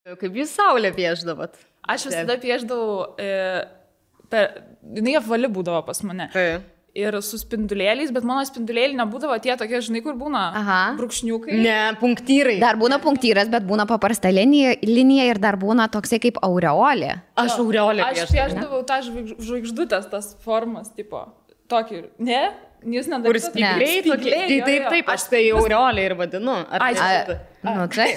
Kaip jūs saulę piešdavot? Aš visada piešdavau, jinai apvali būdavo pas mane. Ir su spindulėliais, bet mano spindulėliai nebūdavo tie tokie, žinai, kur būna brūkšniukai. Ne, punktyrai. Dar būna punktyras, bet būna paprasta linija ir dar būna toksai kaip aureolė. Aš aureolę piešdavau. Aš piešdavau tą žvaigždutės, tas formas, tipo, tokį, ne? Jūs nedarysite. Taip, aš tai aureolė ir vadinu.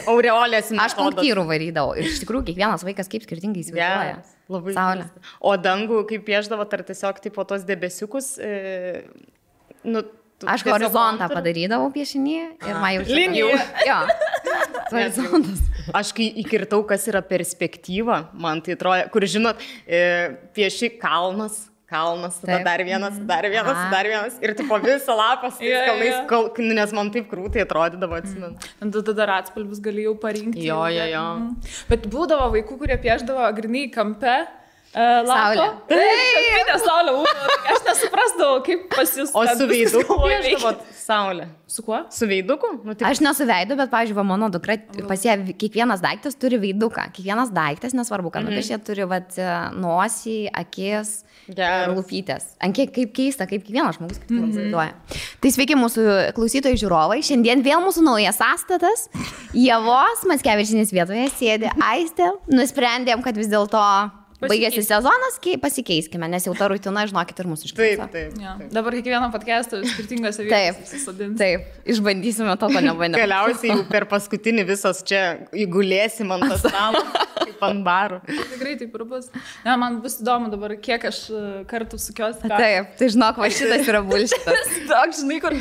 Aureolės metodas. Aš punktyrų varydavau. Ir iš tikrųjų, kiekvienas vaikas kaip skirtingai įsivaizduoja. Labai saulė. O dangų, kaip piešdavo, ar tiesiog tipo tos debesiukus? Aš horizontą padarydavau piešinį ir man jau linijų. Jo. Horizontas. Aš kai įkirtau, kas yra perspektyva, man tai atrodo, kur žinot, pieši kalnas, tada dar vienas. Ir tipo visą lapą su tais kalnais, nes man taip krūtai atrodydavo, atsimenu. Tada dar atspalvius galėjau parinkti. Jo. Bet būdavo vaikų, kurie piešdavo grinai kampe. Saulė. Taip, saulė. Aš nesuprasdavau, kaip pas jūs. O su veiduku piešdavot saulę? Su kuo? Su veiduku? Aš nesu veidu, bet, pavyzdžiui, mano dukra, pas ją kiekvienas daiktas turi veiduką. Kiekvienas daiktas, nesvarbu, kad nupiešė, turi nosį, akis ir lūpytės. Kaip keista, kaip kiekvienas žmogus įsivaizduoja. Tai sveiki mūsų klausytojai žiūrovai. Šiandien vėl mūsų naujas sąstatas. Ievos Mackevičienės vietoje sėdi Aistė. Nusprendėm, kad vis dėlto baigėsi sezonas, pasikeiskime, nes jau ta rutina, žinokit, ir mūsų išklausė. Taip. Dabar kiekvieną podcastą skirtingose vietose susodinti. Taip, išbandysime to, ko nebandėme. Galiausiai jau per paskutinį visos čia įgulėsim ant stalo, kaip ant barų. Tikrai taip ir bus. Ne, man bus įdomu dabar, kiek aš kartų sukios. Taip, tai žinok, va šitas yra bullshitas. Toks, žinai, kur...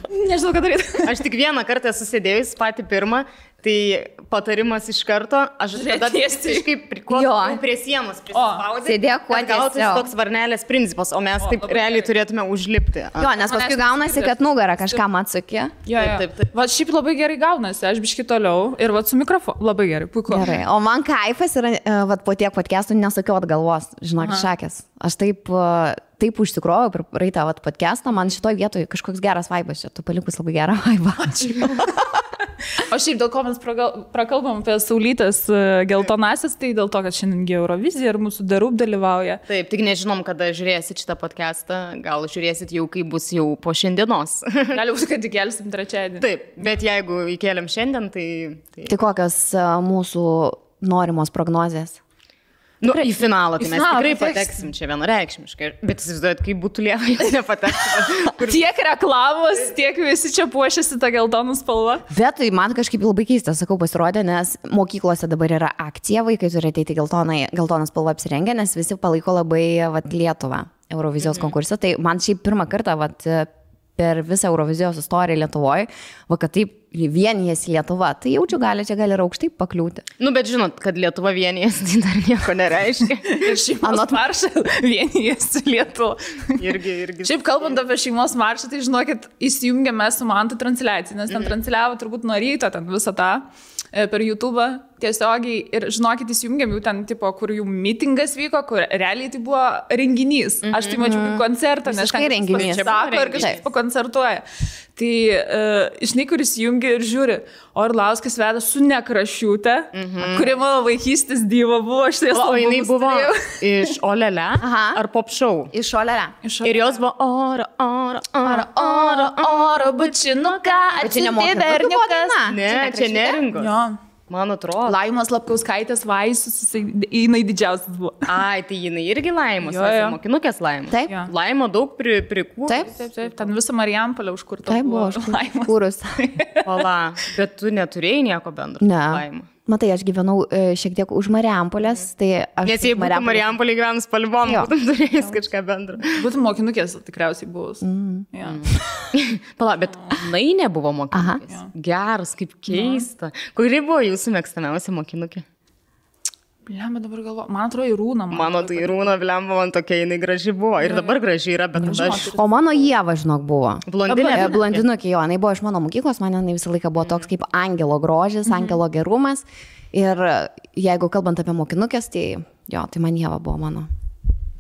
Nežinau, ką daryti. Aš tik vieną kartą susidėjus patį pirmą. Tai patarimas iš karto, aš tada kažkaip prie sienos prisispaudė. Sėdėk kuo tiesiog. Gautas toks varnelės principas, o mes taip realiai turėtume užlipti. Jo, nes paskui gaunasi, kad nugarą kažkam atsukė. Taip. Va, šiaip labai gerai gaunasi, aš biški toliau ir va su mikrofonu labai gerai, puiku. Gerai, o man kaifas yra, va po tiek podcastų nesakiau atgalvos, žinok, šakės. Aš taip užsikrovau per praeitą podcastą, man šitoj vietoj kažkoks geras vaibas čia, tu palikus labai gerą vaibą. O šiaip dėl ko mes prakalbam apie saulytės geltonasis, tai dėl to, kad šiandien Eurovizija ir mūsų Darub dalyvauja. Taip, tik nežinom, kada žiūrėsit šitą podcastą, gal žiūrėsit jau, kai bus jau po šiandienos. Gali būti, kad įkelsim trečiadienį. Taip, bet jeigu įkeliam šiandien, tai... Tai kokios mūsų norimos prognozės? Į finalą, tai mes tikrai pateksim čia vienareikšmiškai, bet įsivaizduojat, kaip būtų Lieva, jeigu nepateksim. Tiek reklamos, tiek visi čia puošiasi tą geltonų spalvą. Bet tai man kažkaip labai keista, sakau, pasirodė, nes mokyklose dabar yra akcija, vaikai turi ateiti geltoną spalvą apsirengę, nes visi palaiko labai Lietuvą Eurovizijos konkursą. Tai man šiaip pirmą kartą per visą Eurovizijos istoriją Lietuvoje, kad taip vienijasi Lietuva, tai jaučiu, čia gali ir aukštai pakliūti. Bet žinot, kad Lietuva vienijasi, tai dar nieko nereiškia. Ir šeimos maršą vienijasi Lietuva. Irgi. Šiaip kalbant apie šeimos maršą, tai žinokit, įsijungėme su Mantu transliaciją, nes ten transliavo turbūt nuo ryto ten visą tą per YouTube tiesiogiai ir žinokit, įsijungėm jau ten, tipo, kur jų mitingas vyko, kur realiai tai buvo renginys. Aš tai mačiau kaip koncertą, nes kažkai renginys. Sako ir kažkaip pakoncertuoja. Tai, žinai, kur įsijungi ir žiūri, Orlauskas veda su Nekrašiūte, kuri mano vaikystės diva buvo. O jinai buvo iš Olele ar Pop Show? Iš Olele. Ir jos buvo oro, bučinuką, atsiuntė berniukas. Ne, čia neringos. Jo. Man atrodo. Laimos Lapkauskaitės Vaisus, jinai didžiausias buvo. Ai, tai jinai irgi Laimos, mokinukės Laimos. Taip. Laimo daug prikūrus. Taip. Ten visą Marijampolę užkurta. Taip buvo užkūrus. Ola, bet tu neturėjai nieko bendro. Ne. Matai, aš gyvenau šiek tiek už Marijampolės, tai aš... Nes jei būtų Marijampolė gyvenus Palvom, būtum turėjęs kažką bendro. Būtum mokinukės tikriausiai buvus. Pala, bet jinai nebuvo mokinukės. Geras, kaip keista. Kuri buvo jūsų mėgstamiausia mokinukė? Blemba dabar galvo. Man atrodo, Irūna. Mano tai Irūna, blemba, man tokia jinai graži buvo. Ir dabar graži yra, bet aš... O mano Ieva, žinok, buvo. Blondinukė, jo. Jinai buvo iš mano mokyklos, man jinai visą laiką buvo toks kaip angelo grožis, angelo gerumas. Ir jeigu kalbant apie mokinukės, tai jo, tai man Ieva buvo mano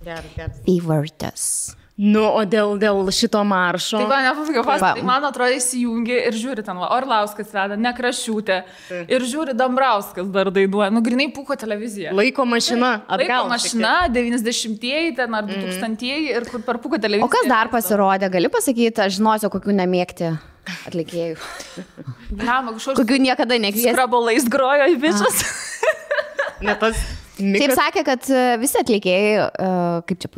Geras. favortas. Nu, o dėl šito maršo. Tai man nepafaiga, tai man atrodo įsijungi ir žiūri ten, Orlauskas veda, Nekrašiūtė. Ir žiūri Dambrauskas dar dainuoja. Nu, grinai Pūko televizija. Laiko mašina, atgal. Laiko mašina, 90-ieji ten ar 2000-ieji ir kur per Pūko televiziją. O kas dar pasirodė? Gali pasakyti, aš žinosiu, kokių nemėgti atlikėjų. Kokių niekada nekviesi. Skrabolais grojo į bičias. Ne tas... Taip sakė, kad visi atlikėjai, kaip čia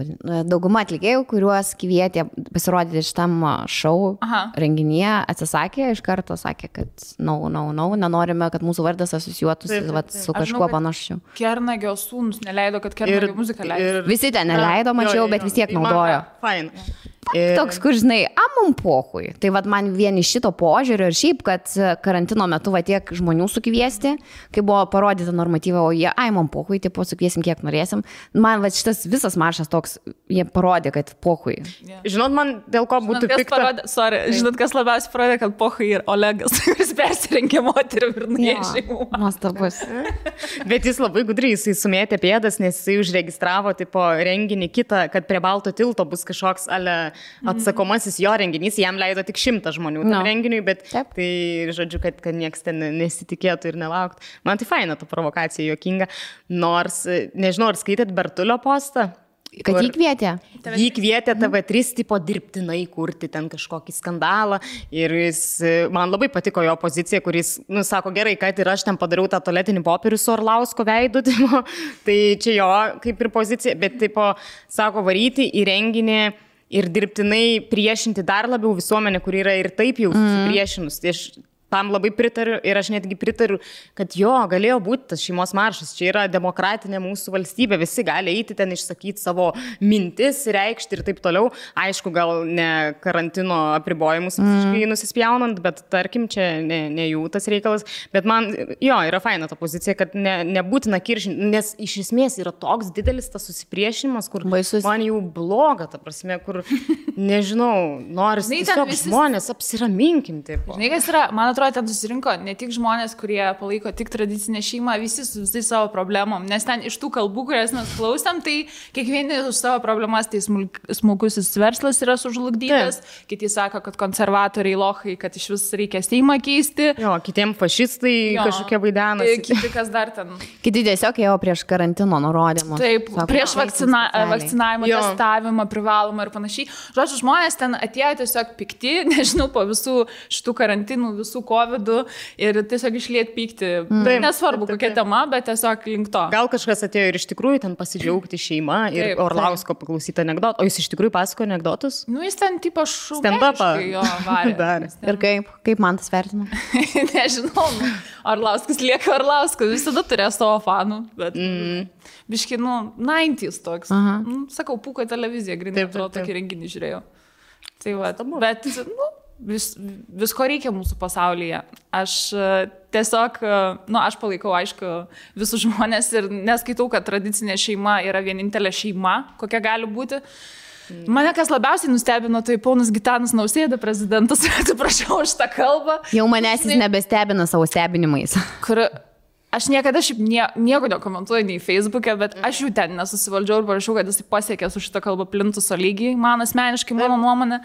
dauguma atlikėjų, kuriuos kvietė pasirodyti šitam šou renginyje, atsisakė, iš karto sakė, kad nenorime, kad mūsų vardas asocijuotųsi su kažkuo panašiu. Kernagio sūnus neleido, kad Kernagio muziką leido. Visi ten neleido, mačiau, bet vis tiek naudojo. Fine. Toks, kur žinai, mum pohui. Tai vad man vien iš šito požiūrio ir šiaip, kad karantino metu va tiek žmonių sukviesti, kai buvo parodyta normatyva, o jie, mum pohui, tipo sukviesim kiek norėsim. Man va šitas visas maršas toks, jie parodė, kad pohui. Yeah. Žinot, man dėl ko būtų pikta. Žinot, kas labiausiai parodė, kad pohui ir Olegas, kuris persirengė moterim ir nuėjo šeimų. Nuostabus. Bet jis labai gudriai, jisai sumėtė pėdas, nes jisai užregistravo tipo renginį kitą, kad prie Balto tilto bus kažkoks atsakomasis jo renginys, jam leido tik 100 žmonių tam renginiui, bet tai, žodžiu, kad nieks ten nesitikėtų ir nelauktų. Man tai faina ta provokacija, juokinga, nors, nežinau, ar skaitėt Bertulio postą? Kad jį kvietė? Jį kvietė TV3 tipo dirbtinai kurti ten kažkokį skandalą ir jis, man labai patiko jo pozicija, kuris, sako, gerai, kad ir aš ten padariau tą tualetinį popierių su Orlausko veidu, tipo, tai čia jo kaip ir pozicija, bet tipo, sako, varyti į renginį ir dirbtinai priešinti dar labiau visuomenę, kuri yra ir taip jau susipriešinus. Tai aš tam labai pritariu ir aš netgi pritariu, kad jo, galėjo būti tas šeimos maršas. Čia yra demokratinė mūsų valstybė, visi gali eiti ten išsakyti savo mintis, reikšti ir taip toliau. Aišku, gal ne karantino apribojimus visiškai nusispjaunant, bet tarkim, čia ne jų tas reikalas. Bet man, jo, yra faina ta pozicija, kad nebūtina kiršinti, nes iš esmės yra toks didelis tas susipriešinimas, kur baisus. Man jau bloga, ta prasme, kur, nežinau, noris tiesiog žmonės apsiraminkim. Žinai, kas yra, man atrodo, ten susirinko ne tik žmonės, kurie palaiko tik tradicinę šeimą, visi su visais savo problemom, nes ten iš tų kalbų, kurias mes klausėm, tai kiekvieni už savo problemas, tai smulkusis verslas yra sužlugdytas, kiti sako, kad konservatoriai lochai, kad iš vis reikia Seimą keisti. Jo, kitiem fašistai kažkokie vaidenasi. Kiti kas dar ten. Kiti tiesiog ėjo prieš karantino nurodymus. Taip, sako, prieš vakcinavimą, testavimą, privalomą ir panašiai. Žodžiu, žmonės ten atėjo tiesiog pikti, nežinau, po visų šitų karantinų, visų COVID-ų ir tiesiog išliet pykti. Nesvarbu, kokia tema, bet tiesiog link to. Gal kažkas atėjo ir iš tikrųjų ten pasidžiaugti šeima ir Orlausko paklausyti anekdotą. O jis iš tikrųjų pasako anekdotus? Nu, jis ten tipo šūkiškai stand-upą jo varė. Ir kaip man tas vertino? Nežinau. Orlauskas lieka Orlauskas. Visada turėjo savo fanų. Bet biški, 90s toks. Sakau, Pūko televizija, grinai atrodo, tokį renginį žiūrėjau. Tai va, bet, visko reikia mūsų pasaulyje. Aš tiesiog, aš palaikau, aišku, visus žmonės ir neskaitau, kad tradicinė šeima yra vienintelė šeima, kokia gali būti. Mane kas labiausiai nustebino, tai ponas Gitanas Nausėda, prezidentas, atsiprašau už tą kalbą. Jau manęs jis nebestebina savo stebinimais. Aš niekada šiaip nieko nekomentuoju nei Facebook'e, bet aš jų ten nesusivaldžiau ir parašiau, kad jis pasiekė su šitą kalbą plintuso lygiai, man asmeniškai, mano nuomonė,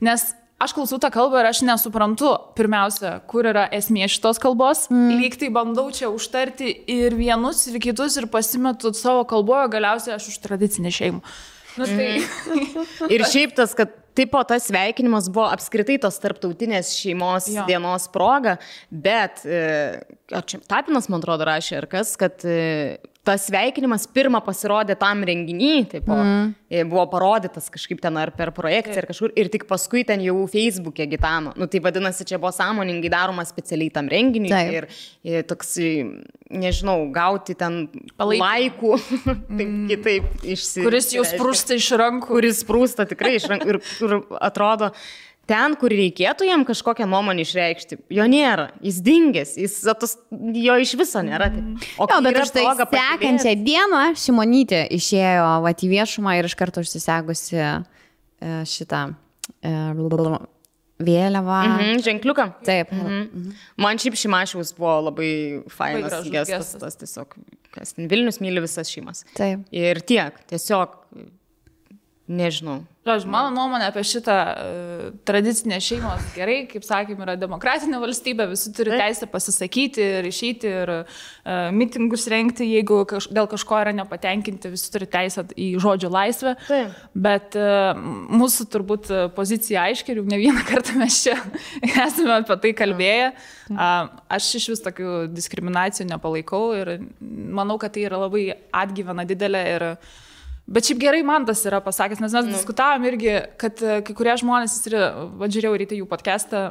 nes aš klausau tą kalbą ir aš nesuprantu, pirmiausia, kur yra esmė šitos kalbos, lyg tai bandau čia užtarti ir vienus, ir kitus, ir pasimetu savo kalboje, galiausiai aš už tradicinę šeimą. Ir šiaip tas, kad tipo tas sveikinimas buvo apskritai tos tarptautinės šeimos dienos proga, bet Tapinas, man atrodo, rašė ar kas, kad tas sveikinimas pirmą pasirodė tam renginį, taip, buvo parodytas kažkaip ten ar per projekciją ar kažkur ir tik paskui ten jau Facebook'e Gitano. Tai vadinasi, čia buvo sąmoningai daroma specialiai tam renginiui ir toks, nežinau, gauti ten laikų, kitaip išsireiškia. Kuris jau sprūsta iš rankų. Kuris sprūsta tikrai iš rankų ir kur atrodo, ten, kur reikėtų jam kažkokią nuomonę išreikšti, jo nėra, jis dingęs, jo iš viso nėra. Bet aš tai sekančią dieną Šimonytė išėjo į viešumą ir iš karto užsisegusi šitą vėliavą. Ženkliuką? Taip. Man šiaip Šimašiaus buvo labai fainas gestas, tas tiesiog, Vilnius myli visas šeimas. Taip. Ir tiek, tiesiog nežinau. Mano nuomonė apie šitą tradicinę šeimos gerai, kaip sakėm, yra demokratinė valstybė, visi turi teisę pasisakyti ir išeiti ir mitingus rengti, jeigu dėl kažko yra nepatenkinti, visi turi teisę į žodžio laisvę. Taip. Bet mūsų turbūt pozicija aiškiai, jau ne vieną kartą mes čia esame apie tai kalbėję. Aš iš vis tokių diskriminacijų nepalaikau ir manau, kad tai yra labai atgyvena didelė ir bet šiaip gerai man tas yra pasakęs, nes mes diskutavom irgi, kad kai kurie žmonės, žiūrėjau ryte jų podcastą,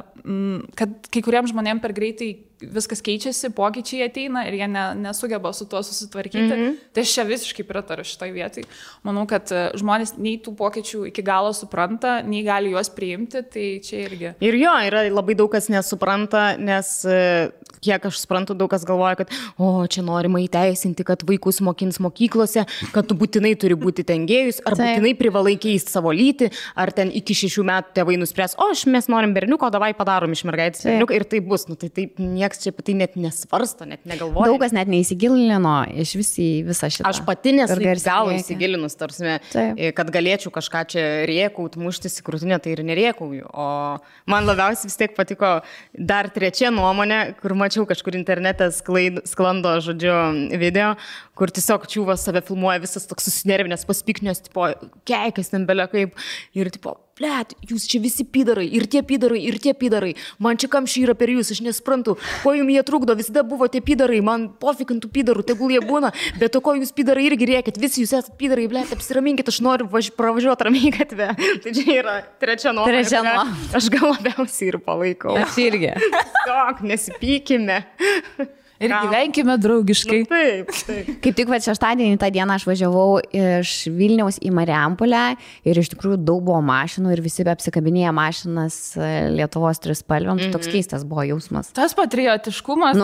kad kai kuriems žmonėms per greitai viskas keičiasi, pokyčiai ateina ir jie nesugeba su tuo susitvarkyti. Tai aš čia visiškai pritariu šitoj vietai. Manau, kad žmonės nei tų pokyčių iki galo supranta, nei gali juos priimti, tai čia irgi. Ir jo, yra labai daug kas nesupranta, nes kiek aš suprantu, daug kas galvoja, kad čia norima įteisinti, kad vaikus mokins mokyklose, kad tu būtinai turi būti ten gėjus, ar būtinai privalai keisti savo lytį, ar ten iki 6 metų tėvai nuspręs, mes norim berniuko, davai padarom iš mergaitės berniuką ir tai bus. Nu, tai taip nieks čia apie tai net nesvarsto, net negalvoja. Daug kas net neįsigilino iš visą šitą. Aš pati nesu gal įsigilinus, tarsime, kad galėčiau kažką čia rėkaut, muštis į krūtinę, tai ir nerėkauju. O man labiausiai vis tiek patiko dar trečia nuomonė, kur mačiau kažkur internete sklando, žodžiu, video, kur tiesiog čiūvas save filmuoja, visas toks susinervinęs, paspiknės, tipo, keikas ten belia kaip, ir tipo, blet, jūs čia visi pidarai, ir tie pidarai, man čia kamščiai yra per jūs, aš nesuprantu, ko jums jie trukdo, visada buvo tie pidarai, man pofikintų pidarų, tegul jie būna, bet to ko jūs pidarai irgi rėkit, visi jūs esate pidarai, blet, apsiraminkit, aš noriu pravažiuoti ramiai gatvę. Tai čia yra trečia nuomonė. Aš gal labiausiai ir palaikau. Aš irgi. Tiesiog nesipykime. Ir gyvenkime draugiškai. Nu, taip. Kaip tik šeštadienį tą dieną aš važiavau iš Vilniaus į Marijampolę ir iš tikrųjų daug buvo mašinų ir visi apsikabinėję mašinas Lietuvos trispalvėm. Toks keistas buvo jausmas. Tas patriotiškumas.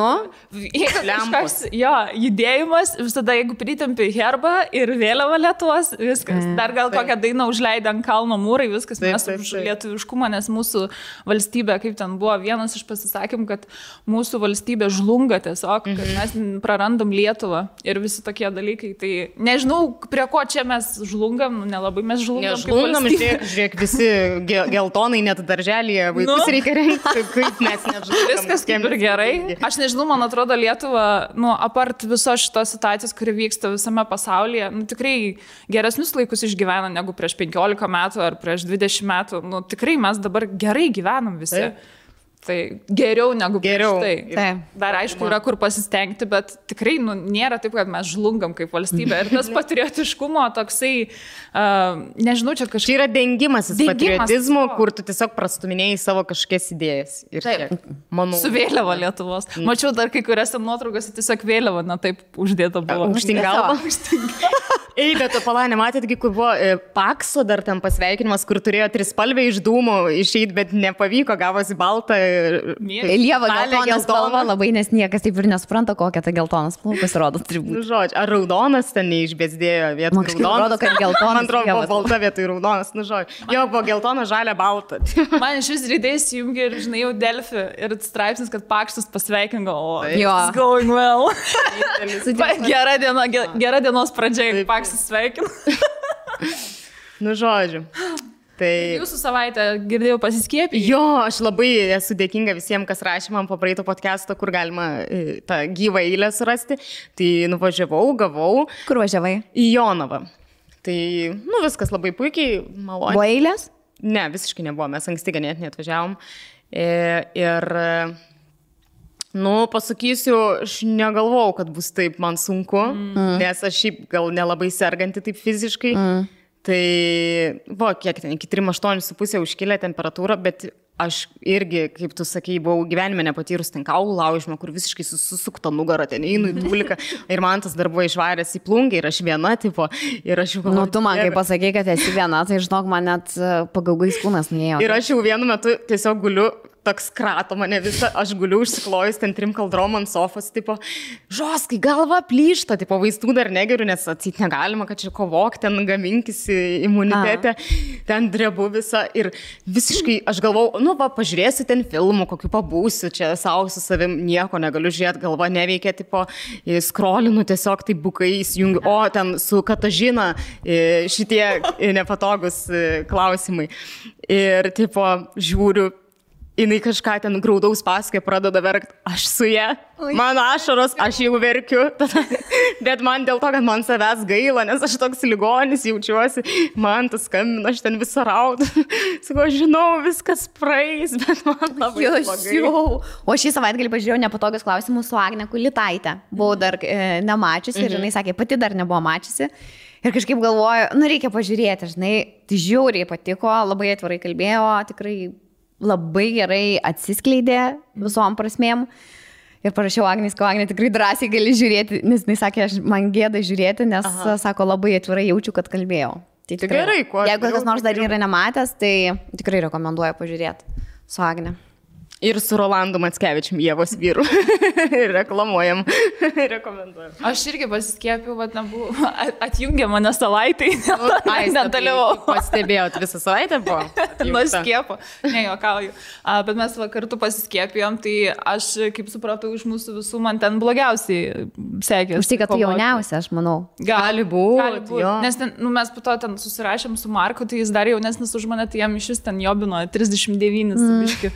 Judėjimas, visada jeigu pritempi herbą ir vėliavą Lietuvos, viskas. Dar gal kokią dainą užleidę ant kalno mūrai, viskas. Mes už lietuviškumą, nes mūsų valstybė, kaip ten buvo, vienas iš pasisakymų, kad mūsų valstybė žlunga tiesiog, kad mes prarandam Lietuvą ir visi tokie dalykai. Tai nežinau, prie ko čia mes žlungam, nelabai mes žlungam. Nežlungam, žiūrėk, visi geltonai net darželėje vaikus reikia rengti, kaip mes nežlungam. Viskas kaip ir gerai. Aš nežinau, man atrodo, Lietuva, apart visos šitos situacijos, kuri vyksta visame pasaulyje, tikrai geresnius laikus išgyvena negu prieš 15 metų ar prieš 20 metų. Tikrai mes dabar gerai gyvenam visi. Tai geriau negu prieš tai. Dar aišku, yra kur pasistengti, bet tikrai nėra taip, kad mes žlungam kaip valstybė. Ir tas patriotiškumo toksai, nežinau, čia kažkaip... Čia yra dengimasis patriotizmo, kur tu tiesiog prastuminėjai savo kažkokias idėjas. Ir taip, su vėliava Lietuvos. Mačiau dar kai kuriuose nuotraukose tiesiog vėliava, taip uždėta buvo. Aukštyn galva. Ei, bet palai, nematėtgi, kur buvo Pakso dar ten pasveikinimas, kur turėjo trispalvę iš dūmų išeiti, bet nepavyko, gavosi baltą. Lieva geltonas spalva labai, nes niekas taip ir nesupranta, kokia ta geltonas spalva pasirodo turi būti. Žodžiu, ar raudonas ten neišbėsdėjo vietoj raudonas? Man atrodo, kad geltonas. Man atrodo, buvo balta vietoj raudonas, žodžiu. Jo, buvo geltona, žalia, balta. Man iš vis rydės įjungi ir, žinai, jau Delfi ir straipsnis, kad Paksas pasveikingo, it's going well. Gera dienos pradžia, Paksas sveikina. Žodžiu. Tai... Jūsų savaitę girdėjau pasiskiepyti. Jo, aš labai esu dėkinga visiems, kas rašė man po praeito podcast'o, kur galima tą gyvą eilę surasti. Tai nuvažiavau, gavau. Kur važiavai? Į Jonavą. Tai, viskas labai puikiai, maloniai. Buvo eilės? Ne, visiškai nebuvo, mes anksti ganėtinai atvažiavom. Ir, pasakysiu, aš negalvojau, kad bus taip man sunku, nes aš šiaip gal nelabai serganti taip fiziškai. Tai buvo, kiek ten, iki 3,8,5 užkilę temperatūrą, bet aš irgi, kaip tu sakei, buvau gyvenime nepatyrus ten kaulų laužimą, kur visiškai susukta nugarą, ten einu į dūliką ir man tas dar buvo išvaręs į plungę ir aš viena, tipo, ir aš jau galvoju. Tu man, kai pasakei, kad esi viena, tai žinok, man net pagaugais kūnas nuėjo. Ir aš jau vienu metu tiesiog guliu toks krato mane visą, aš guliu užsiklojus ten 3 kaldrom ant sofos, tipo, žoskai, galva plyšta, tipo, vaistų dar negeriu, nes atseit negalima, kad čia kovok, ten gaminkis imunitetę, ten drebu visą ir visiškai, aš galvau, nu, va, pažiūrėsiu ten filmų, kokiu pabūsiu, čia savo su savim nieko negaliu žiūrėti, galva neveikia, tipo, skrolinu tiesiog taip bukai įsijungiu, o ten su Katažina šitie nepatogus klausimai. Ir, tipo, žiūriu, jinai kažką ten graudaus pasakoja, pradeda verkti, aš su ja, mano ašaros, aš jau verkiu, bet man dėl to, kad man savęs gaila, nes aš toks ligonis jaučiuosi, man tas skambina, aš ten visą raudu, sakau, žinau, viskas praeis, bet man labai blogai. O šį savaitgalį pažiūrėjau nepatogius klausimus su Agne Kulitaite, buvau dar nemačiusi ir jinai sakė, pati dar nebuvo mačiusi. Ir kažkaip galvoju, nu reikia pažiūrėti, žinai, tai žiauriai patiko, labai atvirai kalbėjo, tikrai labai gerai atsiskleidė visom prasmėm. Ir parašiau Agniai, kad Agnė tikrai drąsiai gali žiūrėti, nes jis sakė, man gėda žiūrėti, nes, sako, labai atvirai jaučiu, kad kalbėjau. Tai tikrai, gerai, kuo jeigu kas nors dar yra nematęs, tai tikrai rekomenduoju pažiūrėti su Agne. Ir su Rolandu Mackevičium, Ievos vyru. Reklamuojam. Rekomenduojam. Aš irgi pasiskiepiau, bet nebuvo. Atjungė mane savaitai. Nedalyvau. Pastebėjot visą savaitę buvo? Nuo skiepo. Ne, juokauju. Bet mes kartu pasiskiepijom, tai aš, kaip supratau, iš mūsų visų man ten blogiausiai sekės. Už tai, kad tu jauniausia, aš manau. Gali būti. Nes ten, nu, mes po to ten susirašėm su Marku, tai jis dar jaunesnis už mane, tai jam iš vis ten jobino 39 biški.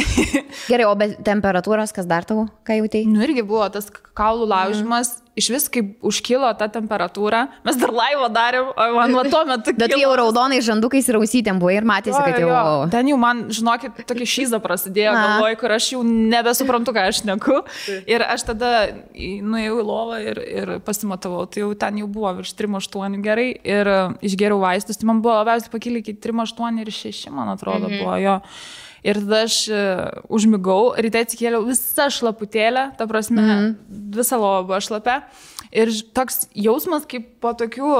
Gerai, o be temperatūros, kas dar tau, ką jautei? Nu, irgi buvo tas kaulų laužimas. Iš vis, kaip užkilo ta temperatūra, mes dar laivą darėm, o man va tuo metu kilo. Bet jau raudonai žandukais ir ausytėm buvo ir matėsi, kad jau... Ten jau man, žinokit, tokia šyza prasidėjo galvoj, kur aš jau nebesuprantu, ką aš šneku. Ir aš tada nuėjau į lovą ir pasimatavau, tai jau ten jau buvo virš 3,8 gerai ir išgeriau vaistus, tai man buvo labiausiai pakilę iki 3,8 ir 6, man atrodo, buvo jo. Ir tada aš užmigau, ryte atsikėliau visą šlaputėlę, ta prasme, visą lovą buvo šlapę. Ir toks jausmas kaip po tokių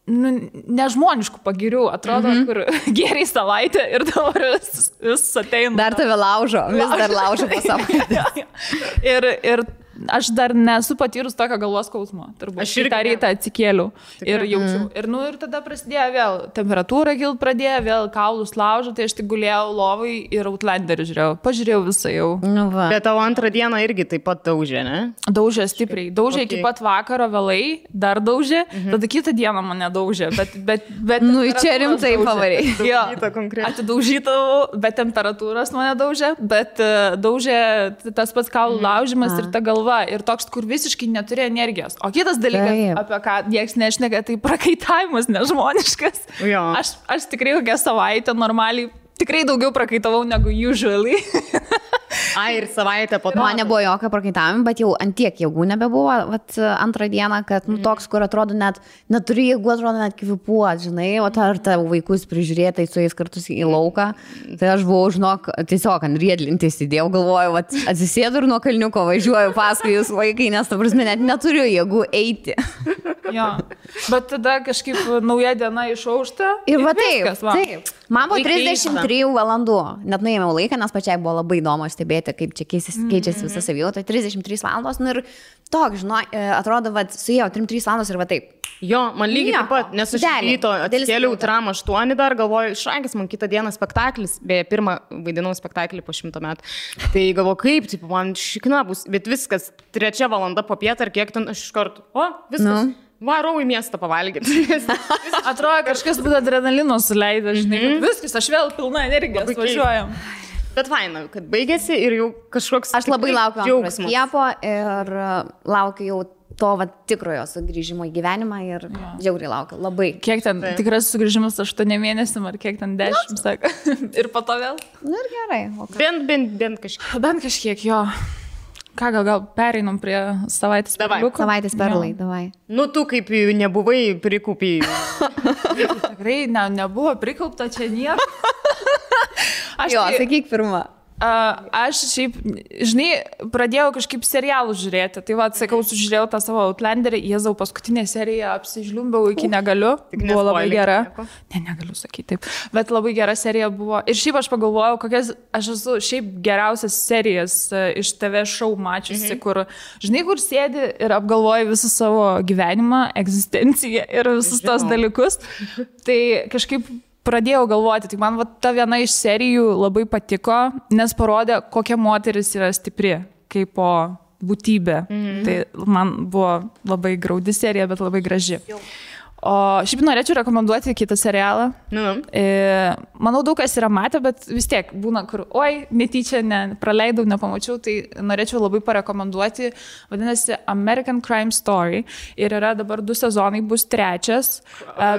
nežmoniškų pagirių, atrodo, kur geriai savaitę ir dabar vis ateina. Dar tave laužo, vis dar laužo po savaitę. Ir aš dar nesu patyrus tokio galvos skausmo. Aš ir tą rytą atsikėliau ir jaučiau. Ir tada prasidėjo vėl temperatūra kilt pradėjo, vėl kaulus laužo, tai aš tik gulėjau lovai ir Outlanderį žiūrėjau. Pažiūrėjau visą jau. Nu va. Bet tavo antrą dieną irgi taip pat daužė, ne? Daužė stipriai. Daužė iki pat vakaro vėlai, dar daužė, tada kitą dieną mane daužė. Bet nu, čia rimtai pavariai. Jo, atidaužytavau, bet temperatūros mane daužė, bet daužė tas pats kaulų laužimas ir ta galva. Ir toks, kur visiškai neturi energijos. O kitas dalykas, apie ką nieks nešneka, tai prakaitavimas nežmoniškas. Aš tikrai kokią savaitę normaliai, tikrai daugiau prakaitavau negu usually. Ir savaitę po to. Man nebuvo jokio prakaitavimo, bet jau antiek jėgų nebebuvo. Antrą dieną, kad toks, kur atrodo neturi jėgų, atrodo net kvipuot, žinai, o ar tavo vaikus prižiūrėtai su jais kartus į lauką. Tai aš buvau, žinok, tiesiog ant riedlintės įdėjau, galvoju, atsisėdu ir nuo kalniuko važiuoju paskui jūs vaikai, nes, ta prasme, net neturiu jėgų eiti. Jo, bet tada kažkaip nauja diena išaušta. Ir va taip. Man buvo 33 valandų. Net nuėmiau laiką, nes pačiai buvo labai įdomu stebėti, kaip čia keičiasi visa savijauta. 33 valandos. Nu ir toks, žinai, atrodo, suėjo 3 valandos ir va taip. Jo, man lygiai taip pat, nes aš ryto atsikėliau tram 8 dar, galvoju, šrankis man kitą dieną spektaklis, beje, pirmą vaidinau spektaklį po 100 metų. Tai galvoju, kaip, taip, man šikna bus, bet viskas, 3 valanda po pietą ar kiek ten aš iš karto, viskas. Varau į miestą pavalgyti. Atrodo, kažkas būtų adrenalino suleido, žinai, viskas, aš vėl pilna energijos važiuojam. Bet faina, kad baigėsi ir jau kažkoks... Aš labai laukiu antro skiepo ir laukiu jau to tikrojo sugrįžimo į gyvenimą ir žiauriai laukiu, labai. Kiek ten tikras sugrįžimas 8 mėnesiam ar kiek ten 10, sako. Ir po to vėl? Nu ir gerai. Bent kažkiek. Bent kažkiek, jo. Ką, gal pereinam prie savaitės perliukų? Savaitės perlai, davai. Nu, tu kaip nebuvai prikaupiai. Tikrai nebuvo prikaupta čia nieko. Jo, sakyk pirmą. Aš šiaip, žinai, pradėjau kažkaip serialų žiūrėti. Tai va, sakau, sužiūrėjau tą savo Outlanderį, Jėzau, paskutinę seriją apsižliumbiau iki negaliu. Buvo labai gera. Negaliu sakyti taip. Bet labai gera serija buvo. Ir šiaip aš pagalvojau, kokias aš esu šiaip geriausias serijas iš TV show mačiusi, kur, žinai, kur sėdi ir apgalvoji visą savo gyvenimą, egzistenciją ir visus tos dalykus. Tai kažkaip pradėjau galvoti, tai man ta viena iš serijų labai patiko, nes parodė, kokia moteris yra stipri, kaip po būtybė. Tai man buvo labai graudi serija, bet labai graži. O šiaip norėčiau rekomenduoti kitą serialą. Manau, daug kas yra matę, bet vis tiek būna, kur, netyčia praleidau, nepamačiau, tai norėčiau labai parekomenduoti. Vadinasi American Crime Story. Ir yra dabar 2 sezonai, bus 3.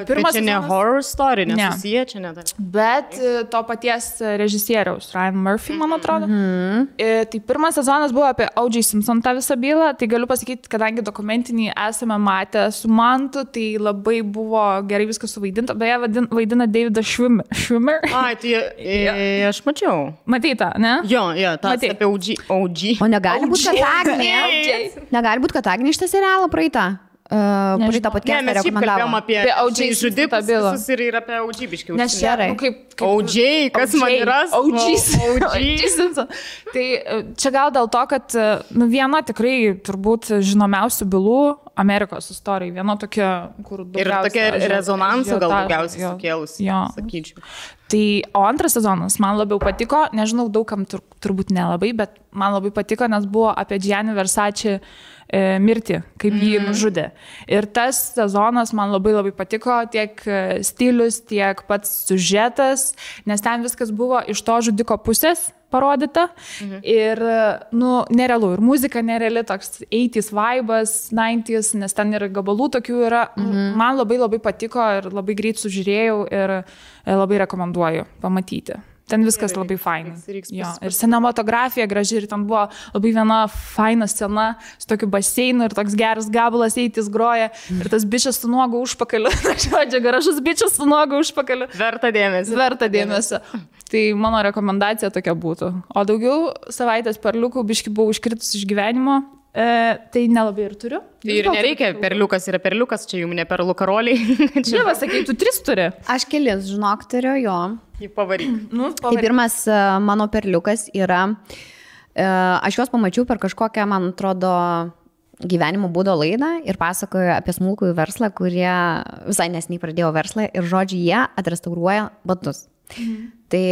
Pirmas čia ne horror story, nesusiję, čia ne. Bet to paties režisieriaus, Ryan Murphy, man atrodo. Tai pirmas sezonas buvo apie O.J. Simpson tą visą bylą. Tai galiu pasakyti, kadangi dokumentinį esame matę su Mantu, tai labai buvo gerai viskas suvaidinta. Beje, vaidina Davidas Schwimmer. Ai, tai aš mačiau. Matyta, ne? Jo, tas apie OG. O negali būti, kad Agnė. Negali būti, kad Agnė šitą serialą praeitą. Praeitą podcastą rekomendavo. Apie O.J. žudikus ir apie OG biškiau. Nes gerai. OG, kas man yra? OG Simpson. Tai čia gal dėl to, kad viena tikrai turbūt žinomiausių bylų Amerikos istorijai. Viena tokia, kur daugiausia. Ir tokia rezonansų gal daugiausiai sukėlusi, sakyčiau. Tai, o antras sezonas man labiau patiko, nežinau, daugam turbūt nelabai, bet man labai patiko, nes buvo apie Gianni Versace mirtį, kaip jį nužudė. Ir tas sezonas man labai labai patiko, tiek stilius, tiek pats siužetas, nes ten viskas buvo iš to žudiko pusės parodyta. Ir, nerealu. Ir muzika nereali, toks 80s vibas, 90s, nes ten ir gabalų tokių yra. Man labai labai patiko ir labai greit sužiūrėjau ir labai rekomenduoju pamatyti. Ten viskas labai fainas. Ir cinematografija graži ir ten buvo labai viena faina scena su tokiu baseinu ir toks geras gabalas eitis groja ir tas bičias su nuogu užpakaliu. Žodžiu, garažus bičias su nuogu užpakaliu. Verta dėmesio. Tai mano rekomendacija tokia būtų. O daugiau savaitės perliukų biški buvau iškritus iš gyvenimo. Tai nelabai ir turiu. Tai ir nereikia, perliukas yra perliukas, čia jums ne perlų karoliai. Čia sakai, tu 3 turi. Aš kelis, žinok, turiu jo. Jį pavaryk. Tai pirmas mano perliukas yra, aš juos pamačiau per kažkokią, man atrodo, gyvenimo būdo laidą ir pasakoju apie smulkųjų verslą, kurie visai nesiniai pradėjo verslą ir žodžiu, jie atrestauruoja batus. Tai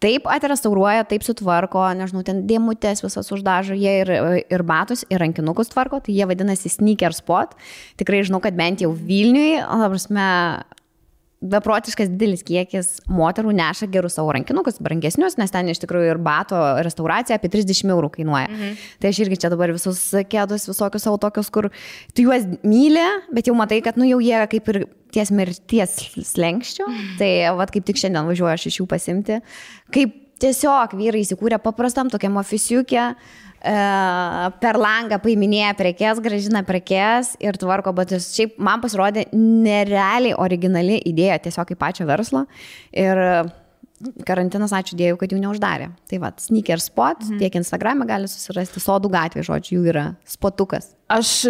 taip atrestauruoja, taip sutvarko, nežinau, ten dėmutės visas uždažo, jie ir batus, ir rankinukus tvarko, tai jie vadinasi Sneaker Spot. Tikrai žinau, kad bent jau Vilniui, beprotiškas didelis kiekis moterų neša gerus savo rankinukus, brangesnius, nes ten iš tikrųjų ir bato restauracija apie 30 € kainuoja. Tai aš irgi čia dabar visus kėdus, visokius savo tokius, kur tu juos myli, bet jau matai, kad jau jie kaip ir ties mirties slenkščio. Tai kaip tik šiandien važiuoju aš iš jų pasimti. Kaip tiesiog vyrai įsikūrė paprastam tokiam ofisiukė, per langą paiminėja prekes, gražina prekes ir tvarko batus. Šiaip man pasirodė nerealiai originali idėja tiesiog kaip pačio verslo. Ir karantinas, ačiū Dievui, kad jų neuždarė. Tai Sneaker Spot, tiek Instagram'e gali susirasti, Sodų gatvė, žodžiu, jų yra spotukas. Aš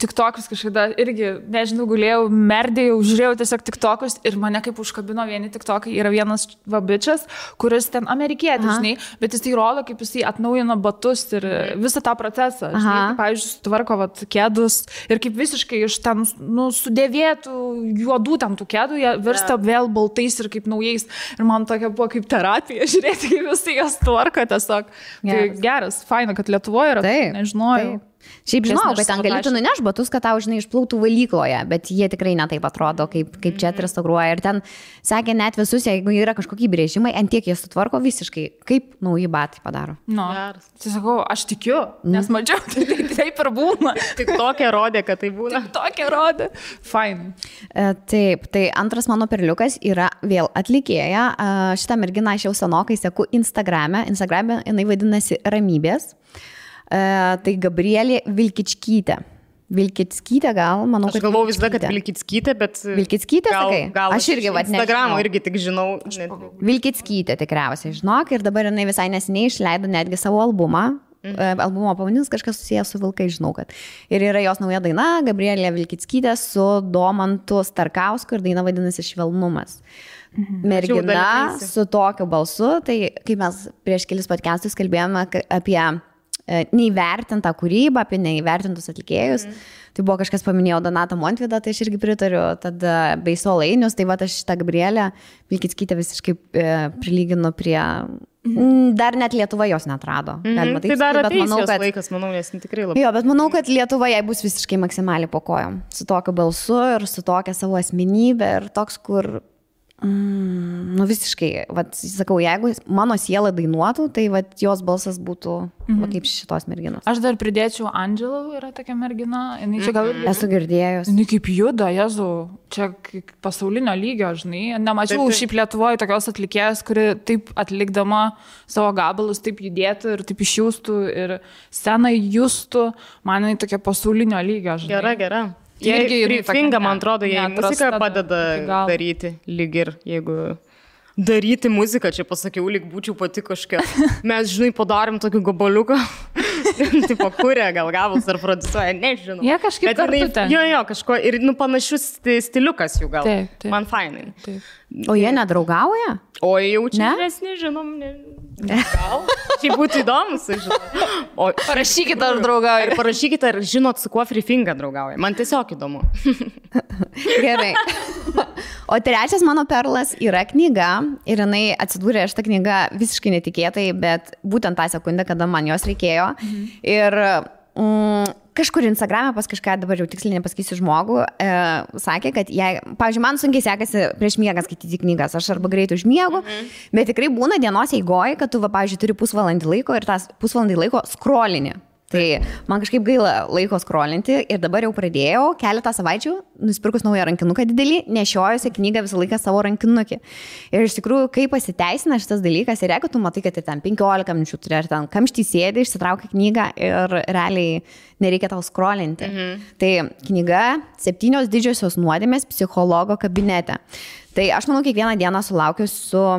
TikTokus kažkada irgi, nežinau, gulėjau, merdėjau, žiūrėjau tiesiog TikTokus ir mane kaip užkabino vieni TikTokai. Yra vienas vabičas, kuris ten amerikietis, žinai, bet jis tai rodo, kaip jisai atnaujino batus ir visą tą procesą. Žinai, kaip, pavyzdžiui, sutvarko kėdus ir kaip visiškai iš ten sudėvėtų juodų ten tų kėdų, jie virsta vėl baltais ir kaip naujais. Ir man tokia buvo kaip terapija, žiūrėti, kaip visai jas tvarko tiesiog. Tai geras, faina, kad Lietuvoje yra, nežinojau. Šiaip žinau, kad ten galėtų nuneš batus, kad tau, žinai, išplautų valykloje, bet jie tikrai netaip atrodo, kaip čia atrestauruoja. Ir ten sakė net visus, jeigu yra kažkokie brėžimai, ant tiek jie sutvarko visiškai, kaip nauji batai padaro. Tai sakau, aš tikiu, nes mačiau, taip ir būna. Tik tokia rodė, kad tai būna. Tik tokia rodė. Fine. Taip, tai antras mano perliukas yra vėl atlikėja. Šitą merginą aš jau senokai seku Instagram'e. Instagram'e jinai vadinasi Ramybės. Tai Gabrielė Vilkičkytė. Vilkickytė gal, manau, aš galvoju visada, kad Vilkickytė, bet... Vilkickytė, sakai? Gal aš irgi, vat, Instagramo irgi tik žinau. Vilkickytė tikriausiai, žinok, ir dabar jinai visai neseniai išleido netgi savo albumą. Albumo pavadinimas kažkas susijęs su vilkai, žinau, kad. Ir yra jos nauja daina, Gabrielė Vilkickytė su Domantu Starkausku ir daina vadinasi Švelnumas. Mergina su tokiu balsu, tai kai mes prieš kelis podcastus kalbėjome apie neįvertintą kūrybą, apie neįvertintus atlikėjus. Tai buvo kažkas paminėjo Donatą Montvydą, tai aš irgi pritariu, tada bei Solainius, tai va aš šitą Gabrielę Vilkickytę visiškai prilyginu prie... Dar net Lietuva jos neatrado. Galima taip, tai dar bet manau, kad... laikas, manau, nes tikrai labai... Jo, bet manau, kad Lietuva jai bus visiškai maksimaliai po kojom. Su tokiu balsu ir su tokia savo asmenybė ir toks, kur... nu visiškai, vat, sakau, jeigu mano siela dainuotų, tai vat, jos balsas būtų va, kaip šitos merginos. Aš dar pridėčiau Angelą, yra tokia mergina. Čia gal... Esu girdėjus. Jinai kaip juda, Jezu, čia pasaulinio lygio, žinai. Nemačiau šiaip Lietuvoje tokios atlikėjas, kuri taip atlikdama savo gabalus taip judėtų ir taip išjūstų ir scenai justų. Man jinai tokia pasaulinio lygio, žinai. Gera. Jie Finga, man atrodo, jie muziką padeda daryti, lyg ir jeigu daryti muziką, čia pasakiau, lyg būčiau pati kažkokia. Mes, žinai, padarėm tokį gabaliuką, tipo kūrė, gal gavus ar produsuoja, nežinau. Jie kažkaip kartu ten. Jo, kažko, ir panašus stiliukas jų gal. Taip. Man fainai. Taip. O jie nedraugauja? O jau čia mes nežinom, gal. Šiaip būtų įdomu, žinau. Parašykite, ar draugauja. Ir parašykite, ar žinot, su kuo Free Finga draugauja. Man tiesiog įdomu. Gerai. O trečias mano perlas yra knyga ir jinai atsidūrė šitą knygą visiškai netikėtai, bet būtent tą sekundę, kada man jos reikėjo. Ir kažkur Instagram'e pas kažką, dabar jau tiksliai nepasakysiu žmogų, sakė, kad jei, pavyzdžiui, man sunkiai sekasi prieš miegą skaityti knygas, aš arba greit užmiegu, bet tikrai būna dienos eigoje, kad tu, pavyzdžiui, turi pusvalandį laiko ir tas pusvalandį laiko scrollini. Tai man kažkaip gaila laiko scrollinti ir dabar jau pradėjau keletą savaičių, nusipirkus naują rankinuką didelį, nešiojusi knygą visą laiką savo rankinukį. Ir iš tikrųjų, kaip pasiteisina šitas dalykas, ir jeigu tu matai, kad ten 15 minučių turi, ar ten kamštį sėdi, išsitraukia knygą ir realiai nereikia tau scrollinti. Tai knyga 7 didžiosios nuodėmės psichologo kabinete. Tai aš manau, kiekvieną dieną sulaukiu su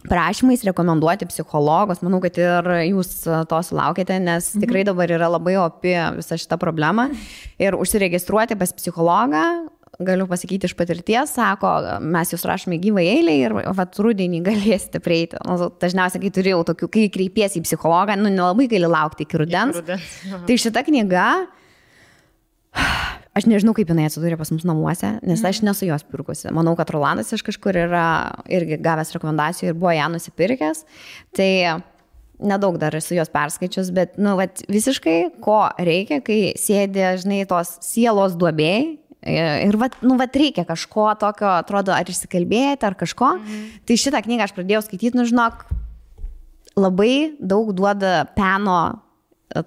prašymais rekomenduoti psichologus. Manau, kad ir jūs to sulaukėte, nes tikrai dabar yra labai opi visa šita problema. Ir užsiregistruoti pas psichologą, galiu pasakyti iš patirties, sako, mes jūs rašome gyvą eilę ir vat rudenį galėsite prieiti. Dažniausiai, kai turėjau tokių, kai kreipiesi į psichologą, nelabai gali laukti iki rudens. Tai šita knyga, aš nežinau, kaip jinai atsidūrė pas mus namuose, nes aš nesu jos pirkusi. Manau, kad Rolandas iš kažkur yra irgi gavęs rekomendacijų ir buvo ją nusipirkęs. Tai nedaug dar esu jos perskaičius, bet vat, visiškai ko reikia, kai sėdė, žinai, tos sielos duobėjai. Ir vat reikia kažko tokio, atrodo, ar išsikalbėti, ar kažko. Tai šitą knygą aš pradėjau skaityti, žinok, labai daug duoda peno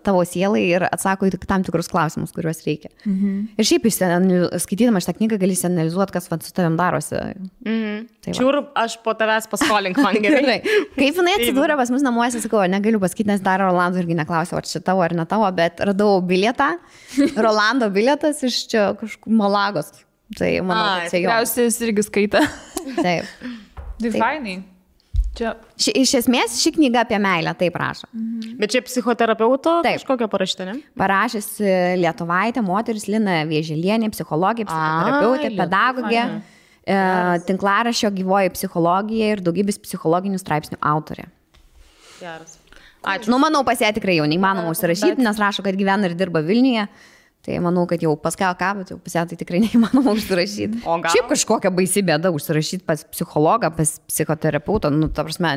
tavo sielai ir atsako į tam tikrus klausimus, kuriuos reikia. Ir šiaip skaitydama šitą knygą gali analizuoti, kas su tavim darosi. Tai Čiūr, aš po tavęs paskolink man gerai. Kaip jinai atsidūrė pas mus namuose, sakau, negaliu pasakyti, nes dar Rolando irgi neklausė, ar čia tavo ar ne tavo, bet radau bilietą, Rolando bilietas iš čia kažkur Malagos. Tai manau, kad čia jo. Tikriausiai jis irgi skaita. Taip. Tai fainai. Iš esmės ši knyga apie meilę, taip rašo. Bet čia psichoterapeuto kažkokia parašyta, ne? Parašys lietuvaitė, moteris Lina Vieželienė, psichologija, psichoterapeutė, pedagogė, tinklaraščio Gyvoji psichologija ir daugybės psichologinių straipsnių autorė. Geras. Ačiū. Manau, pas ją tikrai jau neįmanoma užsirašyti, nes rašo, kad gyvena ir dirba Vilniuje. Tai manau, kad jau paskel ką, bet jau pas ją tai tikrai neįmanoma užsirašyti. Šiaip kažkokia baisi bėda užsirašyti pas psichologą, pas psichoterapeutą. Ta prasme,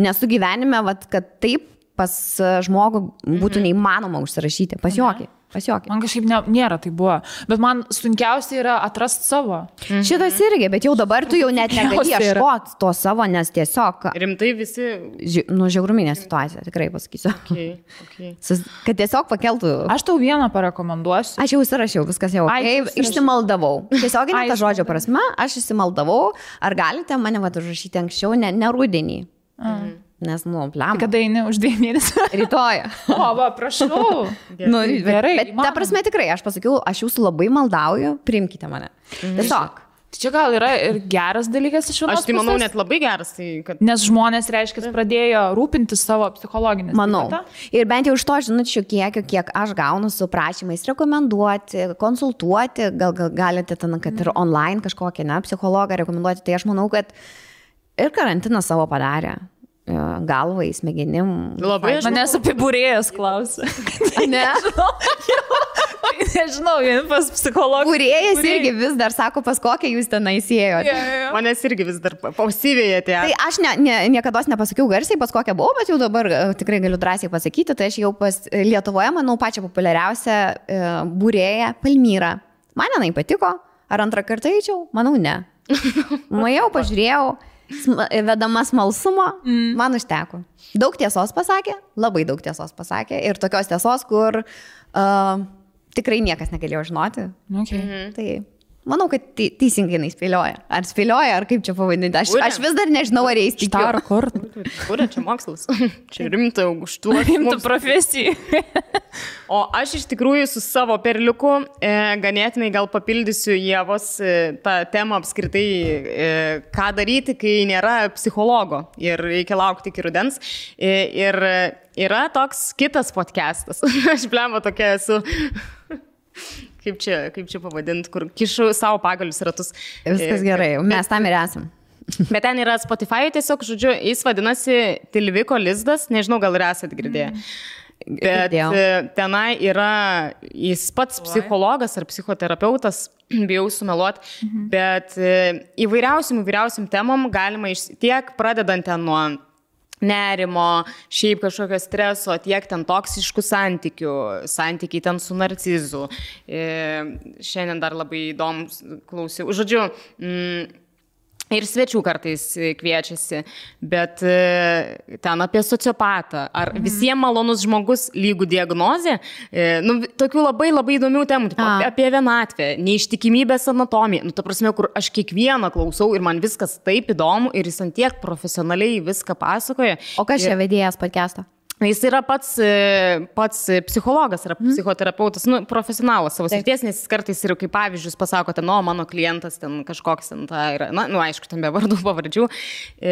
nesu gyvenime, kad taip pas žmogų būtų neįmanoma užsirašyti. Pas jokį. Man kažkaip nėra tai buvo. Bet man sunkiausia yra atrasti savo. Šitas irgi, bet jau dabar tu jau net negali ieškoti to savo, nes tiesiog... Rimtai visi... Žiauruminė situacija, tikrai pasakysiu. Okay. Kad tiesiog pakeltų... Aš tau vieną parekomenduosiu. Aš jau užsirašiau, viskas jau. Išsimaldavau. Tiesiog ne ta žodžio prasme, aš išsimaldavau. Ar galite mane užrašyti anksčiau, ne rudenį. Nes, pliam. Kada eini už 2 mėnesių? Rytoj. O, va, prašau. Gerai. Bet ta prasme tikrai, aš pasakiau, aš jūsų labai maldauju, priimkite mane. Tiesiog. Tai čia gal yra ir geras dalykas iš vienos pusės. Aš tai manau net labai geras. Tai kad... Nes žmonės, reiškia, pradėjo rūpintis savo psichologinės. Manau. Ir bent jau iš to žinučių kiek aš gaunu su prašymais rekomenduoti, konsultuoti, gal galite ten, kad ir online kažkokią psichologą rekomenduoti, tai aš manau, kad ir karantinas savo padarė. Galvai, smegenim. Labai aš. Manęs apie būrėjas klausė. Ne? Nežinau, pas psichologą. Būrėjas irgi vis dar sako, pas kokią jūs ten įsėjote. Manęs irgi vis dar pausivėjate. Tai aš niekada nepasakiau garsiai, pas kokią buvau, bet jau dabar tikrai galiu drąsiai pasakyti, tai aš jau pas Lietuvoje, manau, pačią populiariausią būrėją Palmyrą. Man jinai patiko, ar antrą kartą eičiau? Manau, ne. Nuėjau, pažiūrėjau. Vedama smalsumo, man užteko. Daug tiesos pasakė, labai daug tiesos pasakė ir tokios tiesos, kur tikrai niekas negalėjo žinoti. Okay. Tai manau, kad teisingai jinai spėlioja. Ar spėlioja, ar kaip čia pavadinti. Aš vis dar nežinau, ar jais tikiu. Kur čia mokslas? Čia rimta aukštų. Rimta profesija. O aš iš tikrųjų su savo perliuku ganėtinai gal papildysiu Ievos tą temą apskritai, ką daryti, kai nėra psichologo ir reikia laukti iki rudens. Ir yra toks kitas podcastas. Aš blemba tokia esu... Kaip čia pavadinti, kur kišu savo pagalius ratus. Viskas gerai, mes tam ir esam. Bet ten yra Spotify, tiesiog, žodžiu, jis vadinasi Tilviko lizdas, nežinau, gal ir esat girdėję. Bet tenai yra, jis pats psichologas ar psichoterapeutas, bijau sumeluoti, bet įvairiausiam temom galima tiek pradedant ten nuo nerimo, šiaip kažkokio streso, tiek ten toksiškų santykiai ten su narcizu. Šiandien dar labai įdomus klausiau. Žodžiu, ir svečių kartais kviečiasi, bet ten apie sociopatą. Ar visiems malonus žmogus lygų diagnozė? Tokių labai įdomių temų, apie vienatvę, neištikimybės anatomiją. Ta prasme, kur aš kiekvieną klausau ir man viskas taip įdomu ir jis ant tiek profesionaliai viską pasakoja. O kas čia vedėjas podcast'o? Jis yra pats psichologas, yra psichoterapeutas, profesionalas savo srities, nes jis kartais ir kaip pavyzdžius pasakote, mano klientas ten kažkoks ten ta yra, aišku, ten be vardų pavardžių.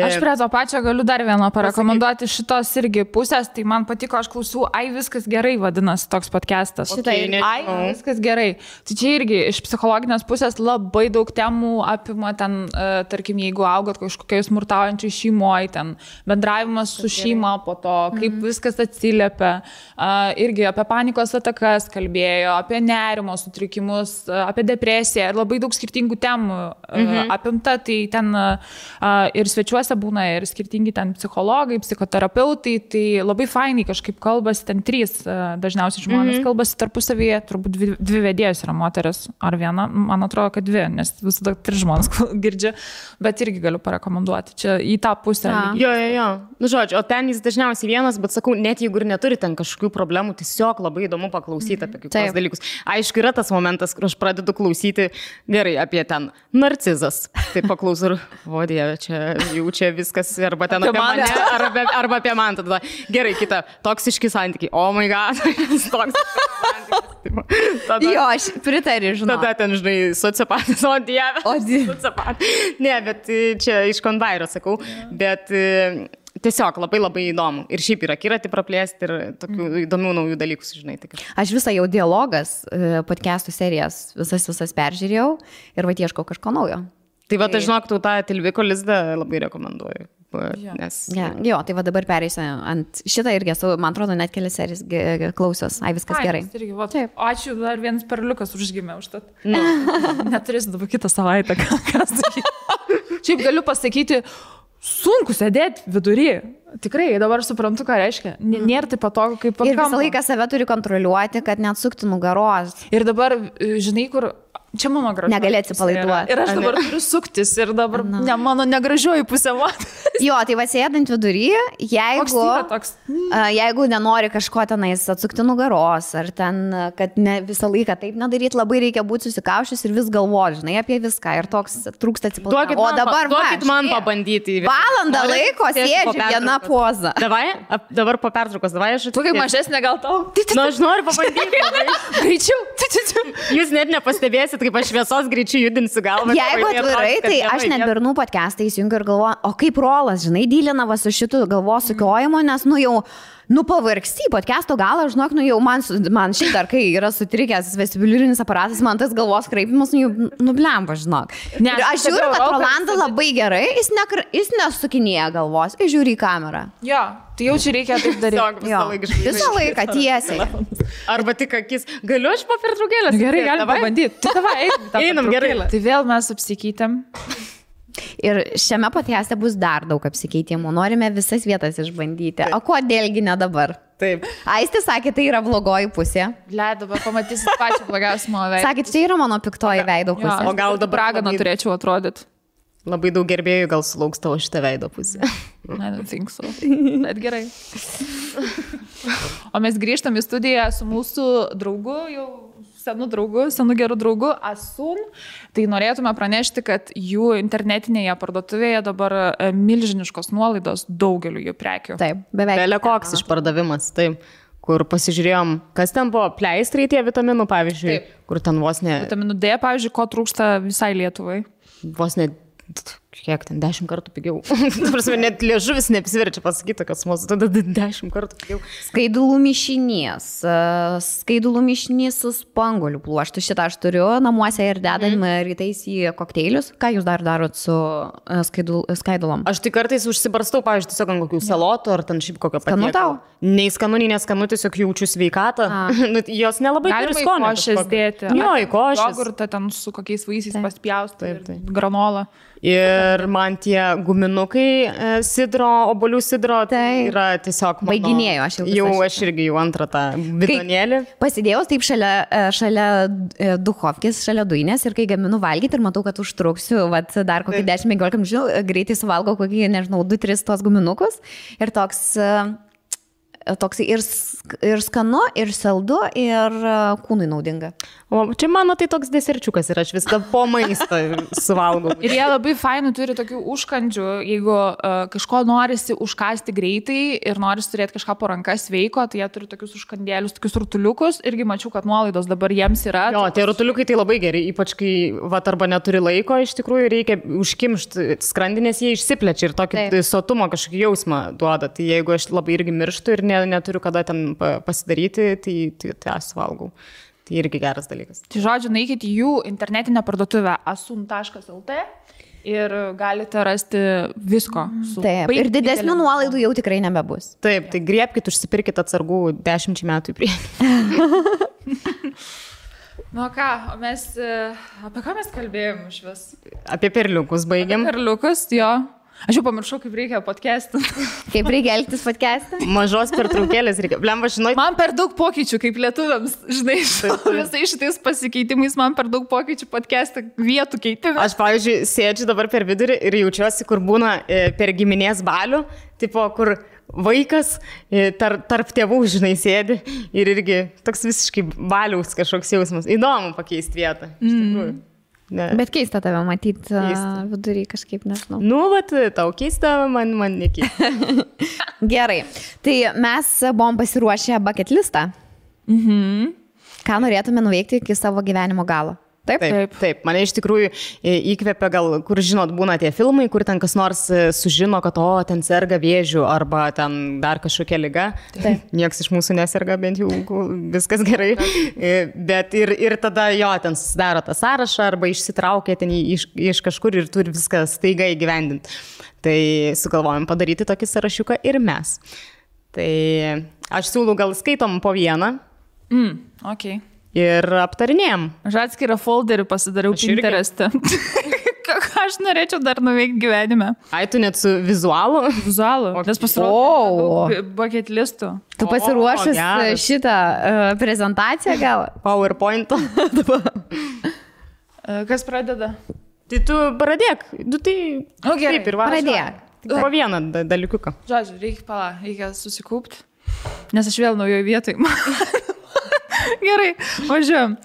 Aš prie to pačio galiu dar vieną parekomenduoti šitos irgi pusės, tai man patiko, aš klausau, viskas gerai vadinasi toks podcastas. Viskas gerai. Tai čia irgi iš psichologinės pusės labai daug temų apima ten, tarkim, jeigu augot kažkokiai smurtaujančiai šeimoje, ten bendravimas su šeima, po to, kaip viskas atsiliepia, irgi apie panikos atakas kalbėjo, apie nerimo sutrikimus, apie depresiją ir labai daug skirtingų temų apimta, tai ten ir svečiuose būna ir skirtingi ten psichologai, psichoterapeutai, tai labai fainai kažkaip kalbasi, ten 3 dažniausiai žmonės kalbasi tarpusavyje, turbūt 2 vedėjos yra moteris ar viena, man atrodo, kad 2, nes visada 3 žmonės girdžia, bet irgi galiu parekomenduoti, čia į tą pusę. Jo. Žodžiu, o ten jis dažniausiai vienas, bet sakau, net jeigu ir neturi ten kažkokių problemų, tiesiog labai įdomu paklausyti apie kitus dalykus. Aišku, yra tas momentas, kur aš pradedu klausyti gerai apie ten narcizas. Tai paklausau, o Dieve, čia viskas, arba ten apie mane, arba apie man. Tada gerai, kita, toksiški santykiai. Oh my god, Jo, aš pritariu, žinau. Tada ten, žinai, sociopatas, o Dieve. Sociopatas. Ne, bet čia iš konvairo sakau, bet... Tiesiog labai įdomu. Ir šiaip yra akiratį praplėsti ir tokių įdomių naujų dalykų sužinai. Aš visą jau dialogas podcastų serijas visas peržiūrėjau ir ieškau kažko naujo. Tai aš žinok, tu tą Tilviko lizdą labai rekomenduoju. Nes... Jo, tai dabar pereisiu ant šitą irgi esu, man atrodo, net kelias serijas klausios. Viskas gerai. Ačiū, dar vienas perliukas užgimė už tą. Neturėsiu dabar kitą savaitę. Šiaip galiu pasakyti, sunku sėdėti vidury. Tikrai, dabar suprantu, ką reiškia. Nėra taip patogu, kaip ir visą laiką save turi kontroliuoti, kad neatsukti nugaros. Ir dabar, žinai, kur Čia mano gražioji. Negali atsipalaiduoti. Ir aš dabar turiu suktis ir dabar mano negražioji pusė. Jo, tai va sėdant vidury, jeigu nenori kažko tenais atsukti nugaros, ar ten, kad ne visą laiką taip nedaryti, labai reikia būti susikaušęs ir vis galvoti, žinai, apie viską. Ir toks trūksta atsipalaidavimo. O dabar duokit man pabandyti. Valandą laiko sėdžiu viena poza. Dabar po pertraukos, davai aš. Tu kaip mažesnė gal tau? Nu, aš noriu pabandyti. Greičiau. Jūs net nepastebėsit, kaip aš šviesos greičiu judinsiu galvą. Jeigu atvirai, tai aš net bernų podcastą įsijungiu ir galvoju, o kaip Rolas, žinai, dylinava su šitu galvos sukiojimu, nes, pavargsti podcast'o galą, žinok, jau man šiaip dar, kai yra sutrikęs vestibuliarinis aparatas, man tas galvos kraipimas, nublemba, žinok. Ir aš žiūriu, kad Rolanda labai gerai, jis nesukinėja galvos, jis žiūri į kamerą. Jo, tai jau čia reikia taip daryti. Visą laiką tiesiai. Arba tik akis. Galiu aš po pertraukėlės? Gerai, galim pabandyti. Tai davai, einam gerai. Tai vėl mes apsikeitėm. Ir šiame podcast'e bus dar daug apsikeitimų. Norime visas vietas išbandyti. Taip. O kodėlgi ne dabar? Taip. Aistė sakė, tai yra blogoji pusė. Dabar pamatysit pačią blogiausią mano veidą. Sakė, čia yra mano piktoji veido pusė. O gal dabar raganą turėčiau atrodyti? Labai daug gerbėjų gal sulauks tavo šitą veido pusę. I don't think so. Bet gerai. O mes grįžtam į studiją su mūsų draugu, jau senu geru draugu Asun. Tai norėtume pranešti, kad jų internetinėje parduotuvėje dabar milžiniškos nuolaidos daugeliu jų prekių. Taip, beveik. Belekoks išpardavimas, taip. Kur pasižiūrėjom, kas ten buvo, pleistrai tie vitaminų, pavyzdžiui, taip. Kur ten vos ne... Vitaminų D, pavyzdžiui, ko trūksta visai Lietuvai. Vos ne... Kiek ten, 10 kartų pigiau. Prasme, net liežuvis neapsiverčia pasakyti, kad mūsų tada 10 kartų pigiau. Skaidulų mišinys su spanguolių pluoštu. Šitą aš turiu namuose ir dedam rytais į kokteilius. Ką jūs dar darot su skaidulom? Aš tik kartais užsibarstau, pavyzdžiui, tiesiog ant kokių salotų ar ten šiaip kokio patiekalo. Skanu tau? Nei skanu, nei neskanu, tiesiog jaučiu sveikatą. Jos nelabai turi skonio. Galima į košės dėti. Jo, į košės. Jogurtą ten su kokiais vaisiais paspjausti. Granola. Ir man tie guminukai sidro, obolių sidro, tai yra tiesiog... Baiginėjau, aš irgi jau antrą tą bidonėlį. Pasidėjau taip šalia duchovkės, šalia dujinės ir kai gaminu valgyti ir matau, kad užtruksiu, dar kokį 10-15 minučių, greitai suvalgau kokį, 2-3 tos guminukus ir toks ir skanu, ir saldu, ir kūnui naudinga. O čia mano tai toks deserčiukas ir aš viską po maisto suvalgau. Ir jie labai fainų turi tokių užkandžių, jeigu kažko norisi užkasti greitai ir norisi turėti kažką po rankas sveiko, tai jie turi tokius užkandėlius, tokius rutuliukus, irgi mačiau, kad nuolaidos dabar jiems yra. Jo, tie rutuliukai tai labai geri, ypač kai arba neturi laiko, iš tikrųjų reikia užkimšti skrandinės, jie išsiplečia ir tokį sotumo kažkokį jausmą duoda. Tai jeigu aš labai irgi mirštu ir neturiu kada ten pasidaryti, tai aš valgau. Tai irgi geras dalykas. Tai žodžiu, naikit jų internetinę parduotuvę asun.lt ir galite rasti visko. Taip, ir didesnių nuolaidų jau tikrai nebebus. Taip, tai griebkit, užsipirkit atsargų 10 metų į priekį. Nu ką, apie ką mes kalbėjom iš vis? Apie perliukus baigiam. Perliukus, jo. Aš jau pamiršau, kaip reikia podcast'ą. Kaip reikia elgtis podcast'ą? Mažos pertraukėlės reikia. Blemba, žinai. Man per daug pokyčių, kaip lietuviams, žinai, visai šitais pasikeitimais man per daug pokyčių podcast'ą vietų keitimą. Aš, pavyzdžiui, sėdžiu dabar per vidurį ir jaučiuosi, kur būna per giminės balių, tipo, kur vaikas tarp tėvų, žinai, sėdi ir irgi toks visiškai baliaus kažkoks jausmas. Įdomu pakeisti vietą, iš tikrųjų. Ne. Bet keista tave matyti vidury kažkaip, nežinau. Nu, tau keista, man nekeista. Gerai, tai mes buvom pasiruošę bucket listą. Ką norėtume nuveikti iki savo gyvenimo galo? Taip. Mane iš tikrųjų įkvėpia gal, kur žinot, būna tie filmai, kur ten kas nors sužino, kad ten serga vėžiu arba ten dar kažkokia liga. Niekas iš mūsų neserga, bent jau viskas gerai. Bet ir tada ten susidaro tą sąrašą arba išsitraukia ten iš kažkur ir turi viską staiga įgyvendinti. Tai sugalvojom padaryti tokį sąrašiuką ir mes. Tai aš siūlau gal skaitom po vieną. Okay. Ir aptarinėjom. Aš atskirą folderį pasidariau Pinterest'e. Ką aš norėčiau dar nuveikti gyvenime. Ai, tu net su vizualu? Vizualu. Nes pasirodau bucket listų. Tu pasiruošęs šitą prezentaciją gal? PowerPoint. Kas pradeda? Tai tu pradėk. Tai Gerai, taip ir va. Pradėk. Po vieną dalykiuką. Žodžiu, reikia susikūpti, nes aš vėl naujoje vietoje. Gerai, važiuojam.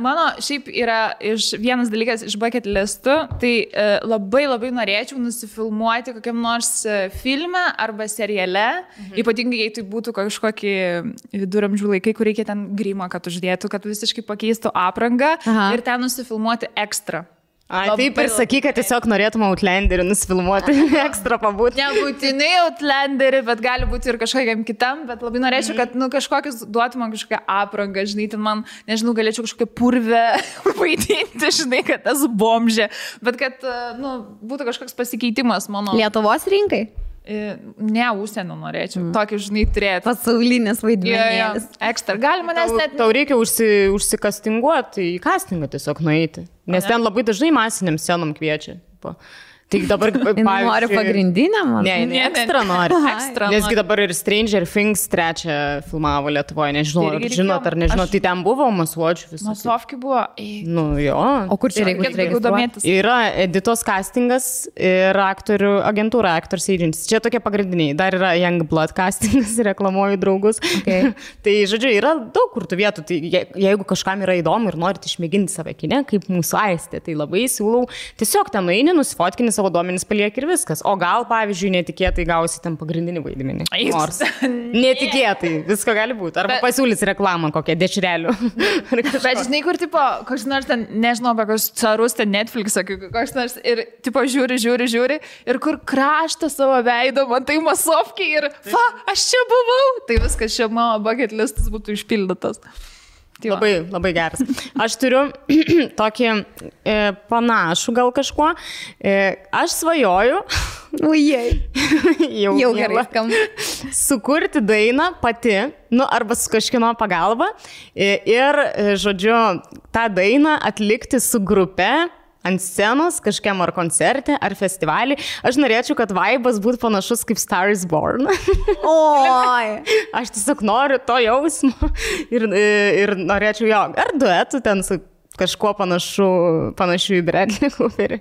Mano šiaip yra vienas dalykas iš bucket listų, tai labai norėčiau nusifilmuoti kokiam nors filme arba seriale, ypatingai jei tai būtų kažkokį viduramžių laikai, kur reikia ten grimą, kad uždėtų, kad visiškai pakeistų aprangą ir ten nusifilmuoti ekstra. Taip ir sakyk, kad tiesiog norėtum Outlanderį nusifilmuoti, ekstra pabūti. Nebūtinai Outlanderį, bet gali būti ir kažkokiam kitam, bet labai norėčiau, kad kažkokius duotų man kažkokią aprangą, žinai, ten man, nežinau, galėčiau kažkokią purvę vaidinti, žinai, kad tas bomžė, bet kad, būtų kažkoks pasikeitimas mano. Lietuvos rinkai? Ne, užsienio norėčiau. Tokį, žinai, turėti. Pasaulinis vaidmenėlis. Ekstra. Galima nes net... Tau reikia užsikastinguoti, į kastingą tiesiog nueiti. Nes ten labai dažnai masiniam scenom kviečia. Tai dabar, pavyzdžiui... Nori pagrindinę, man? Ne, ekstra nori. Nesgi dabar ir Stranger Things 3 filmavo Lietuvoje, nežinau, ar žinot, ar nežinot, tai ten buvo masuočių visų. Masovki buvo. Jo. O kur čia reikia domėtis? Yra Editos castingas ir aktorių agentūra, Actors Agency. Čia tokie pagrindiniai. Dar yra Youngblood castingas, reklamuoju draugus. Okay. Tai, žodžiu, yra daug kur tų vietų. Tai jeigu kažkam yra įdomu ir norit išmėginti save kine, kaip mūsų Aistė, tai labai siūlau tiesiog ten nueini, nusifotkini savo duomenis paliek ir viskas. O gal, pavyzdžiui, netikėtai gausi ten pagrindinį vaidmenį. Nors netikėtai, visko gali būti. Arba pasiūlys reklamą kokią dešrelių. Bet žinai, kur, tipo, koks nors ten, nežinau, apie kokius carus ten Netflix, koks nors ir, tipo, žiūri ir kur kraštą savo veido, man tai masovkiai ir, aš čia buvau. Tai viskas, čia mano bucket listas būtų išpildytas. Labai geras. Aš turiu tokį panašų gal kažkuo. Aš svajoju. Jau gerai skamba. Sukurti dainą pati, arba su kažkieno pagalba. Ir, žodžiu, tą dainą atlikti su grupe ant scenos, kažkiam ar koncerte, ar festivalį. Aš norėčiau, kad vaibas būtų panašus kaip Star is Born. Oi! Aš tiesiog noriu to jausmo ir norėčiau jo. Ar duetų ten su kažkuo panašiu į Bradley Cooperį.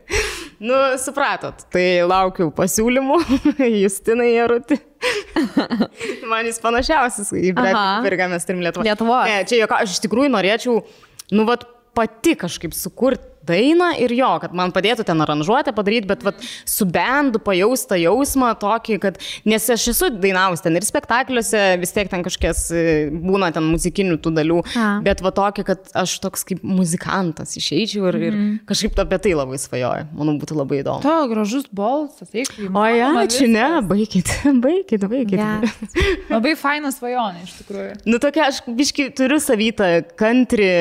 Supratot, tai laukiu pasiūlymų. Justinai Jarutį. Man jis panašiausias į Bradley Cooperį, ką mes turim Lietuvoje. Ne, čia aš iš tikrųjų norėčiau, pati kažkaip sukurti dainą ir jo, kad man padėtų ten aranžuotę padaryti, bet su bendu pajaustą jausmą tokį, kad, nes aš esu dainavus ten ir spektakliuose, vis tiek ten kažkies būna ten muzikinių tų dalių, bet tokį, kad aš toks kaip muzikantas išeičiau ir kažkaip apie tai labai svajoju. Manau, būtų labai įdomu. To gražus balsas, eikli. Ačiū, ne, baikit. Labai fainas svajonė, iš tikrųjų. Tokia, aš biškai turiu savytą country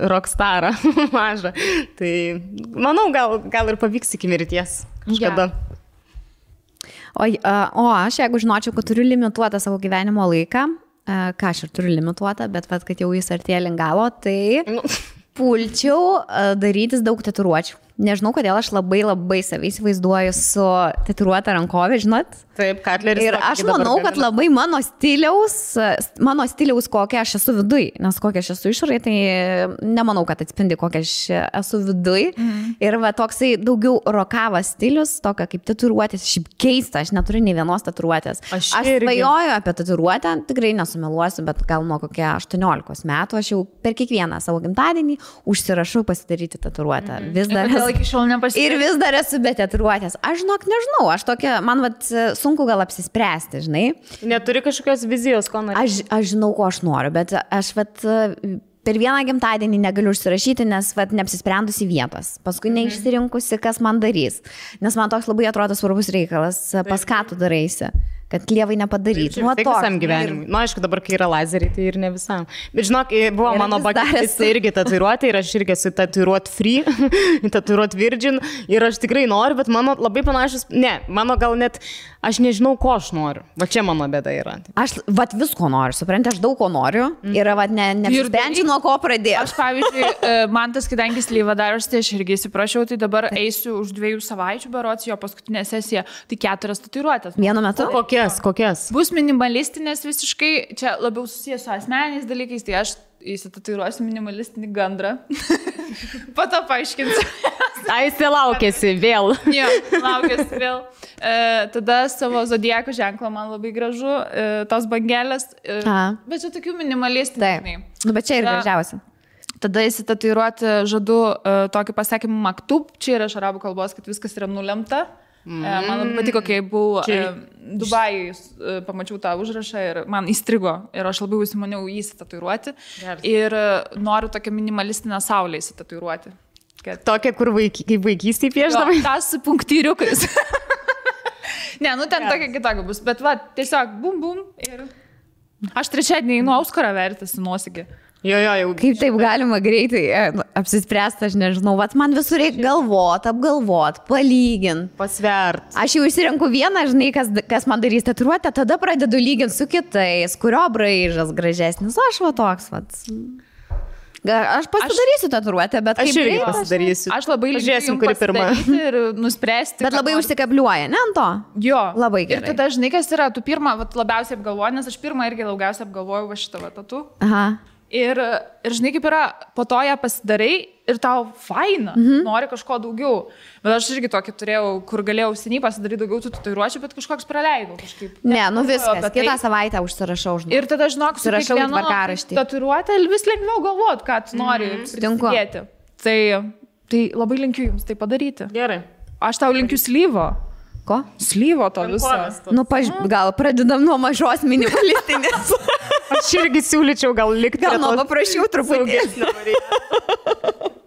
rockstarą mažą. Tai, manau, gal ir pavyks iki mirties kažkada. O aš, jeigu žinočiau, kad turiu limituotą savo gyvenimo laiką, ką aš ir turiu limituotą, bet kad jau jis artėja link galo, tai pulčiau darytis daug tatuiruočių. Nežinau, kodėl aš labai save įsivaizduoju su tatuiruota rankovė, žinot? Taip, Katleris. Ir aš manau, kad labai mano stiliaus kokia aš esu viduj, nes kokia aš esu išorėje, tai nemanau, kad atspindi kokia aš esu viduj. Ir toksai daugiau rokavas stilius, tokia kaip tatuiruotės, šiaip keista, aš neturiu nei vienos tatuiruotės. Aš svajoju apie tatuiruotę, tikrai nesumeluosiu, bet gal nuo kokia 18 metų aš jau per kiekvieną savo gimtadienį užsirašau pasidaryti tatuiruotę. Vis dar ir vis dar esu be tatuiruotės. Aš nežinau, aš tokia, man sunku gal apsispręsti, žinai. Neturi kažkokios vizijos, ko nori? Aš žinau, ko aš noriu, bet aš per vieną gimtadienį negaliu užsirašyti, nes neapsisprendusi vietos. Paskui neišsirinkusi, kas man darys. Nes man toks labai atrodo svarbus reikalas, pas ką tu daraisi. Kad klievai nepadarytų. Tai visam gyvenimui. Aišku, dabar, kai yra lazeriai, tai ir ne visam. Bet žinok, buvo mano bucket irgi tatuiruoti ir aš irgi esu tatuiruot free, tatuiruot virgin ir aš tikrai noriu, bet mano labai panašus, mano gal net, aš nežinau, ko aš noriu. Čia mano bėda yra. Aš visko noriu, supranti, aš daug ko noriu ir nesprendžiu, nuo ko pradėti. Aš, pavyzdžiui, man tas, kadangi slyva darosi, tai aš irgi įsiprašiau, tai dabar eisiu už 2 savaičių berods jo paskutinę sesiją, tai 4 tatuiruotės. Vienu metu? Kokias? Bus minimalistinės visiškai, čia labiau susijęs su asmeniniais dalykais, tai aš įsitatuiruosiu minimalistinį gandrą. Po to paaiškinsiu. Aistė laukėsi vėl. Jo, laukėsi vėl. Tada savo zodiako ženklą man labai gražu, tos bangelės. Bet čia tokių minimalistinių. Bet čia ir gražiausia. Tada įsitatuiruoti žadu tokį pasakymą maktub, čia yra iš arabų kalbos, kad viskas yra nulemta. Man labai patiko, kai buvau Dubajui, pamačiau tą užrašą ir man įstrigo ir aš labai užsimaniau jį įsitatuiruoti. Ir noriu tokią minimalistinę saulę įsitatuiruoti. Tokia, kur kaip vaikystėje pieždavai? Tas su punktyriukais. Ne, nu ten tokia kitokia bus, bet va, tiesiog bum bum ir aš trečiadienį einu Auskarą vertasi nuosigį. Jo, jau. Kaip taip galima greitai apsispręsti, aš nežinau, vat man visur reikia galvot, apgalvot, palygint. Pasvert. Aš jau išsirenku vieną, žinai, kas man darys tatuiruotę, tada pradedu lyginti su kitais, kurio braižas gražesnis, aš va toks, vat. Aš pasidarysiu tatuiruotę, bet aš irgi pasidarysiu. Aš labai žiūrėsim, kuri pirma. Ir nuspręsti. Bet labai užsikabliuoja, ne ant to? Jo. Labai gerai. Ir tada, žinai, kas yra, tu pirmą labiausiai apgalvoji, nes aš pirmą irgi daugiausiai apgalvojau va šitą tatu. Aha. Ir žinai, kaip yra, po to ją pasidarai ir tau faina, nori kažko daugiau. Bet aš irgi tokį turėjau, kur galėjau seniai pasidaryti daugiau tų tatuiruočių, bet kažkoks praleidau kažkaip. Ne, nu viskas, kitą savaitę užsirašau, žinai. Ir tada, žinok, su kiekvienu tatuiruotę vis lengviau galvot, ką tu nori prisidėti. Tai labai linkiu jums tai padaryti. Gerai. Aš tau linkiu slyvo. Ko? Slyvo to viso. Nu, gal pradedam nuo mažos minimalistinės. Aš irgi siūlyčiau gal likti. Gal nuo paprašiau truputį.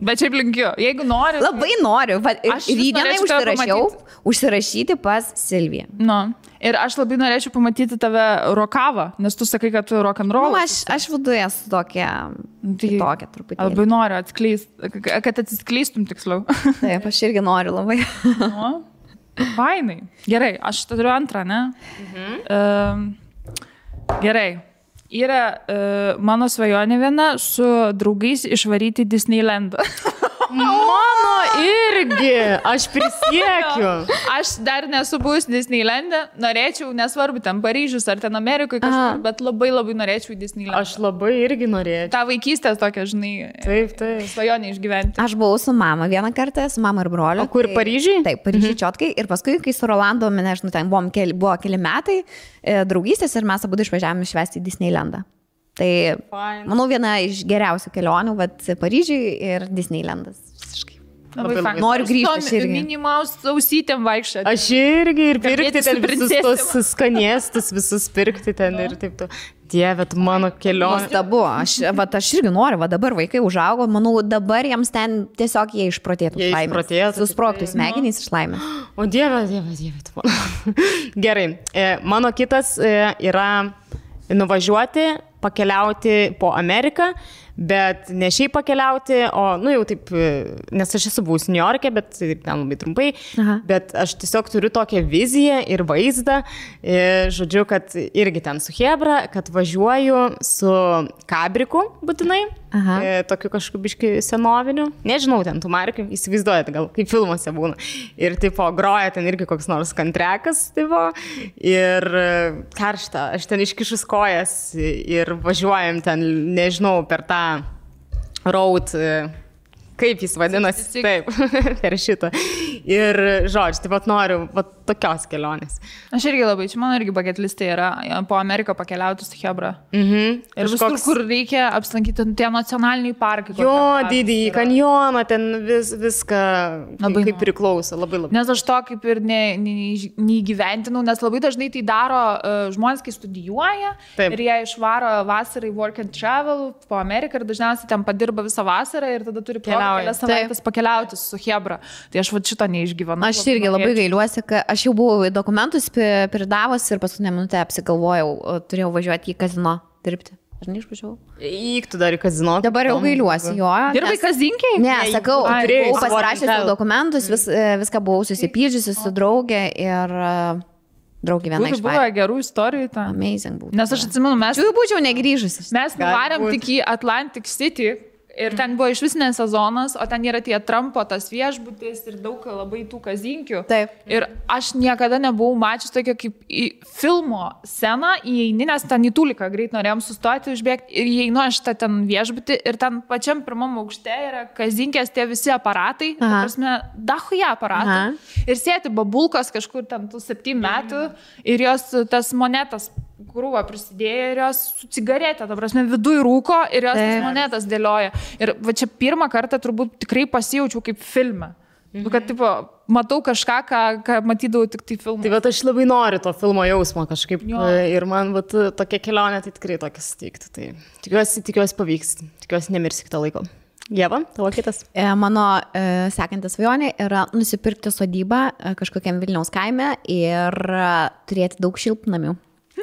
Bet šiaip linkiu, jeigu nori. Labai noriu. Rydienai užsirašyti pas Silviją. Nu. Ir aš labai norėčiau pamatyti tave rokavą, nes tu sakai, kad tu rock'n'roll. Nu, aš viduje esu tokia truputį. Labai noriu atskleisti, kad atsiskleistum tiksliau. Taip, aš irgi noriu labai. Nu. Fainai. Gerai, aš turiu antrą, ne? Gerai. Yra mano svajonė viena su draugais išvaryti Disneylandą. Mano irgi, aš prisiekiu. Aš dar nesu buvus Disneylande, norėčiau, nesvarbu, ten Paryžius ar ten Amerikoje kažkur, bet labai labai norėčiau į Disneylandą. Aš labai irgi norėčiau. Ta vaikystės tokia, žinai, taip. svajonė išgyventi. Aš buvau su mama vieną kartą, su mama ir broliu. O kur, Paryžiui? Taip, Paryžiui čiotkai. Ir paskui, kai su Rolandu, nežinau, ten buvo keli metai draugystės ir mes abu išvažiavome švęsti į Disneylandą. Tai, manau, viena iš geriausių kelionių, vat Paryžiui ir Disneylandas. Visiškai. Noriu grįžti. Aš irgi. Minimaus ausytėm vaikščioti. Aš irgi ir pirkti ten visus tos skanėstus, visus pirkti ten ir taip to. Dieve, tu mano kelionė. Nuostabu. Aš irgi noriu, dabar vaikai užaugo, manau, dabar jiems ten tiesiog jie išprotėtų. Jie išprotėtų. Susprogtų smegenys iš laimės. O Dieve, tu mano. Gerai, mano kitas yra nuvažiuoti, pakeliauti po Ameriką, bet ne šiaip pakeliauti, o, nu jau taip, nes aš esu buvus New York'e, bet ten labai trumpai, bet aš tiesiog turiu tokią viziją ir vaizdą, žodžiu, kad irgi ten su Hebra, kad važiuoju su kabriku būtinai, tokiu kažkokiu biškai senoviniu, nežinau, ten tų markių, įsivaizduojate, gal kaip filmuose būna, ir tipo groja ten irgi koks nors kantrekas, tipo, ir karšta, aš ten iškišus kojas ir važiuojam ten, nežinau, per tą road, kaip jis vadinasi, taip, per šitą. Ir, žodžiu, taip pat noriu tokios kelionės. Aš irgi labai, čia mano irgi bucket listė yra po Ameriką pakeliauti su Hebra. Ir visur, kur reikia apsilankyti tie nacionaliniai parkai. Jo, didįjį kanjoną, ten viską kaip priklauso, labai. Nes aš to kaip ir neįgyventinau, nes labai dažnai tai daro žmonės, kai studijuoja ir jie išvaro vasarai work and travel po Ameriką ir dažniausiai ten padirba visą vasarą ir tada turi kelias savaitės pakeliauti su Hebra. Tai aš šito neišgyvenu. Aš irgi labai gailiuosi, kad aš jau buvau į dokumentus pridavus ir paskutinę minutę apsigalvojau, turėjau važiuoti į kazino dirbti. Ar neišvažiavau? Įktų dar į kazino. Dabar jau gailiuosi, jo. Dirbai kazinkiai? Ne, sakau, buvau pasirašęs dokumentus, viską buvau susipydžiusi su draugė ir draugė viena iš buvo gerų istorijų ten. Amazing buvo. Nes aš atsimenu, mes... Jau būčiau negrįžusi. Mes nuvarėm tik į Atlantic City Ir ten buvo iš vis ne sezonas, o ten yra tie Trumpo tas viešbutis ir daug labai tų kazinkių. Taip. Ir aš niekada nebuvau mačius tokio kaip į filmo sceną, įeini, nes ten į Tuliką greit norėjom sustoti, užbėgti ir įeinu aš tą ten viešbutį ir ten pačiam pirmam aukšte yra kazinkės tie visi aparatai, ta prasme, dahuja aparatai. Ir sėti babulkos kažkur ten tų 7 metų ir jos tas monetas krūvą prisidėjo ir jos su cigaretė, ta prasme, viduj rūko ir jos tas monetas dėlioja. Ir va čia pirmą kartą turbūt tikrai pasijaučiau kaip filme. Kad, tipo, matau kažką, ką matydavau tik tai filmą. Tai bet aš labai noriu to filmo jausmo kažkaip. Ir man vat, tokia kelionė tai tikrai tokia suteikti. Tai tikiuosi pavyks. Tikiuosi nemirsi kitą laiko. Ieva, tavo kitas? Mano sekantis svajonė yra nusipirkti sodybą kažkokiam Vilniaus kaime ir turėti daug šiltnamių.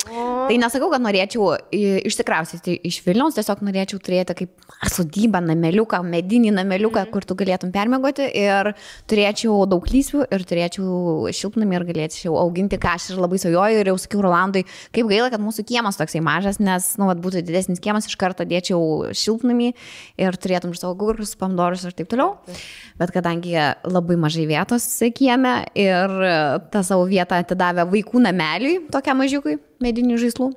Tai nesakau, kad norėčiau išsikraustyti iš Vilniaus, tiesiog norėčiau turėti kaip sodybą, nameliuką, medinį nameliuką, kur tu galėtum permiegoti ir turėčiau daug lysvių ir turėčiau šiltnamį ir galėčiau auginti, ką aš ir labai svajoju ir jau sakiau Rolandui, kaip gaila, kad mūsų kiemas toksai mažas, nes, būtų didesnis kiemas, iš karto dėčiau šiltnamį ir turėtum ir savo gurkus, pomidorus ir taip toliau. Bet kadangi labai mažai vietos kieme ir tą savo vietą atidavė vaikų nameliui, tokiam mažiukui, medinių žaislų.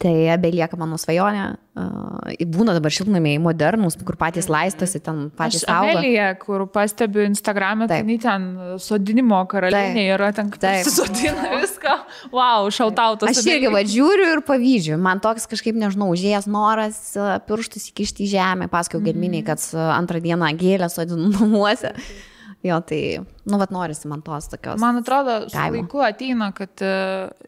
Tai belieka mano svajonė. Būna dabar šiltnamiai modernus, kur patys laistosi, ten patys auga. Amelija, kur pastebiu Instagram'e, tai ten sodinimo karalienė yra, ten sodina viską. Wow, šautautas. Aš irgi žiūriu ir pavyzdžiu. Man toks kažkaip, nežinau, užėjęs noras pirštus įkišti į žemę. Pasakiau Gedminiai, kad antrą dieną gėlę sodinu namuose. Jo, tai, norisi man tos tokios. Man atrodo, su laiku ateina, kad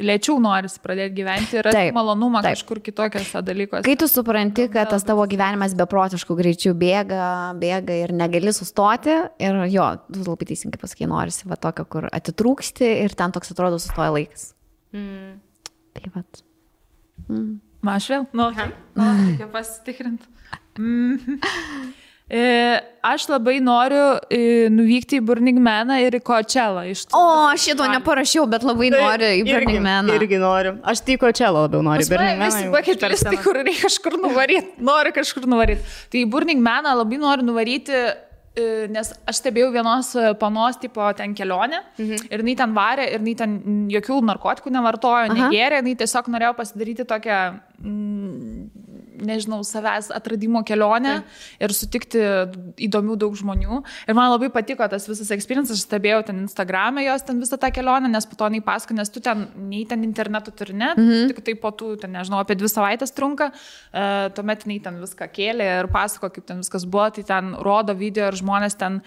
lėčiau norisi pradėti gyventi ir rasti malonumą kažkur kitokiose dalykuose. Kai tu supranti, kad tas tavo gyvenimas beprotiškų greičių bėga ir negali sustoti ir jo, tu labai teisingai pasakai, norisi va tokio, kur atitrūksti ir ten toks atrodo sustoja laikas. Tai vat. Aš vėl? Reikia pasitikrinti. Aš labai noriu nuvykti į Burning Maną ir į Coachella. Šito neparašiau, bet labai noriu į Burning Maną. Irgi noriu. Aš tai Coachella labiau noriu. Visi paketlistai, kur reikia kažkur nuvaryti. Noriu kažkur nuvaryti. Tai į Burning Maną labai noriu nuvaryti, nes aš stebėjau vienos panos tipo ten kelionę ir jinai ten varė ir jinai ten jokių narkotikų nevartojo, negėrė, jinai tiesiog norėjo pasidaryti tokią nežinau, savęs atradimo kelionę ir sutikti įdomių daug žmonių. Ir man labai patiko tas visas experiences, aš stebėjau ten Instagram'e jos ten visą tą kelionę, nes po to jinai pasako, nes tu ten, nei ten internetu turi, ne, tik tai po tų, ten, nežinau, apie 2 savaitės trunka, tuomet jinai ten viską kėlė ir pasako, kaip ten viskas buvo, tai ten rodo video ir žmonės ten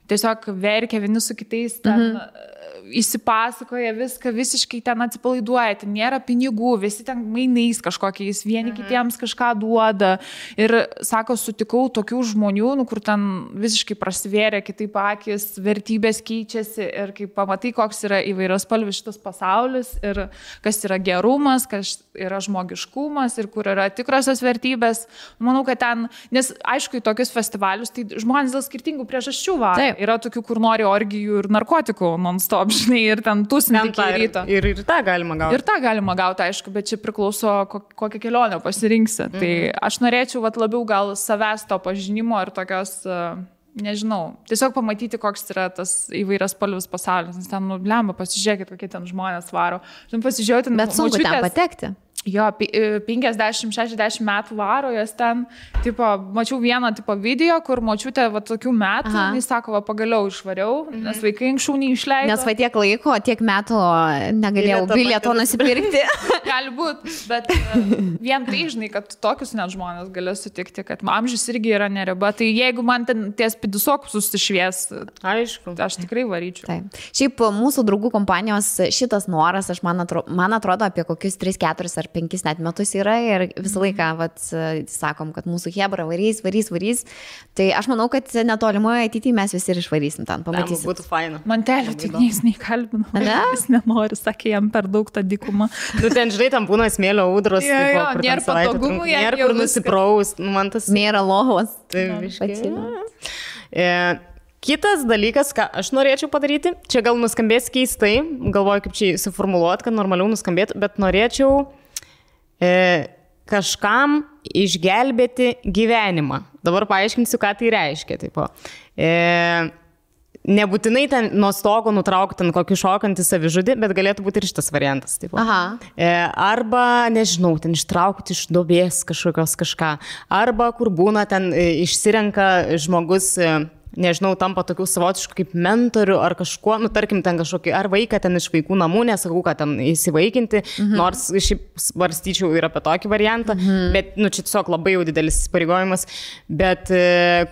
tiesiog verkia vieni su kitais, ten įsipasakoja viską, visiškai ten atsipalaiduoja, ten nėra pinigų, visi ten mainais kažkokiais, vieni kitiems kažką duoda. Ir sako, sutikau tokių žmonių, kur ten visiškai prasivėrė kitaip akis, vertybės keičiasi ir kai pamatai, koks yra įvairiaspalvis šitas pasaulis ir kas yra gerumas, kas yra žmogiškumas ir kur yra tikrosios vertybės. Manau, kad ten, nes aišku, į tokius festivalius, tai žmonės dėl skirtingų priežasčių varo. Yra tokių, kur nori orgijų ir narkotikų non-stop, žinai, ir ten tusinti iki ryto. Ir tą galima gauti. Ir tą galima gauti, aišku, bet čia priklauso, kokią kelionę pasirinksi. Tai aš norėčiau labiau gal savęs to pažinimo ir tokios, nežinau, tiesiog pamatyti, koks yra tas įvairiaspalvis pasaulis. Nes ten, lemba, pasižiūrėkit, kokie ten žmonės varo. Pasižiūrėti, bet sunku ten patekti. Jo, 50-60 metų varo, jos ten, tipo, mačiau vieną tipo video, kur močiutė va tokių metų, jis sako, va pagaliau išvariau, nes vaikai anksčiau neišleido. Nes va tiek laiko, tiek metų negalėjau bilieto nusipirkti. Gali būti, bet vien tai žinai, kad tokius net žmonės gali sutikti, kad amžius irgi yra neriba, tai jeigu man ten ties pidusokus susišvies, aišku, aš tikrai varyčiau. Taip. Šiaip mūsų draugų kompanijos šitas noras, man atrodo apie kokius 3-4 ar 5 net metus yra ir visą laiką sakom, kad mūsų hebra varys. Tai aš manau, kad netolimoje ateityje mes visi ir išvarysim ten, pamatysim. Būtų faina. Mantelio tik nieks neįkalbino. Jis nenori, sakė, jam per daug tą dykumą. Tu ten, žinai, tam būna smėlio audros. Nėra patogumų, nėra kur nusipraust. Nėra lovos. Kitas dalykas, ką aš norėčiau padaryti, čia gal nuskambės keistai, galvoju, kaip čia suformuluoti, kad normaliau nuskambėtų, bet norėčiau kažkam išgelbėti gyvenimą. Dabar paaiškinsiu, ką tai reiškia. Tipo. Nebūtinai ten nuo stogo nutraukti ten kokį šokantį savižudį, bet galėtų būti ir šitas variantas. Tipo. Arba, nežinau, ten ištraukti iš duobės kažką. Arba kur būna ten išsirenka žmogus, nežinau, tampa tokių savotiškų kaip mentorių ar kažkuo, nu tarkim ten kažkokį, ar vaiką ten iš vaikų namų, nesakau, kad ten įsivaikinti, nors šiaip svarstyčiau ir apie tokį variantą, bet, nu, čia tiesiog labai jau didelis įsipareigojimas, bet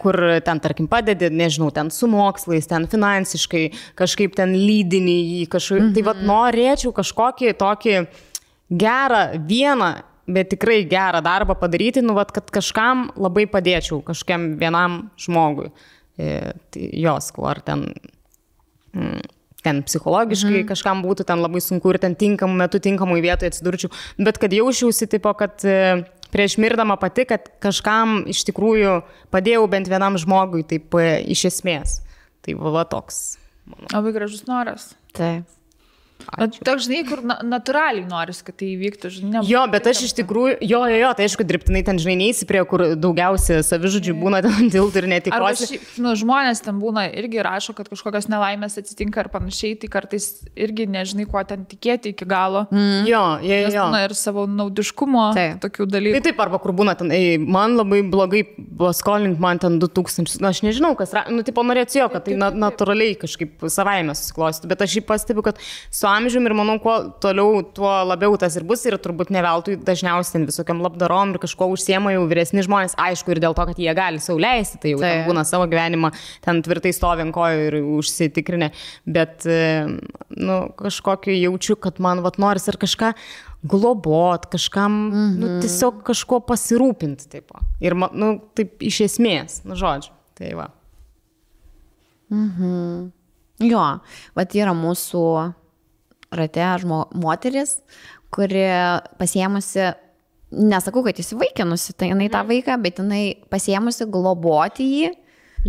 kur ten, tarkim, padedi, nežinau, ten su mokslais, ten finansiškai, kažkaip ten lydinį į kažkokį, tai vat norėčiau kažkokį tokį gerą vieną, bet tikrai gerą darbą padaryti, nu, vat, kad kažkam labai padėčiau, kažkiam vienam žmogui. Jos, ar ten psichologiškai kažkam būtų ten labai sunku ir ten tinkamų metų, tinkamų vietoje atsidurčiau, bet kad jausčiausi tipo, kad prieš mirdama pati, kad kažkam iš tikrųjų padėjau bent vienam žmogui, taip iš esmės. Tai va toks. Labai gražus noras. Taip. Toks, žinai, kur natūraliai noris, kad tai įvyktų, žinai. Jo, bet aš iš tikrųjų, tai aišku, dirbtinai ten, žinai, neįsi prie, kur daugiausia savižudžių būna ten tiltų ir netikrosi. Žmonės ten būna irgi rašo, kad kažkokios nelaimės atsitinka ir panašiai, tai kartais irgi nežinai, kuo ten tikėti iki galo. Jo. Būna ir savo naudiškumo tokių dalykų. Taip, arba kur būna ten, man labai blogai skolink man ten 2000, aš nežinau, kas, tipo norėčiau, kad tai natūraliai kažkaip savaime susiklosti, bet aš jį pastebiu, kad su amžiumi ir manau, kuo toliau, tuo labiau tas ir bus ir turbūt neveltui dažniausiai ten visokiam labdarom ir kažko užsiema jau vyresni žmonės, aišku, ir dėl to, kad jie gali sau leisti, tai jau ten būna savo gyvenimą, ten tvirtai stovi ant kojų ir užsitikrinę, bet, nu, kažkokį jaučiu, kad man vat noris ir kažką globot, kažkam, nu, tiesiog kažko pasirūpinti, taip. Ir, nu, taip iš esmės, nu, žodžiu, tai va. Jo, vat yra mūsų rate moteris, kuri pasiėmusi, nesakau, kad įsivaikinusi, tai jinai tą vaiką, bet jinai pasiėmusi globoti jį.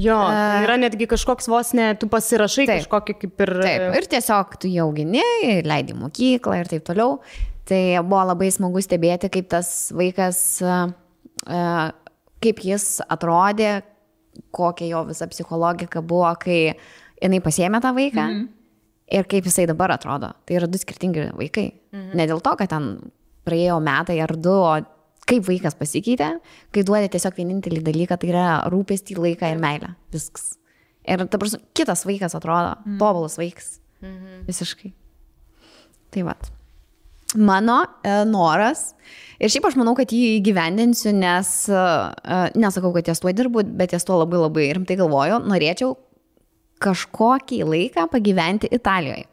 Jo, yra netgi kažkoks vos ne, tu pasirašai kažkokį kaip ir... Taip, ir tiesiog tu jau augini, leidi mokyklą ir taip toliau. Tai buvo labai smagu stebėti, kaip tas vaikas, kaip jis atrodė, kokia jo visa psichologika buvo, kai jinai pasiėmė tą vaiką. Ir kaip jisai dabar atrodo. Tai yra du skirtingi vaikai. Ne dėl to, kad ten praėjo metai ar du, o kaip vaikas pasikeitė, kai duodė tiesiog vienintelį dalyką, tai yra rūpestį, laiką ir meilę. Viskas. Ir dabar kitas vaikas atrodo, tobulas vaikas. Visiškai. Tai vat. Mano noras, ir šiaip aš manau, kad jį įgyvendinsiu, nes nesakau, kad ties tuo dirbu, bet ties tuo labai labai rimtai galvoju, norėčiau kažkokį laiką pagyventi Italijoje.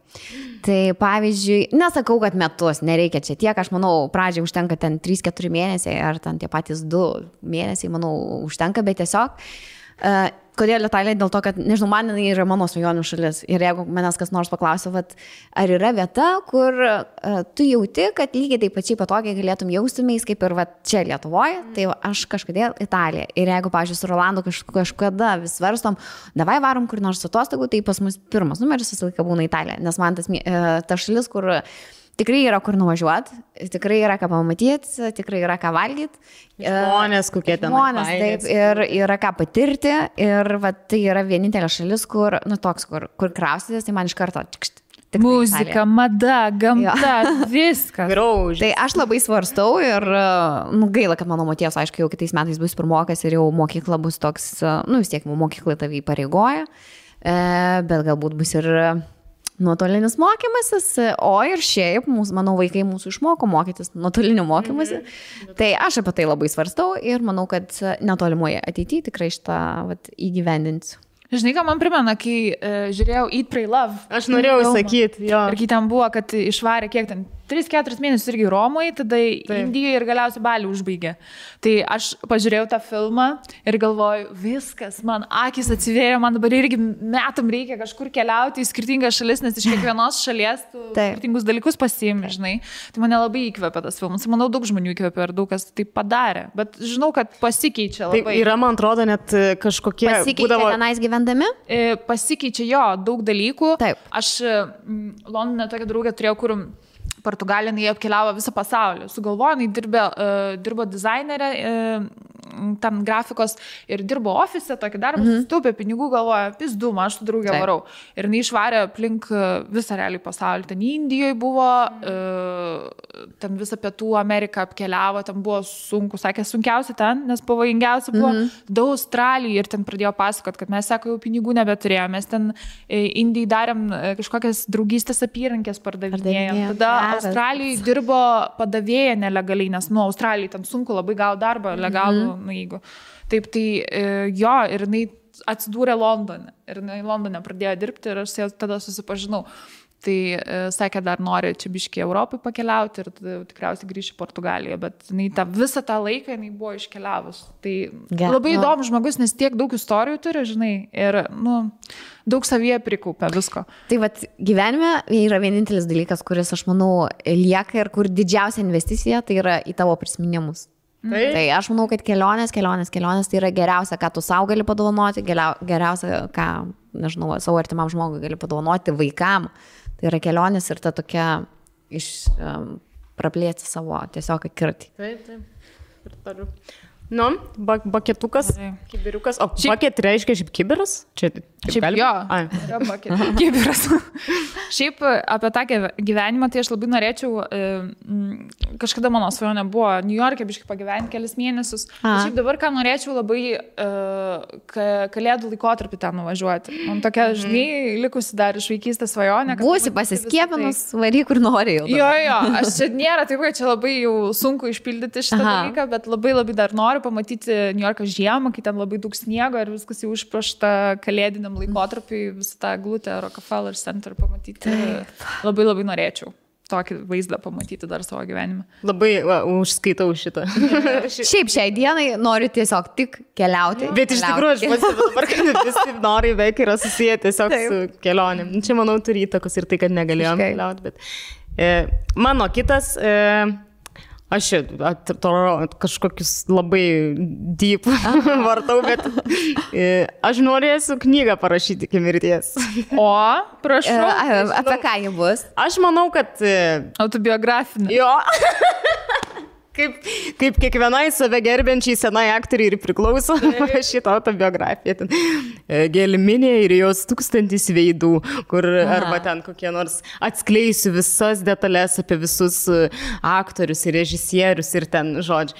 Tai pavyzdžiui, nesakau, kad metus, nereikia čia tiek, aš manau, pradžiai užtenka ten 3-4 mėnesiai, ar ten tie patys 2 mėnesiai, manau, užtenka, bet tiesiog, kodėl Italija? Dėl to, kad, nežinau, man yra mano svajonių šalis. Ir jeigu manęs kas nors paklausia, ar yra vieta, kur tu jauti, kad lygiai taip pačiai patogiai galėtum jaustumeis, kaip ir čia Lietuvoje, tai aš kažkodėl Italija. Ir jeigu, pavyzdžiui, su Rolandu kažkada vis svarstom, davai varom kur nors atostogų, tai pas mus pirmas numeris visą laiką būna Italija. Nes man ta šalis, kur tikrai yra kur nuvažiuoti, tikrai yra ką pamatyti, tikrai yra ką valgyti. Žmonės, kokie ten. Žmonės, taip, ir yra ką patirti. Ir tai yra vienintelė šalis, kur, nu toks, kur kraustytis, tai man iš karto muzika, mada, gamta, viskas. Graužis. Tai aš labai svarstau ir gaila, kad mano moties, aišku, jau kitais metais bus pirmokas ir jau mokykla bus toks, vis tiek mokykla tavį įpareigoja, bet galbūt bus ir nuotolinis mokymasis, o ir šiaip, mano vaikai mūsų išmoko mokytis nuotoliniu mokymasi. Tai aš apie tai labai svarstau ir manau, kad netolimoje ateityje tikrai šitą įgyvendinsiu. Žinai, ką man primena, kai žiūrėjau Eat, Pray, Love. Aš norėjau sakyti, jo. Ir kai ten buvo, kad išvarė kiek ten, 3-4 mėnesius irgi Romui, tada Indijoje ir galiausiai Balį užbaigė. Tai aš pažiūrėjau tą filmą ir galvoju, viskas, man akis atsivėjo, man dabar irgi metam reikia kažkur keliauti į skirtingas šalis, nes iš kiekvienos šalies tu skirtingus dalykus pasiimi, žinai. Tai mane labai įkvėpė tas filmas. Manau, daug žmonių įkvėpė ir daug kas tai padarė. Bet žinau, kad pasikeičia labai. Tai yra, man atrodo, net kažkokie... Pasikeičia tenais gyvendami? Pasikeičia jo, daug dalykų. Taip. Aš Londone tokią draugę turėjau, kur Portugalija, jie apkeliavo visą pasaulį. Sugalvojo, dirbo dizainerė ten grafikos ir dirbo ofise, tokį darbą, sutaupė pinigų, galvoja, pizdu, aš su draugė varau. Ir jinai išvarė aplink visą realiai pasaulį. Ten Indijoje buvo, ten visą Pietų Ameriką apkeliavo, ten buvo sunku, sakė, sunkiausia ten, nes pavojingiausia buvo daug Australijai ir ten pradėjo pasakot, kad mes, sako, jau pinigų nebeturėjome, mes ten Indijai darėm kažkokias draugystės apyrankės pardavinėjom. Tada Australijai dirbo padavėja nelegaliai, nes Australijai ten sunku labai gauti darbą legalų, jeigu. Taip, tai jo, ir jinai atsidūrė Londone. Ir jinai Londone pradėjo dirbti ir aš tada susipažinau. Tai sakė, dar nori čia biškį Europai pakeliauti ir tikriausiai grįžti į Portugaliją, bet visą tą laiką jinai buvo iškeliavus. Tai labai įdomus žmogus, nes tiek daug istorijų turi, žinai, ir daug savyje prikaupia visko. Tai vat gyvenime yra vienintelis dalykas, kuris, aš manau, lieka ir kur didžiausia investicija, tai yra į tavo prisiminimus. Tai aš manau, kad kelionės tai yra geriausia, ką tu savo gali padovanoti, geriausia, ką, nežinau, savo artimam žmogui gali padovanoti, vaikam. Tai yra kelionės ir ta tokia praplėsti savo tiesiog akiratį. Taip. Ir tariu. Baketukas, kibiriukas. O baket reiškia šiaip kibiras? Šiaip jo, yra kibiras. Šiaip apie tą gyvenimą, tai aš labai norėčiau, kažkada mano svajonė buvo New York'e biškai pagyventi kelis mėnesius. Šiaip dabar ką norėčiau labai kalėdų laikotarpį ten nuvažiuoti. Man tokia, žinai, likusi dar iš vaikystės svajonė. Būsi pasiskiepinus, varyk kur nori jau. Jo, aš čia nėra taip, kad čia labai jau sunku išpildyti šitą dalyką, bet labai dar noriu pamatyti New York'ą žiemą, kai ten labai daug sniego ir viskas jau užprašta kalėdiniam laikotarpiui, visą tą glutę Rockefeller Center pamatyti. Labai norėčiau tokį vaizdą pamatyti dar savo gyvenime. Labai užskaitau šitą. Šiaip šiai dienai noriu tiesiog tik keliauti. Bet iš tikrųjų, aš pats dabar, kad visi nori veik yra susiję tiesiog su kelionėm. Čia, manau, turi įtakos ir tai, kad negalėjom keliauti. Bet mano kitas... Aš kažkokius labai deep vartau, bet aš norėsiu knygą parašyti iki mirties. O, prašau. Apie ką ji bus? Aš manau, kad... Autobiografinė. Jo. Kaip kiekvienai save gerbiančiai senai aktoriai ir priklauso šitą autobiografiją. Gelminė ir jos 1000 veidų, kur arba ten kokie nors atskleisiu visas detalės apie visus aktorius ir režisierius ir ten žodžiu.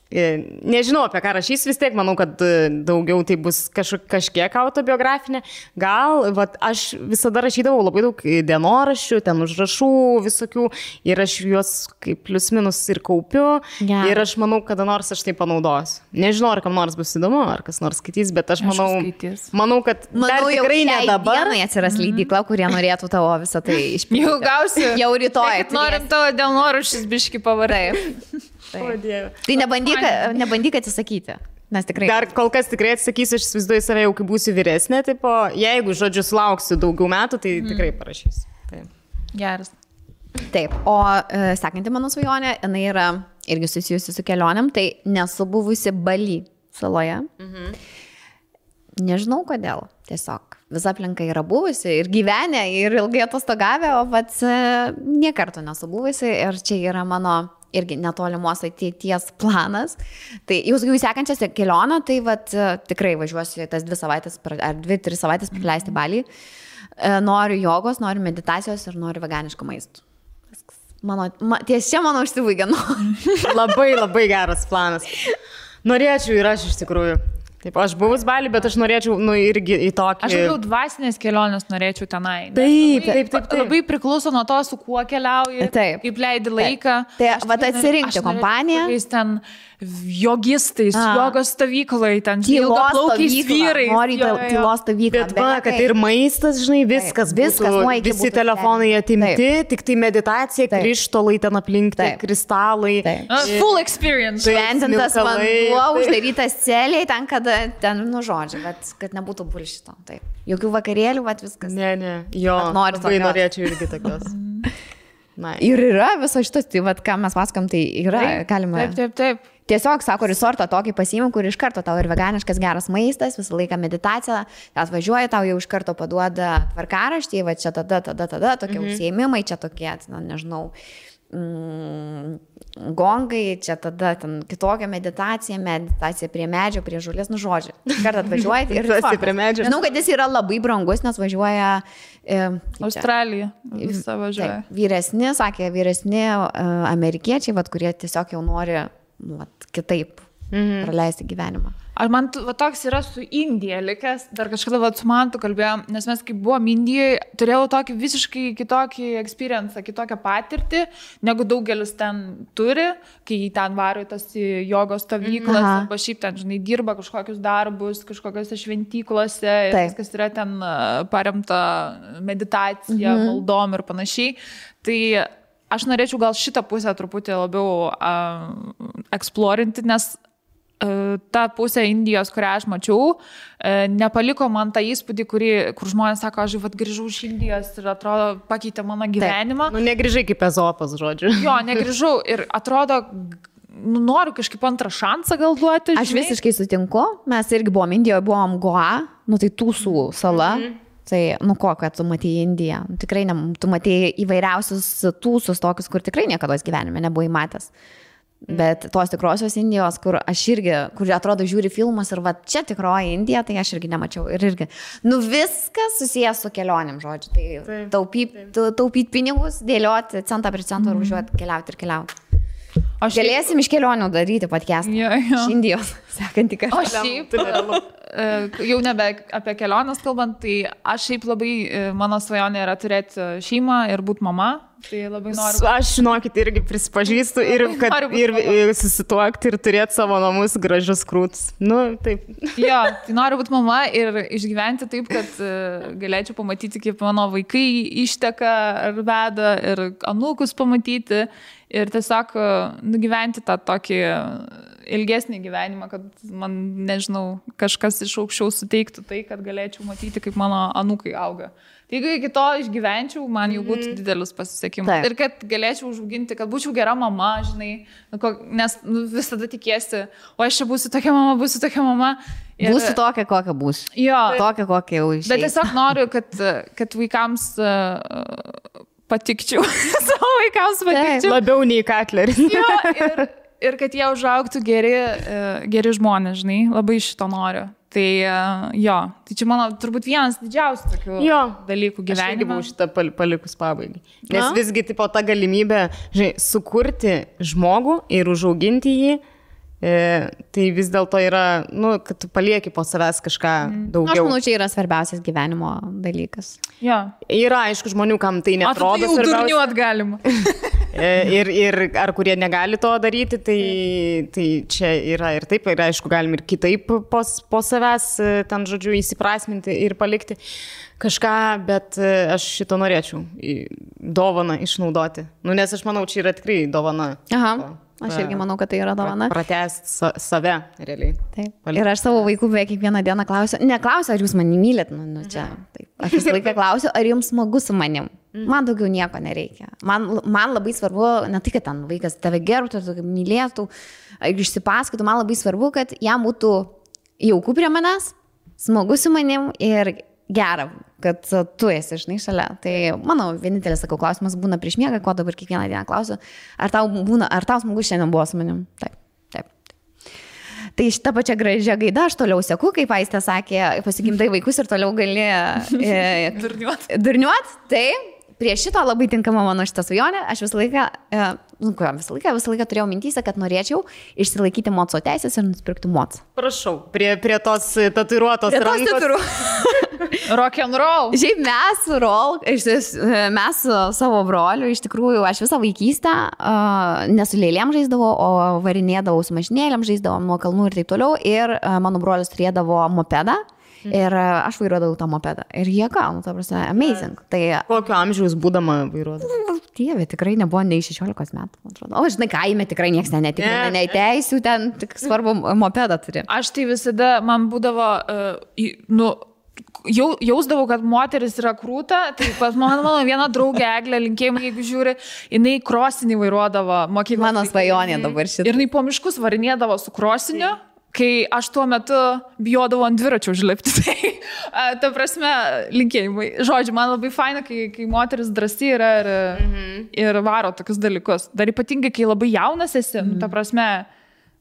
Nežinau, apie ką rašys, vis tiek manau, kad daugiau tai bus kažkiek autobiografinė. Gal, aš visada rašydavau labai daug dienoraščių, ten užrašų visokių ir aš juos kaip plius minus ir kaupiu. Ir aš manau, kada nors aš tai panaudosiu. Nežinau, ar kam nors bus įdomu, ar kas nors skaitys, bet aš manau, kad dar tikrai ne dabar. Manau, atsiras leidykla, kurie norėtų tavo visą tai išpildyti. Jau gausiu. Jau rytoj. Norim tavo dienoraščius biškį pavardai. Tai nebandyk atsisakyti. Nes tikrai... Dar kol kas tikrai atsakysiu, aš įsivaizduoju save jau, kai būsiu vyresnė, tipo, jeigu, žodžiu, sulauksiu daugiau metų, tai tikrai parašysiu. Geras. Taip, o sekanti mano svajonė, jinai yra irgi susijusi su kelionėm, tai nesu buvusi Bali saloje. Nežinau kodėl, tiesiog. Visa aplinka yra buvusi ir gyvenę, ir ilgai atostogavę, o pats niekarto nesu buvusi ir čia yra mano irgi netolimos ateities planas. Tai jau sekančias kelionę, tai tikrai važiuosiu tas 2 savaitės ar 2-3 savaitės praleisti Balį. Noriu jogos, noriu meditacijos ir noriu veganiško maisto. Ties čia mano užsibaigė. Labai geras planas. Norėčiau ir aš iš tikrųjų. Taip, aš buvus Balį, bet aš norėčiau, irgi į tokį... Aš jau dvasinės kelionės norėčiau tenai. Taip. Labai priklauso nuo to, su kuo keliauji, kaip leidi laiką. Tai atsirinkti kompaniją. Ten jogistais, jogos stovyklai, ten ilgaplaukiais vyrai. Nori tylos stovyklą. Bet kad ir maistas, žinai, viskas būtų, visi telefonai atimti, tik tai meditacija, krištolai ten aplink, kristalai. Full experience. Šventintas vanduo, uždarytas celiai, ten, žodžiu, bet kad nebūtų bullshito. Taip. Jokių vakarėlių, viskas. Ne. Jo, labai norėčiau irgi tokios. Ir yra viso šitas, tai ką mes paskam, tai yra, galima. Taip. Tiesiog, sako, resortą tokį pasiimam, kur iš karto tau ir veganiškas geras maistas, visą laiką meditacija, atvažiuoja, tau jau iš karto paduoda tvarkaraštį, čia tada, tokie užsiėmimai, čia tokie, nežinau, gongai, čia tada ten kitokia meditacija prie medžio, prie žolės, nu žodžiu. Kartą atvažiuojate ir prie medžio. Žinau, kad jis yra labai brangus, nes važiuoja Australija. Visą važiuoja. Vyresni amerikiečiai, kurie tiesiog jau nori kitaip praleisti gyvenimą. Man toks yra su Indija likęs, dar kažkada su Mantu kalbėjom, nes mes kaip buvom Indijoje, turėjau tokį visiškai kitokį experience, kitokią patirtį, negu daugelis ten turi, kai ten varo į tas jogos stovyklas, arba šiaip ten, žinai, dirba kažkokius darbus, kažkokiose šventyklose, viskas yra ten paremta meditacija, maldom ir panašiai. Tai aš norėčiau gal šitą pusę truputį labiau eksplorinti, nes ta pusė Indijos, kurią aš mačiau, nepaliko man tą įspūdį, kur žmonės sako, aš grįžau iš Indijos ir atrodo pakeitė mano gyvenimą. Nu, negrįžai kaip Ezopas, žodžiu. Jo, negrįžau ir atrodo, noriu kažkaip antrą šansą gal duoti. Aš visiškai sutinku, mes irgi buvom Indijoje, buvom Goa, tai Tūsų sala. Tai, kad tu matėjai Indiją. Tikrai tu matėjai įvairiausius tūsus tokius, kur tikrai niekada gyvenime nebuvai matęs. Bet tos tikrosios Indijos, kur atrodo žiūri filmus ir čia tikroji Indija, tai aš irgi nemačiau. Ir irgi, viskas susijęs su kelionėm, žodžiu. Tai taupyti pinigus, dėlioti centą prie centro ir važiuoti, keliauti. Galėsim iš kelionių daryti podcastą. Iš Indijos, sekantį kartą. O šiaip, jau nebe apie keliones kalbant, tai aš šiaip labai, mano svajonė yra turėti šeimą ir būti mama. Tai labai noriu. Aš, žinokit, irgi prisipažįstu ir susituokti ir turėti savo namus gražius krūtus. Taip. Jo, tai noriu būti mama ir išgyventi taip, kad galėčiau pamatyti, kaip mano vaikai išteka ar veda ir anūkus pamatyti ir tiesiog nugyventi tą tokį ilgesnį gyvenimą, kad man, nežinau, kažkas iš aukščiau suteiktų tai, kad galėčiau matyti, kaip mano anūkai auga. Tai jeigu iki to išgyvenčiau, man jau būtų didelis pasisekimas. Ir kad galėčiau užauginti, kad būčiau gera mama, žinai, nes visada tikėsi, o aš čia būsiu tokia mama. Ir... Būsiu tokia, kokia būsiu. Jo. Tokia, kokia jau išėjai. Bet tiesiog noriu, kad vaikams patikčiau. Savo vaikams patikčiau. Labiau nei Katleris. Jo, ir kad jie užaugtų geri žmonės, žinai, labai šito noriu. Tai tai čia mano turbūt vienas didžiausių tokių dalykų gyvenime. Aš irgi buvau šitą palikus pabaigai. Nes visgi ta galimybė, žinai, sukurti žmogų ir užauginti jį, tai vis dėlto yra, kad tu palieki po savęs kažką daugiau. Aš manau, čia yra svarbiausias gyvenimo dalykas. Yra, aišku, žmonių, kam tai netrodo svarbiausia. O tai jau durniuot galima. Ir ar kurie negali to daryti, tai čia yra ir taip, ir aišku, galim ir kitaip po savęs ten, žodžiu, įsiprasminti ir palikti kažką, bet aš šito norėčiau dovaną išnaudoti. Nes aš manau, čia yra tikrai dovana. Aš irgi manau, kad tai yra dovana. Pratęsti save, realiai. Taip. Ir aš savo vaikų beveik kiekvieną dieną neklausiu, ar jūs mane mylit. Čia. Taip. Aš visą laiką klausiu, ar jums smagu su manim. Man daugiau nieko nereikia. Man labai svarbu, ne tai, kad ten vaikas tave gerbtų, mylėtų, išsipasakotų, man labai svarbu, kad jam būtų jauku prie manęs, smagu su manim ir gera, kad tu esi, žinai, šalia. Tai mano vienintelis, sakau, klausimas būna prieš miegą, ko dabar kiekvieną dieną klausiu, ar tau smagu šiandien buvo su manim? Taip. Tai šitą pačią gražią gaidą aš toliau seku, kaip Aistė sakė, pasigimdai vaikus ir toliau gali durniuot. Tai prie šito labai tinkama mano šitą svajonę. Aš visą laiką turėjau mintyse, kad norėčiau išsilaikyti moco teisės ir nusipirkti mocą. Prašau, prie tos tatuiruotos rankos. Rock'n'roll. Šiaip mes su savo broliu, iš tikrųjų, aš visą vaikystę ne su lėlėm žaisdavau, o varinėdavau su mašinėlėm, žaisdavau nuo kalnų ir taip toliau. Ir mano brolis turėdavo mopedą. Ir aš vairuodavau tą mopedą. Ir jie gaunu, ta prasme, amazing. Tai... Kokio amžiaus būdama vairuodavau? Dieve, tikrai nebuvo nei 16 metų, man atrodo. O, žinai, kaime tikrai nieks netikrina, nei teisių, ten tik svarbu mopedą turi. Aš tai visada, man būdavo, jausdavau, kad moteris yra krūta, tai pas mano viena draugė Eglė, linkėjimai, jeigu žiūri, jinai krosinį vairuodavo mokyklos. Mano svajonė dabar šitą. Ir jinai po miškus varinėdavo su krosiniu. Kai aš tuo metu bijodavau ant dviračio užlipti, tai ta prasme, linkėjimai. Žodžiu, man labai faina, kai moteris drąsi yra ir ir varo tokius dalykus. Dar ypatingai, kai labai jaunas esi, ta prasme,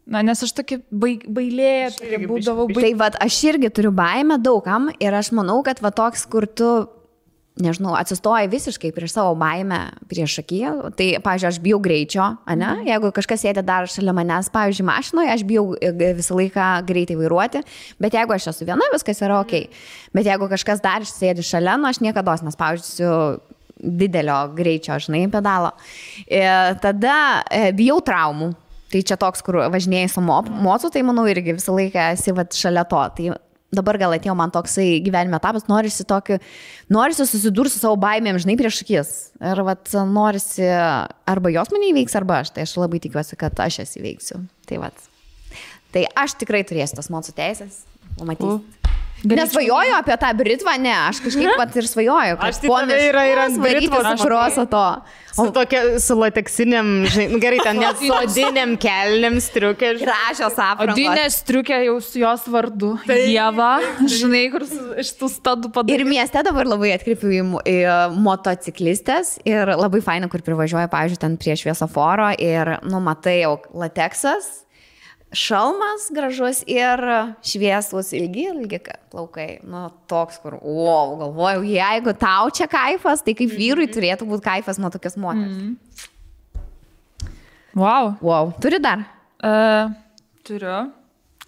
nes aš tokia bailė, būdavau bailė. Tai vat, aš irgi turiu baimę daugam ir aš manau, kad va toks, kur tu, nežinau, atsistoji visiškai prieš savo baimę prieš akį. Tai, pavyzdžiui, aš bijau greičio, ane? Jeigu kažkas sėdė dar šalia manęs, pavyzdžiui, mašinoje, aš bijau visą laiką greitai vairuoti, bet jeigu aš esu viena, viskas yra ok. Bet jeigu kažkas dar sėdi šalia, aš niekada, nes, pavyzdžiui, didelio greičio, žinai, pedalo. Tada bijau traumų. Tai čia toks, kur važinėjai su mocu, tai manau irgi visą laiką esi šalia to. Tai dabar gal atėjo man toksai gyvenime etapas, norisi susidurti su savo baimėm, žinai, prieš akis. Ir norisi, arba jos mane įveiks, arba aš. Tai aš labai tikiuosi, kad aš jas įveiksiu. Tai aš tikrai turėsiu tas mocų teisės. Pamatysiu. Nesvajoju apie tą Britvą, ne, aš kažkaip pat ir svajoju. Aš tai yra ant Britvos ašroso to. Su lateksiniam, žinai, gerai, ten net su odiniam kelniam striukė. Gražios aprangos. Odinė striukė jau su jos vardu. Ieva, žinai, kur iš tų stadų padarė. Ir mieste dabar labai atkreipiu į motociklistės ir labai faina, kur privažiuoja, pavyzdžiui, ten prie šviesoforo ir, matai jau lateksas. Šalmas gražus ir šviesus ilgi plaukai. Toks, kur, galvojau, jeigu tau čia kaifas, tai kaip vyrui turėtų būti kaifas nuo tokios moters. Wow. Turi dar? Turiu.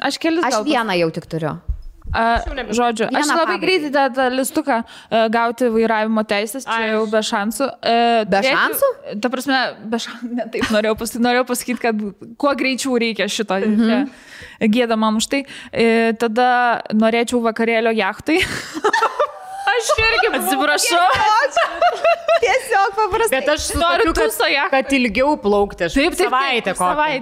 Aš vieną jau tik turiu. Žodžiu, aš labai greitai tą listuką gauti vairavimo teisės, čia jau be šansų. Be šansų? Ta prasme, be šansų, ne taip, norėjau pasakyti, kad kuo greičiau reikia šito. Gėda man už tai. Tada norėčiau vakarėlio jachtai. Aš irgi atsiprašau. Tiesiog paprastai. Bet aš noriu, kad ilgiau plaukti. Taip, savaitę.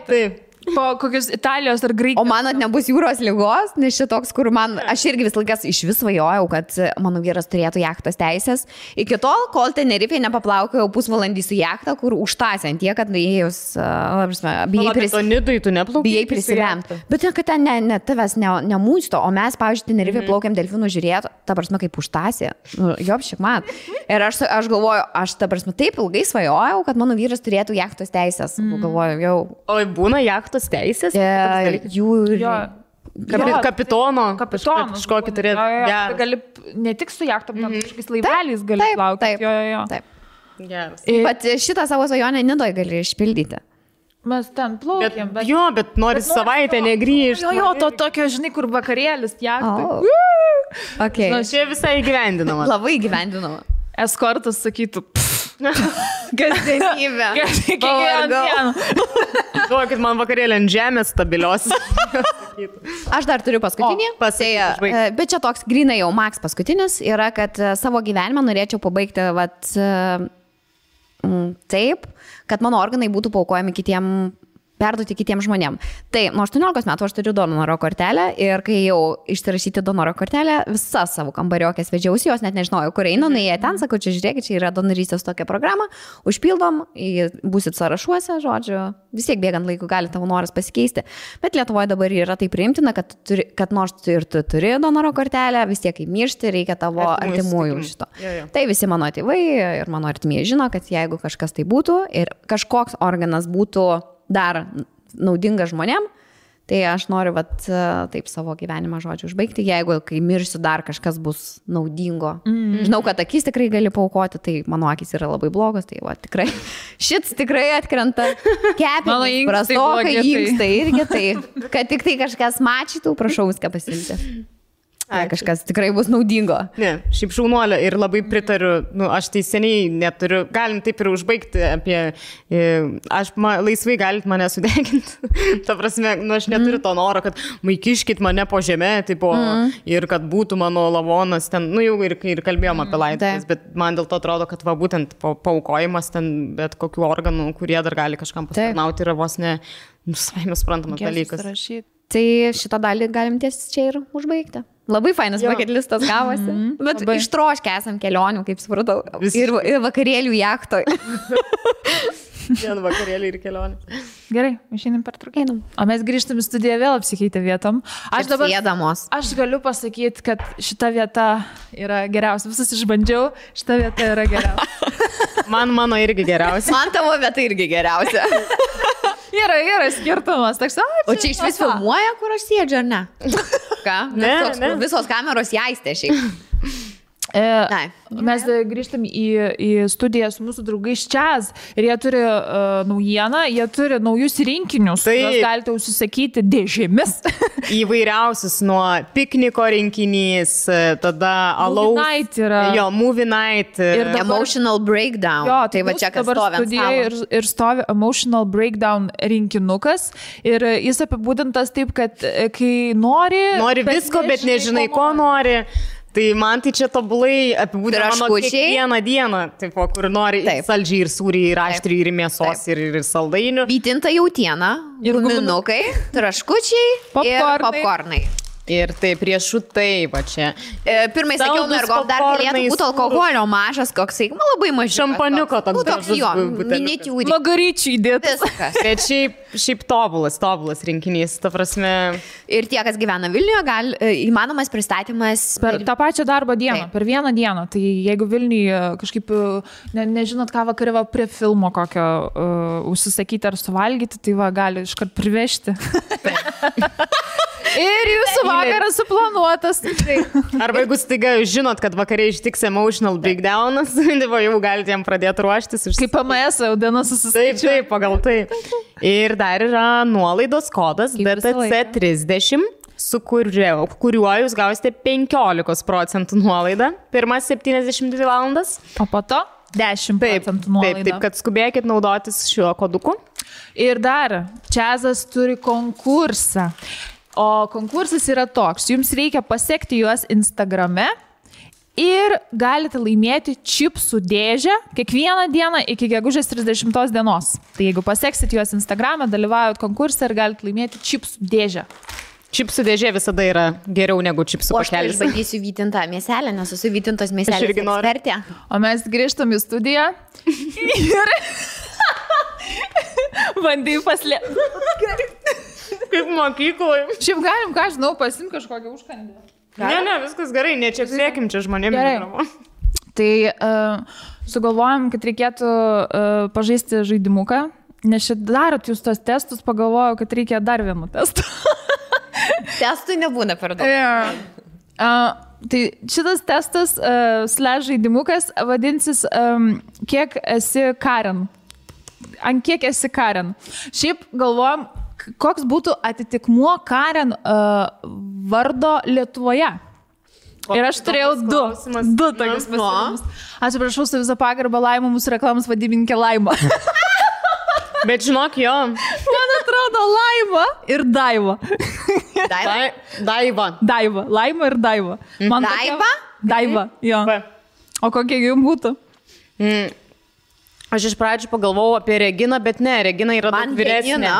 Taip. Po kokios Italijos ar Graikijos. O manot, nebus jūros lygos, nes šitoks, kur aš irgi vis laikas iš vis svajojau, kad mano vyras turėtų jachtos teisės. Iki tol, kol Tenerifėje nepaplaukėjau pusvalandį su jachta, kur užtąsiant tiek, kad nuėjus, bijai prisilemti. Bet kad ten tavęs nemūsto, o mes, pavyzdžiui, Tenerifėje plaukėm delfinų žiūrėti, ta prasme, kaip užtąsė. Jopšik man. Ir aš galvoju, aš ta prasme taip ilgai svajojau, kad mano vyras turėtų jachtos teisės. Galvoju, jau. O būna jachtos teisės? Kapitono. Kažkokį turėtų. Gali ne tik su jachtom, bet kažkokiais laiveliais gali plaukti. Taip. Bet šitą savo svajonę Nidoj gali išpildyti. Mes ten plaukėm. Bet nori savaitę negrįžti. To tokio, žinai, kur vakarėlis jachtai. Čia visai įgyvendinama. Labai įgyvendinama. Eskortas sakytų, kasdienybė. Duokit man vakarėlį ant žemės stabilios. Aš dar turiu paskutinį. Bet čia toks grinai jau Max paskutinis yra, kad savo gyvenimą norėčiau pabaigti taip, kad mano organai būtų paaukojami perduoti kitiems žmonėm. Tai nuo 18 metų aš turiu donoro kortelę ir kai jau išsirašyti donoro kortelę, visas savo kambariokės vedžiausi, jos net nežinojau, kur einu, jie ten, sakau, čia žiūrėkit, čia yra donorystės tokia programa, užpildom, būsit sąrašuose, žodžiu, vis tiek bėgant laiku gali tavo noras pasikeisti. Bet Lietuvoje dabar yra tai priimtina, kad nors ir tu turi donoro kortelę, vis tiek kaip miršti, reikia tavo artimųjų šito. Tai visi mano tėvai ir mano artimieji žino, kad jeigu kažkas tai būtų ir kažkoks organas būtų dar naudinga žmonėm, tai aš noriu taip savo gyvenimą žodžiu užbaigti, jeigu kai mirsiu dar kažkas bus naudingo. Žinau, kad akis tikrai gali paaukoti, tai mano akis yra labai blogos, tai tikrai šits tikrai atkrenta, kepenys prastokai, inkstai irgi, tai kad tik tai kažkas mačytų, prašau viską pasimti. Kažkas tikrai bus naudingo. Ne, šiaip šaunuolė ir labai pritariu, aš tai seniai neturiu, galim taip ir užbaigti apie, laisvai galit mane sudeginti. Ta prasme, aš neturiu to noro, kad maikiškit mane po žemę, ir kad būtų mano lavonas ten, jau ir kalbėjom apie laidotuvės, bet man dėl to atrodo, kad būtent paaukojimas ten bet kokių organų, kurie dar gali kažkam pasitarnauti, yra vos ne, savime suprantamas dalykas. Tai šitą dalį galim ties čia ir užbaigti. Labai fainas bucket listas gavosi. Bet ištroškę esam kelionių, kaip supratau. Ir vakarėlių jachtoj. Vien vakarėlį ir kelionė. Gerai, išeinam per trukėnam. O mes grįžtam į studiją vėl apsikeitę vietom. Aš galiu pasakyti, kad šita vieta yra geriausia. Visus išbandžiau, šita vieta yra geriausia. Mano irgi geriausia. Man tavo vieta irgi geriausia. Yra skirtumas. O čia iš vis filmuoja, kur aš sėdžiu, ar ne? Ką? Ne. Visos kameros jaistė šiaip. Mes grįžtam į studiją su mūsų draugais Čiaz ir jie turi naujieną, jie turi naujus rinkinius, kuriuos galite užsisakyti dėžėmis. Įvairiausius, nuo pikniko rinkinys, tada alaus. Movie night yra. Jo, movie night. Ir emotional breakdown. Jo, tai va čia kas stovi ant stalo. Ir stovi emotional breakdown rinkinukas ir jis apibūdintas taip, kad kai nori visko, bet nežinai, ko nori. Tai man tai čia tobulai apibūdina mano kiekvieną dieną, taip, kur nori saldžiai ir sūriai, ir aštriai, ir mėsos, ir saldainių. Vytinta jautiena, guminukai, traškučiai ir popkornai. Ir taip, riešutai, va čia. Pirmai sakiau, mergo, dar galėtų būti alkoholio mažas, koksai, labai mažas. Šampaniuko toks gražus. Miniatiūrinis. Magaryčių įdėtas. Bet šiaip tobulas rinkinys, ta prasme. Ir tie, kas gyvena Vilniuje, įmanomas pristatymas. Per tą pačią darbo dieną, per vieną dieną. Tai jeigu Vilniuje kažkaip, nežinot ką vakarė prie filmo kokio užsisakyti ar suvalgyti, tai va, gali iškart privežti. Ir jūsų vakaras suplanuotas. Arba jeigu staiga žinot, kad vakariai ištiks emotional breakdownas, jau galite jam pradėti ruoštis. Kaip PMS, jau dienos susiskaičiuoja. Taip, pagal tai. Ir dar yra nuolaidos kodas DTC30, su kuriuo jūs gausite 15% nuolaidą pirmas 72 valandas. O po to 10% nuolaidą. Taip, kad skubėkit naudotis šiuo koduku. Ir dar, Čiazas turi konkursą. O konkursas yra toks, jums reikia pasekti juos Instagrame ir galite laimėti čipsų dėžę kiekvieną dieną iki gegužės 30 dienos. Tai jeigu paseksit juos Instagrame, dalyvaujat konkursą ir galite laimėti čipsų dėžę. Čipsų dėžė visada yra geriau negu čipsų pakelis. O aš bandysiu vytintą mėselę, nes esu vytintos mėselės ekspertė. O mes grįžtam į studiją ir bandai paslėpti. Kaip mokykloje. Šiaip galim, ką žinau, pasim kažkokią užkandę. Ne, viskas gerai, nečiaksėkim čia žmonėmis. Tai sugalvojom, kad reikėtų pažaisti žaidimuką, nes čia darot jūs tos testus, pagalvojau, kad reikia dar vienų testų. Testų nebūna per daug. Tai šitas testas / žaidimukas vadinsis kiek esi Karen. Ant kiek esi Karen. Šiaip galvojom, koks būtų atitikmuo Karen vardo Lietuvoje. Ir aš turėjau du tokius pasiūlymus. Atsiprašau, su visą pagarbą Laima, mūsų reklamos vadybininkė Laima. Bet žinok, jo. Man atrodo Laima ir Daiva. Daiva. Laima ir Daiva. Daiva? Daiva, jo. O kokie jums būtų? Aš iš pradžių pagalvojau apie Reginą, bet ne, Regina yra daug vyresnė.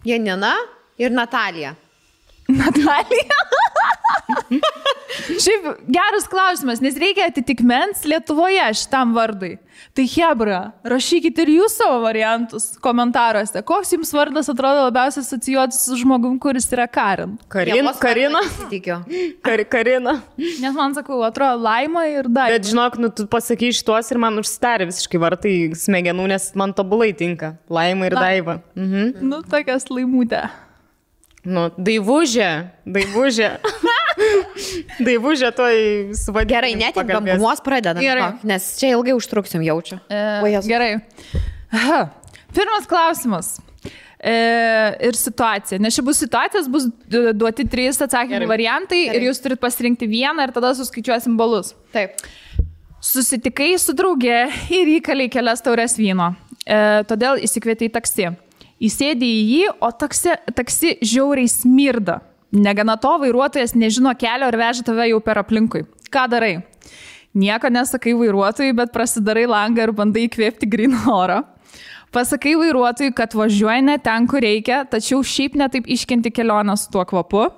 Janina ir Natalija. Natalija? Šiaip geras klausimas, nes reikia atitikmens Lietuvoje šitam vardui. Tai hebra, rašykit ir jūs savo variantus komentaruose. Koks jums vardas atrodo labiausiai asocijuotis su žmogum, kuris yra Karen? Karina? Karina. Nes man sakau, atrodo Laima ir Daiva. Bet žinok, tu pasakai šitos ir man užsidarė visiškai vartai smegenų, nes man tobulai tinka. Laima ir Daiva. Nu, tokias laimutė. Nu, Daivužė. Daivužė toj suvadinti. Gerai, net ir bambumos pradedam, nes čia ilgai užtruksim, jaučiu. Gerai. Pirmas klausimas. Ir situacija. Nes čia bus situacijos, bus duoti 3 atsakymų variantai ir jūs turit pasirinkti vieną ir tada suskaičiuosim balus. Taip. Susitikai su drauge ir įkalei kelias taures vyno. Todėl įsikvietei taksi. Įsėdė į jį, o taksi žiauriai smirda. Negana to, vairuotojas nežino kelio ir veža tave jau per aplinkui. Ką darai? Nieko nesakai vairuotojui, bet prasidarai langą ir bandai įkvėpti gryną orą. Pasakai vairuotojui, kad važiuoji ne ten, kur reikia, tačiau šiaip netaip iškenti kelionę su tuo kvapu.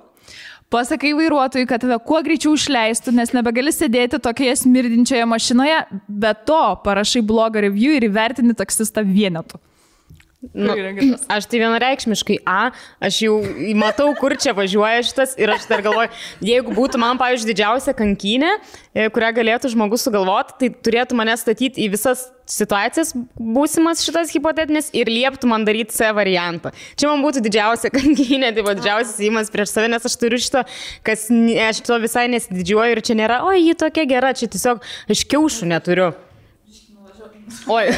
Pasakai vairuotojui, kad tave kuo greičiau išleistų, nes nebegali sėdėti tokioje smirdinčioje mašinoje, bet to parašai blogą review ir įvertini taksistą vienetu. Aš tai vienareikšmiškai aš jau matau, kur čia važiuoja šitas ir aš dar galvoju, jeigu būtų man, pavyzdžiui, didžiausia kankynė, kurią galėtų žmogus sugalvoti, tai turėtų mane statyti į visas situacijas būsimas šitas hipotetinis ir lieptų man daryti C variantą. Čia man būtų didžiausia kankynė, tai buvo didžiausias įimas prieš save, nes aš turiu šito, aš to visai nesididžiuoju ir čia nėra, ji tokia gera, čia tiesiog aš kiaušų neturiu. Oi,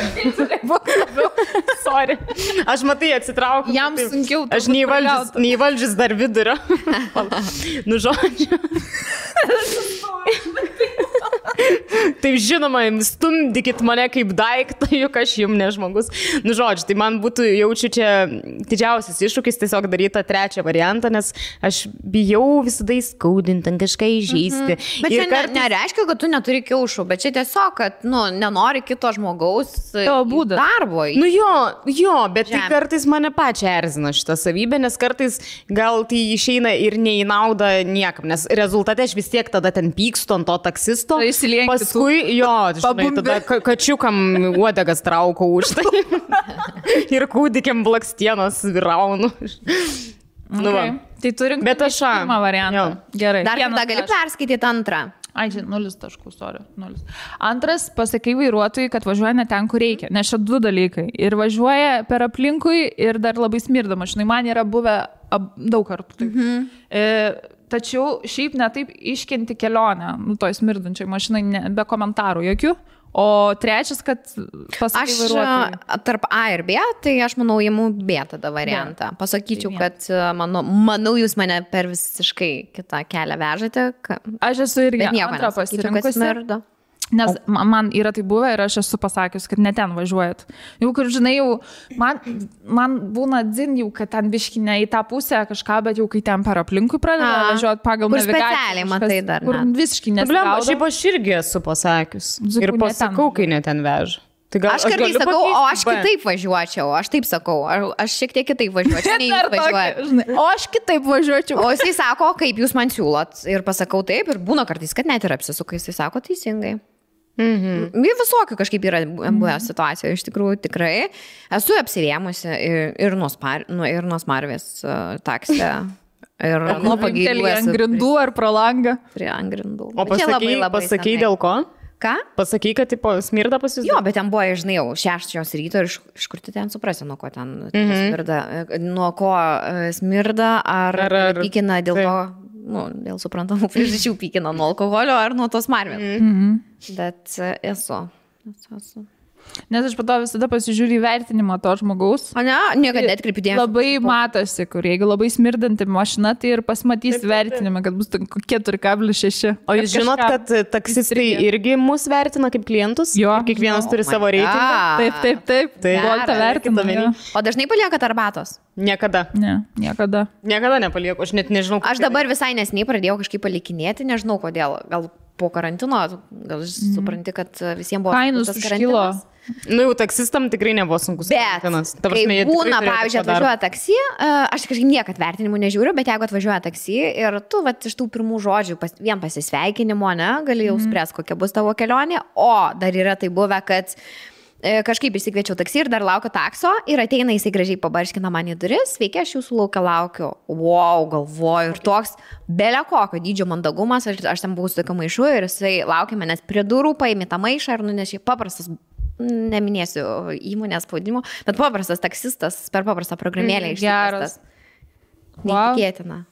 sorry. Aš matai atsitraukiu. Jam sunkiau. Aš neįvaldžius dar vidurio. Nu, žodžiu. Taip žinoma, stumdykit mane kaip daiktą, juk aš jums ne žmogus. Nu, žodžiu, tai man būtų, jaučiu čia didžiausias iššūkis tiesiog daryti tą trečią variantą, nes aš bijau visada įskaudinti, kažką įžeisti. Bet čia nereiškia, kad tu neturi kiaušų, bet čia tiesiog, kad, nenori kito žmogaus darbo. Nu jo, bet tai kartais mane pačią erzina šitą savybę, nes kartais gal tai išeina ir ne į naudą niekam, nes rezultate aš vis tiek tada ten pykstu ant to taksisto. Paskui, žinai, tada kačiukam uodegas traukau už tai ir kūdikiam blakstienos viraunu. Okay. Tai turim pirmą variantą. Gerai. Dar tada gali perskaityti antrą. Ai, 0 taškų, sorry. 0. Antras, pasakai vairuotojui, kad važiuoja ne ten, kur reikia. Nes čia 2 dalykai. Ir važiuoja per aplinkui ir dar labai smirda mašinai. Man yra buvę daug kartų. Taip. Tačiau šiaip netaip iškenti kelionę, toj smirdančiai mašinai, be komentarų jokių. O trečias, kad pasakai vairuotojui. Tarp A ir B, tai aš manau, imu B tada variantą. Pasakyčiau, kad manau, jūs mane per visiškai kitą kelią vežate. Aš esu irgi antrą pasirinkusi. Nes man yra tai buvę ir aš esu pasakius, kad ne ten važiuojat. Jau, kur žinai, jau man būna dzin jau, kad ten biški ne į tą pusę kažką, bet jau kai ten per aplinkui pradeda važiuoti pagal navigaciją. Kur specialiai matai dar. Kur visiškai nesigaudo. Šiaip aš irgi esu pasakius. Ir pasakau, kai ne ten veža. Aš kartais sakau, o aš kitaip važiuočiau, aš taip sakau, aš šiek tiek kitaip važiuočiau, nei jūs važiuojate. O aš kitaip važiuočiau. O jisai sako, kaip jūs man siūlot ir pasakau taip ir būna kartais, kad net ir apsisuka, jisai sako teisingai. Visokių kažkaip yra buvę situacijų, iš tikrųjų tikrai. Esu apsivėmusi ir nuo smarvės taksė. Ir nuo pagėlių. Ant grindų ar pro langą? Prie ant grindų. O pasakai dėl ko? Ką? Pasakai, kad smirda pas jūs? Jo, bet ten buvo, žinai, jau 6 ryto ir iš kur tu ten suprasi, nuo ko ten smirda. Nuo ko smirda, ar pykina dėl to, dėl suprantamų priežasčių pykina nuo alkoholio ar nuo tos smarvės. Bet esu. Nes aš po to visada pasižiūriu įvertinimą to žmogaus. O ne, niekada atkreipiu dėmesį. Labai matosi, kur jeigu labai smirdanti mašina, tai ir pasimatys vertinimą, kad bus 4,6. O jūs žinot, kad taksistai irgi mus vertina kaip klientus? Jo. Kiekvienas turi savo reitingą? Taip. Boltą vertina. O dažnai paliekat arbatos? Niekada. Ne, niekada. Niekada nepalieku, aš net nežinau. Aš dabar visai nesniai pradėjau kažkaip palikinėti, nežinau kodėl. Gal po karantino, gal supranti, kad visiems buvo kainus užkilo. Jau taksistam tikrai nebuvo sunkus. Bet, kai būna, pavyzdžiui, atvažiuoja taksi, aš kažkaip niekad vertinimų nežiūriu, bet jeigu atvažiuoja taksi ir tu iš tų pirmų žodžių vien pasisveikinimo, gali jau spręs, kokia bus tavo kelionė, o dar yra tai buvę, kad kažkaip išsikviečiau taksi ir dar laukiu takso ir ateina jisai gražiai pabarškina man į duris, sveiki, aš jūsų laukiu. Wow, galvoju, ir toks belė kokio dydžio mandagumas, aš ten buvau su tokiu maišu ir jisai laukia manęs prie durų, paėmė tą maišą ir nunešė paprastas, neminėsiu įmonės spaudimo, bet paprastas taksistas per paprastą programėlę išsikviestas. Neįtikėtina.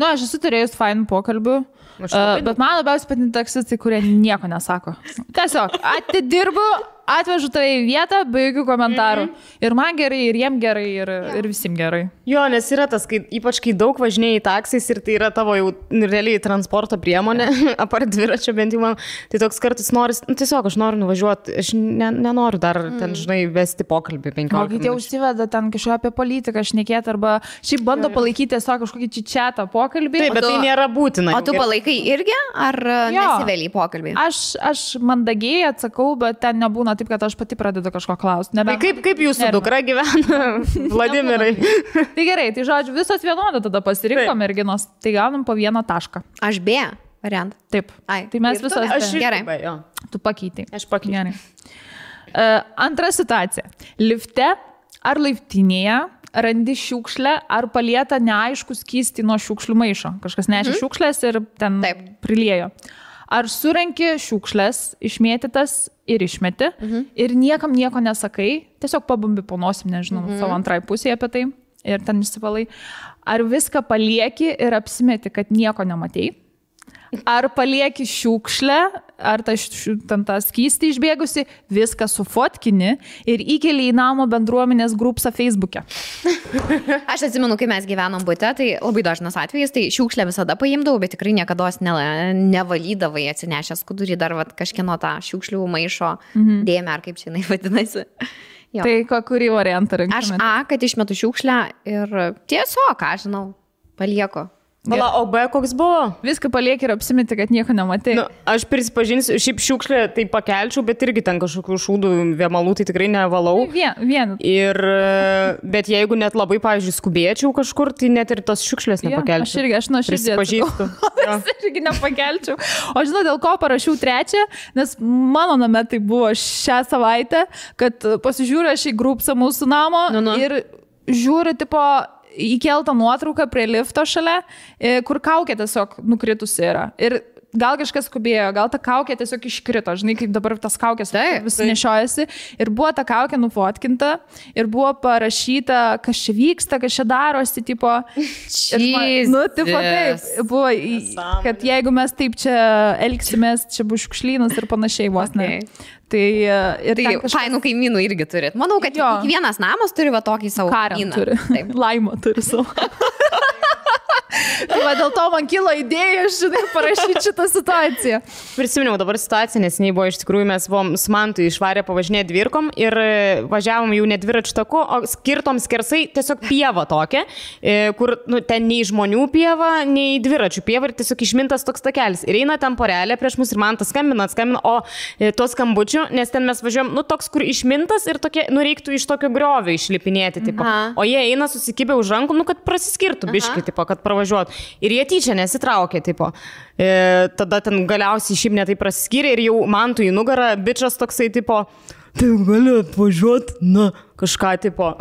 Aš esu turėjus fainų pokalbių, bet man labiausiai patinka taksistai, kurie nieko nesako. Tiesiog atidirbu, atvežu tai į vietą, be jokių komentarų. Ir man gerai, ir jiem gerai, ir visiems gerai. Jo, nes yra tas, ypač kai daug važinėjai taksais ir tai yra tavo jau realiai transporto priemonė, apart dviračio bent jau man, tai toks kartais noris, tiesiog aš noriu nuvažiuoti, aš nenoriu dar ten, žinai, vesti pokalbį 15 minučių. O kai tie užsiveda ten kažką apie politiką šnekėti arba šiaip bando palaikyti tiesiog kažkokį čičiatą pokalbį. Taip, bet tai nėra būtina. O tu palaikai irgi, ar nesiveli į pokalbį? Aš mandagiai atsakau, bet ten nebūna taip, kad aš pati pradedu kažko klausti. Tai kaip jūsų dukra gyvena, Vladimirai? Tai gerai, tai žodžiu, visos vienodą tada pasirinko merginos, tai gaunam po 1 tašką. Aš B variantą. Taip. Tai mes visos gerai. Tu pakeitai. Aš pakeičiau. Antra situacija. Lifte ar laiptinėje randi šiukšlę, ar palieta neaišku skystį nuo šiukšlių maišo. Kažkas nešė šiukšlės ir ten priliejo. Ar surenki šiukšlės, išmėtytas ir išmeti, ir niekam nieko nesakai, tiesiog pabumbi po nosim, nežinau, savo antrai pusėje apie tai, ir ten išsivalai. Ar viską palieki ir apsimeti, kad nieko nematei? Ar palieki šiukšlę, ar tą skystį išbėgusi, viską sufotkini ir įkeli į namo bendruomenės grupsą Facebook'e. Aš atsimenu, kai mes gyvenom bute, tai labai dažnas atvejis, tai šiukšlę visada paimdavau, bet tikrai niekada nevalydavai atsinešęs skudurį dar kažkieno tą šiukšlių maišo dėmę, ar kaip čia jinai vadinasi. Jo. Tai kurį variantą rinktumėte? Aš kad išmetu šiukšlę ir tiesiog, ką žinau, palieku. Vala, o B koks buvo? Viską palieki ir apsimeti, kad nieko nematai. Nu, aš prisipažinsiu, šiaip šiukšlę tai pakelčiau, bet irgi ten kažkokių šūdų vėmalų tai tikrai nevalau. Vien. Ir, bet jeigu net labai, pavyzdžiui, skubėčiau kažkur, tai net ir tos šiukšlės nepakelčiau. Aš nuoširdžiai prisipažįstu. Aš irgi nepakelčiau. O žinau, dėl ko parašiau 3, nes mano name tai buvo šią savaitę, kad pasižiūrė šį grupsą mūsų namo ir žiūri, tipo, įkeltą nuotrauką prie lifto šalia, kur kaukė tiesiog nukritusi yra. Ir gal kažkas skubėjo, gal ta kaukė tiesiog iškrito, žinai, kaip dabar tas kaukės vis nešiojasi. Ir buvo ta kaukė nufotkinta ir buvo parašyta, kas čia vyksta, kas čia darosi, tipo. Tipo taip, buvo, kad jeigu mes taip čia elgsimės, čia bus šiukšlynas ir panašiai vos ne. Tai fainų kaimynų irgi turit. Manau, kad kiekvienas namas turi va tokį savo kaimyną. Laimo turi savo. Tai va, dėl to man kilo idėja, žinai, parašyti šitą situaciją. Prisiminiau dabar situaciją, nes buvo iš tikrųjų, mes buvom su Mantu išvarę pavažinėti dvirkom ir važiavom jau ne dviračių taku, o skirtom skersai tiesiog pieva tokia, kur ten nei žmonių pieva, nei dviračių pieva ir tiesiog išmintas toks takelis. Ir eina ten porelė prieš mus ir Mantas skambina, o to skambučių, nes ten mes važiuojam, toks, kur išmintas ir tokie, reiktų iš tokio griovio išlipinėti, tipo. O jie eina susikibę už rankų, kad prasiskirtų biškį, tipo, kad pravažiuotų. Ir jie tyčia nesitraukė, tipo. Tada ten galiausiai šiaip netai prasiskyrė ir jau Mantui į nugarą bičas toksai, tipo, tai gali atvažiuoti, kažką, tipo.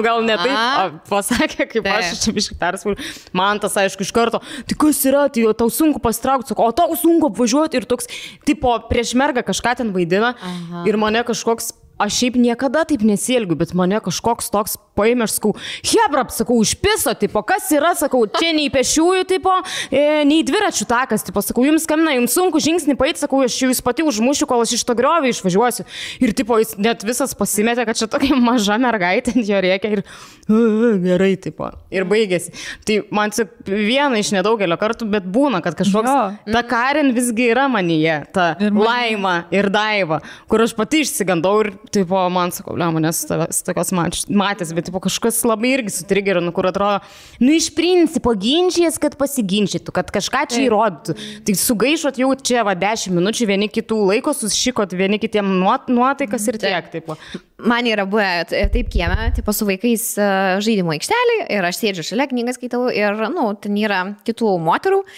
Gal ne taip, pasakė, kaip aš čia biškai perspūliu. Mantas, aišku, iš karto, tai kas yra, tai tau sunku pasitraukti, sako, o tau sunku apvažiuoti ir toks, tipo, prieš mergą kažką ten vaidina ir mane kažkoks. Aš šiaip niekada taip nesielgiu, bet mane kažkoks toks paėmė, aš sakau, hebrap, sakau, išpiso, tipo, kas yra, sakau, čia nei pešiųjų, tipo, nei dviračių takas, tipo, sakau, jums skambina, jums sunku žingsnį paeiti, sakau, aš jūs pati užmušiu, kol aš iš to griovio išvažiuosiu. Ir, tipo, jis net visas pasimetė, kad čia tokia maža mergaitė ant jo rėkia ir gerai, tipo, ir baigėsi. Tai man tik viena iš nedaugelio kartų, bet būna, kad kažkoks, ta Karen visgi yra manyje, ta Laima ir Daiva, kur aš pati išsigandau ir tipo, man sakau, manęs tokios matęs, bet tipo, kažkas labai irgi sutrigerino, kur atrodo, iš principo ginčijas, kad pasiginčytų, kad kažką čia įrodytų. Tai sugaišot jau čia 10 minučių, vieni kitų laiko, susišikot vieni kitiem nuotaikas ir tiek. Tipo. Man yra buvę taip kieme, tipo, su vaikais žaidimo aikštelį ir aš sėdžiu šalia, knygas skaitau ir, ten yra kitų moterų.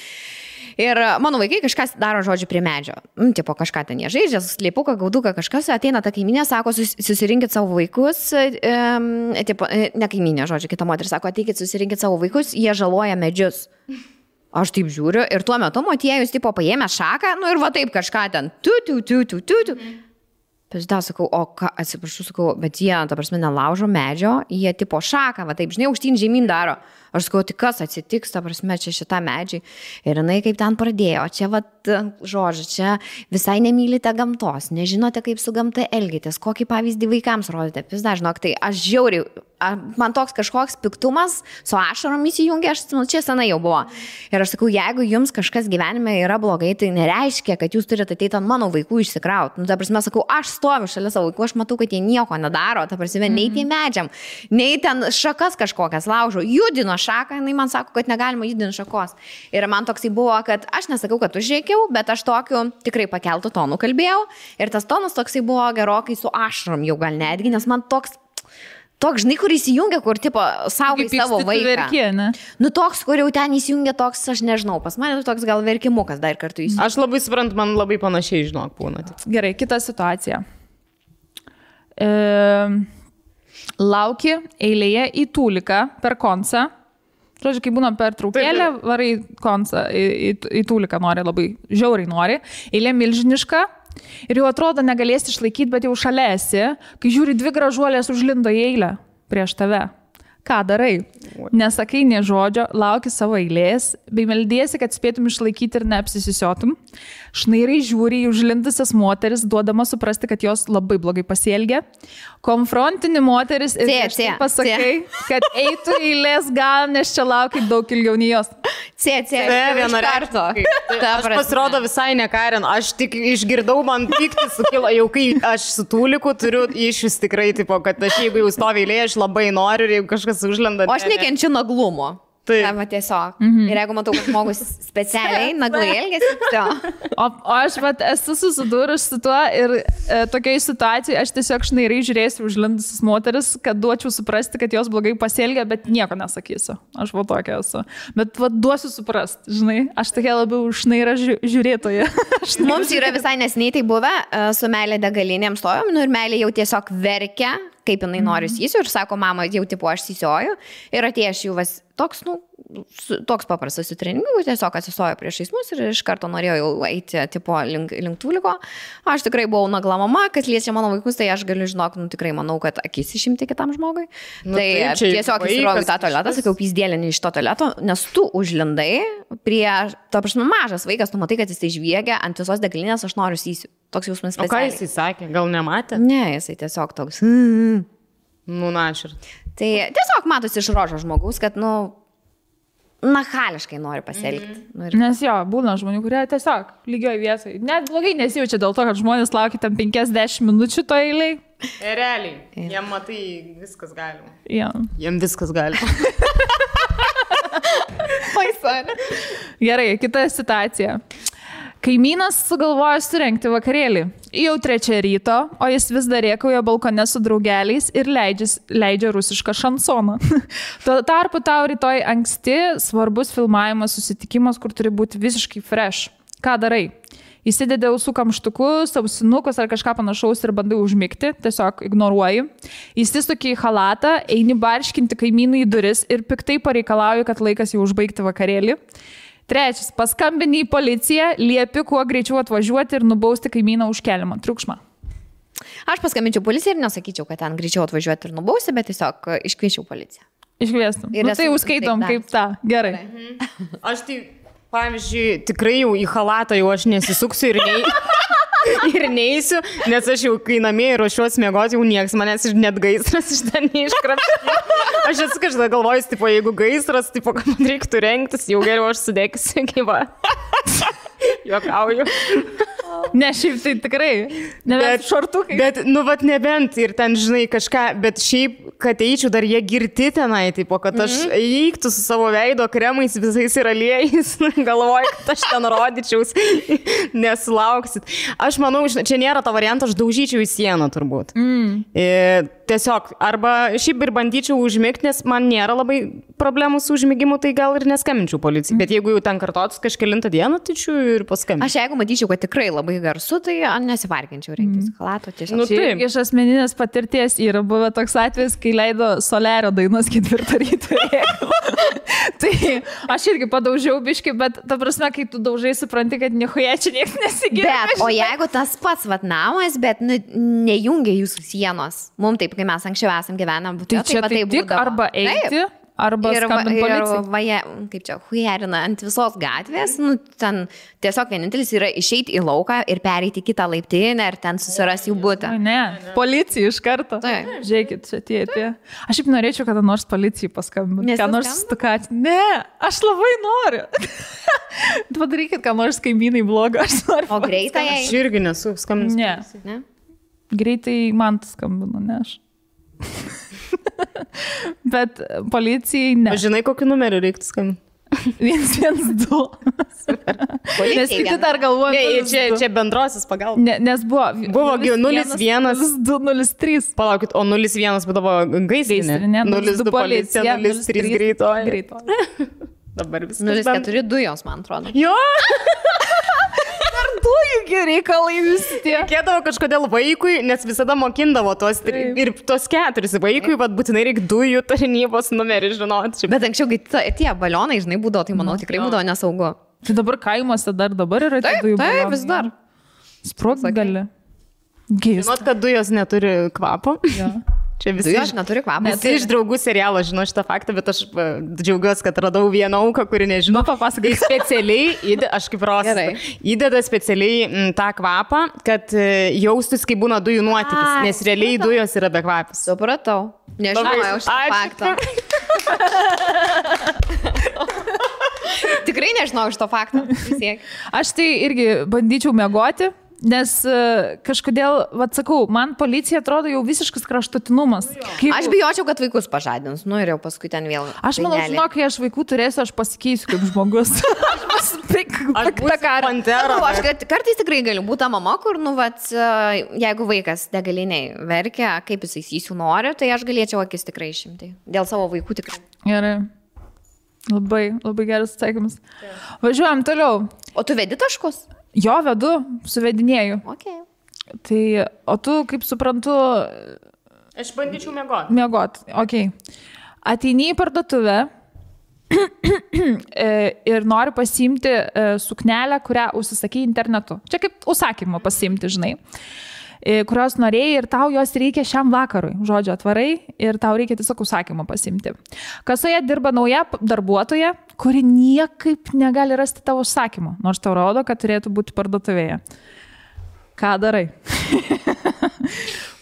Ir mano vaikai kažkas daro, žodžiu, prie medžio. Tipo, kažką ten jie žaidžia, slėpuką, gauduką, kažkas, ateina ta kaiminė, sako, susirinkit savo vaikus, tipo, ne kaiminė, žodžiu, kita moteris sako, ateikit, susirinkit savo vaikus, jie žaloja medžius. Aš taip žiūriu ir tuo metu motiejus, tipo, paėmė šaką, ir va taip kažką ten, tu. Pažiūrėjau, sakau, o ką, atsiprašau, sakau, bet jie, ta prasme, nelaužo medžio, jie tipo šaką, va taip, žinai, aukštyn žemyn daro. Aš sakau, tai kas atsitiks, ta prasme, čia šitą medžiai. Ir jinai kaip ten pradėjo, čia, va, žodžiu, čia visai nemylite gamtos, nežinote, kaip su gamta elgitės, kokį pavyzdį vaikams rodite. Vis dažnok, tai aš žiauriai, man toks kažkoks piktumas su ašarom įsijungia, čia senai jau buvo. Ir aš sakau, jeigu jums kažkas gyvenime yra blogai, tai nereiškia, kad jūs turite ateiti ant mano vaikų išsikrauti. Ta prasme, sakau, aš stoviu šalia savo vaikų, aš matau, kad jie nieko nedaro, ta prasme, nei tie medžiam, nei ten šakas kažkokias laužo, judino šaką, jinai man sako, kad negalima judinti šakos. Ir man toksai buvo, kad aš nesakau, kad užrėkiau, bet aš tokiu tikrai pakeltų tonų kalbėjau. Ir tas tonas toksai buvo gerokai su ašarom jau gal netgi, nes man toks, žinai, kur įsijungia, kur, tipo, saugai savo vaiką. Verkė, ne? Toks, kur jau ten įsijungia toks, aš nežinau, pas mane toks gal verkimukas dar kartu įsijungia. Aš labai suprantu, man labai panašiai, žinok, būna. Gerai, kita situacija. Lauki eilėje į Tūliką per koncą. Žodžiu, kai būna per traukėlę, varai koncą, į Tūliką nori, labai žiauriai nori. Eilė milžiniška ir jau atrodo negalėsi išlaikyti, bet jau šalia esi, kai žiūri 2 gražuolės užlindo į eilę prieš tave. Ką darai? Nesakai nė žodžio, lauki savo eilės, bei meldiesi, kad spėtum išlaikyti ir neapsisisiotum. Šnairai žiūri į užlindusias moteris, duodama suprasti, kad jos labai blogai pasielgia. Konfrontini moteris ir pasakai, kad eitų eilės gal, nes čia lauki daug ilgiau nei jos. Vieną kartą. Aš pasirodo visai nekarin, aš tik išgirdau, man pykti sukilo, jau kai aš su Tūliku turiu išvis tikrai, tipo, kad aš jeigu jau stovi eilėje, aš labai noriu ir jeigu kažkas užlenda. O aš nekenčiu naglumo. Taip. Tiesiog. Ir jeigu matau, kad žmogus specialiai naglai elgesi, tai. O aš esu susidūrus su tuo ir tokiai situacijai aš tiesiog šnairai žiūrėsiu užlindusias moteris, kad duočiau suprasti, kad jos blogai pasielgia, bet nieko nesakysiu. Aš tokia esu. Bet duosiu suprasti, žinai, aš tokia labiau šnaira žiūrėtoja. Mums yra visai nesiniai tai buvę, su meilė degalinėm stojom, ir meilė jau tiesiog verkia, kaip jinai nori sysiu ir sako, mama, jau tipo aš sysioju ir atėjęs jau toks paprastas su treningu, tiesiog atsistojo priešais mus ir iš karto norėjo jau eiti tipo link Tūliko. Aš tikrai buvau nagla mama, kas liečia mano vaikus, tai aš galiu žinok, tikrai manau, kad akis išimti kitam žmogui. Tai tiesiog įsiroviu tą tualetą, sakiau, pyzdėlinį iš to tualeto, nes tu užlindai prie, ta prasme, mažas vaikas, tu matai, kad jis tai žviegia ant visos degalinės, aš noriu sysiu. Toks jausmas specialiai. O ką jisai sakė? Gal nematė? Ne, jisai tiesiog toks. Našir. Tai tiesiog matosi iš rožo žmogus, kad, nachališkai nori pasielgti. Nes jo, būna žmonių, kurie tiesiog lygioj vietoj. Net blogai nesijaučia dėl to, kad žmonės laukia tam 50 minučių to eiliai. Realiai. Jiem matai viskas galima. Ja. Jiem viskas galima. Gerai, kita situacija. Kaimynas sugalvojo surengti vakarėlį. Jau 3 ryto, o jis vis dar rėkauja balkone su draugeliais ir leidžia rusišką šansoną. Tuo tarpu tau rytoj anksti svarbus filmavimas, susitikimas, kur turi būti visiškai fresh. Ką darai? Įsidedi ausų kamštukus, ausinukus ar kažką panašaus ir bandai užmigti, tiesiog ignoruoji. Įsisuki į halatą, eini barškinti kaimynų į duris ir piktai pareikalauji, kad laikas jau užbaigti vakarėlį. 3. Paskambini į policiją, liepi kuo greičiau atvažiuoti ir nubausti kaimyną už keliamą triukšmą. Aš paskambinčiau policiją ir nesakyčiau, kad ten greičiau atvažiuoti ir nubausti, bet tiesiog iškviečiau policiją. Iškviestum. Tai jau skaitom kaip tą. Gerai. Aš tai, pavyzdžiui, tikrai jau į halatą jau aš nesisuksiu ir neįsiu, nes aš jau kai namie ruošiuosi miegoti, jau nieks manęs net gaisras iš ten neiškrapštė. Aš esu kažką galvojus, tipo, jeigu gaisras, tipo, kad man reiktų rengtis, jau geriau aš sudegsiu, gyva. Juokauju. Ne, šiaip tai tikrai. Nebent šortukai. Bet, nebent ir ten, žinai, kažką, bet šiaip, kad eičiau, dar jie girti tenai, tipo, kad aš eiktų su savo veido kremais visais ir aliejais, galvoju, kad aš ten rodyčiaus, nesulauksit. Aš manau, čia nėra to varianto, aš daužyčiau į sieną turbūt. Tiesiog, arba šiaip ir bandyčiau užmigti, nes man nėra labai problemų su užmigimu, tai gal ir neskambinčiau policijai. Bet jeigu jau ten kartotus kažkelintą dieną, tai čia ir paskambinčiau. Aš jeigu matyčiau, kad tikrai labai garsu, tai nesivarginčiau rengtis halato tiesiog. Taip. Iš asmeninės patirties yra buvę toks atvejis, kai leido Solerio dainos 4 ryto. Tai aš irgi padaužiau biškį, bet ta prasme, kai tu daužai, supranti, kad nichuja čia niekas nesigirdi. Bet, o jeigu tas pats namas, bet nejungia jūsų sienos, mums taip, kai mes anksčiau esam gyvenę, tai čia tai tik arba eiti, arba skambinti policijai. Kaip čia, hujerina ant visos gatvės, ten tiesiog vienintelis yra išeiti į lauką ir pereiti kitą laiptinę ir ten susirasti jų butą. Ne, policija iš karto. Žiūrėkit, čia tie. Aš šiaip norėčiau, kada nors policijai paskambinti. Ką nors stukati. Ne, aš labai noriu. Padarykit, ką nors kaimynai blogo, aš noriu. O greitai? Aš irgi nesu skambinęs. Ne. Greitai man skambinu, ne aš. Bet policijai ne. Žinai, kokį numerį reiktų skambinti? 112. Nes kiti dar galvoja. Čia bendrosios pagalbos. Nes buvo 01. 0203. Palaukit, o 01 būdavo gaisrinė. 02 policija, 03 greitoji. Dabar viskas. 04 dujos, man atrodo. Jo! dujų reikalai visi tie. Reikėdavo kažkodėl vaikui, nes visada mokindavo tos ir tos 4 vaikui, bet būtinai reikia dujų tarnybos numerį žinoti. Bet anksčiau, kai tie balionai, žinai, būdavo, tai manau tikrai būdavo nesaugu. Tai dabar kaimuose dabar yra tie dujų balionai. Taip, vis dar. Sprogti gali. Žinot, kad dujos neturi kvapo? Ja. Čia visi Dujos neturi kvapo. Visi iš draugų serialo žino šitą faktą, bet aš džiaugiuosi, kad radau vieną auką, kuri nežino. Papasakai. Specialiai, aš kaip rosą, įdeda specialiai tą kvapą, kad jaustus, kai būna dujų nuotykis, nes realiai dujos yra be kvapis. Supratau. Nežinojau šitą faktą. Tikrai nežinau šito fakto. Aš tai irgi bandyčiau miegoti, nes kažkodėl, sakau, man policija atrodo jau visiškas kraštutinumas. Aš bijočiau, kad vaikus pažadins, ir jau paskui ten vėl. Aš manau, žinau, kai aš vaikų turėsiu, aš pasikeisiu kaip žmogus. Aš kartais tikrai galiu būti mama, kur, jeigu vaikas degaliniai verkia, kaip jis įsiisiu nori, tai aš galėčiau akis tikrai išimti. Dėl savo vaikų tikrai. Gerai. Labai, labai geras atsakymas. Važiuojam toliau. O tu vedi taškus? Jo, vedu, suvedinėju. Okay. Tai, o tu, kaip suprantu... Aš bandyčiau miegoti. Miegoti, okei. Ateini į parduotuvę ir nori pasiimti suknelę, kurią užsisakai internetu. Čia kaip užsakymą pasiimti, žinai. Kurios norėjai ir tau jos reikia šiam vakarui. Žodžiu, atvarai ir tau reikia tiesiog užsakymą pasimti. Kasoje dirba nauja darbuotoja, kuri niekaip negali rasti tavo užsakymą, nors tau rodo, kad turėtų būti parduotuvėje. Ką darai?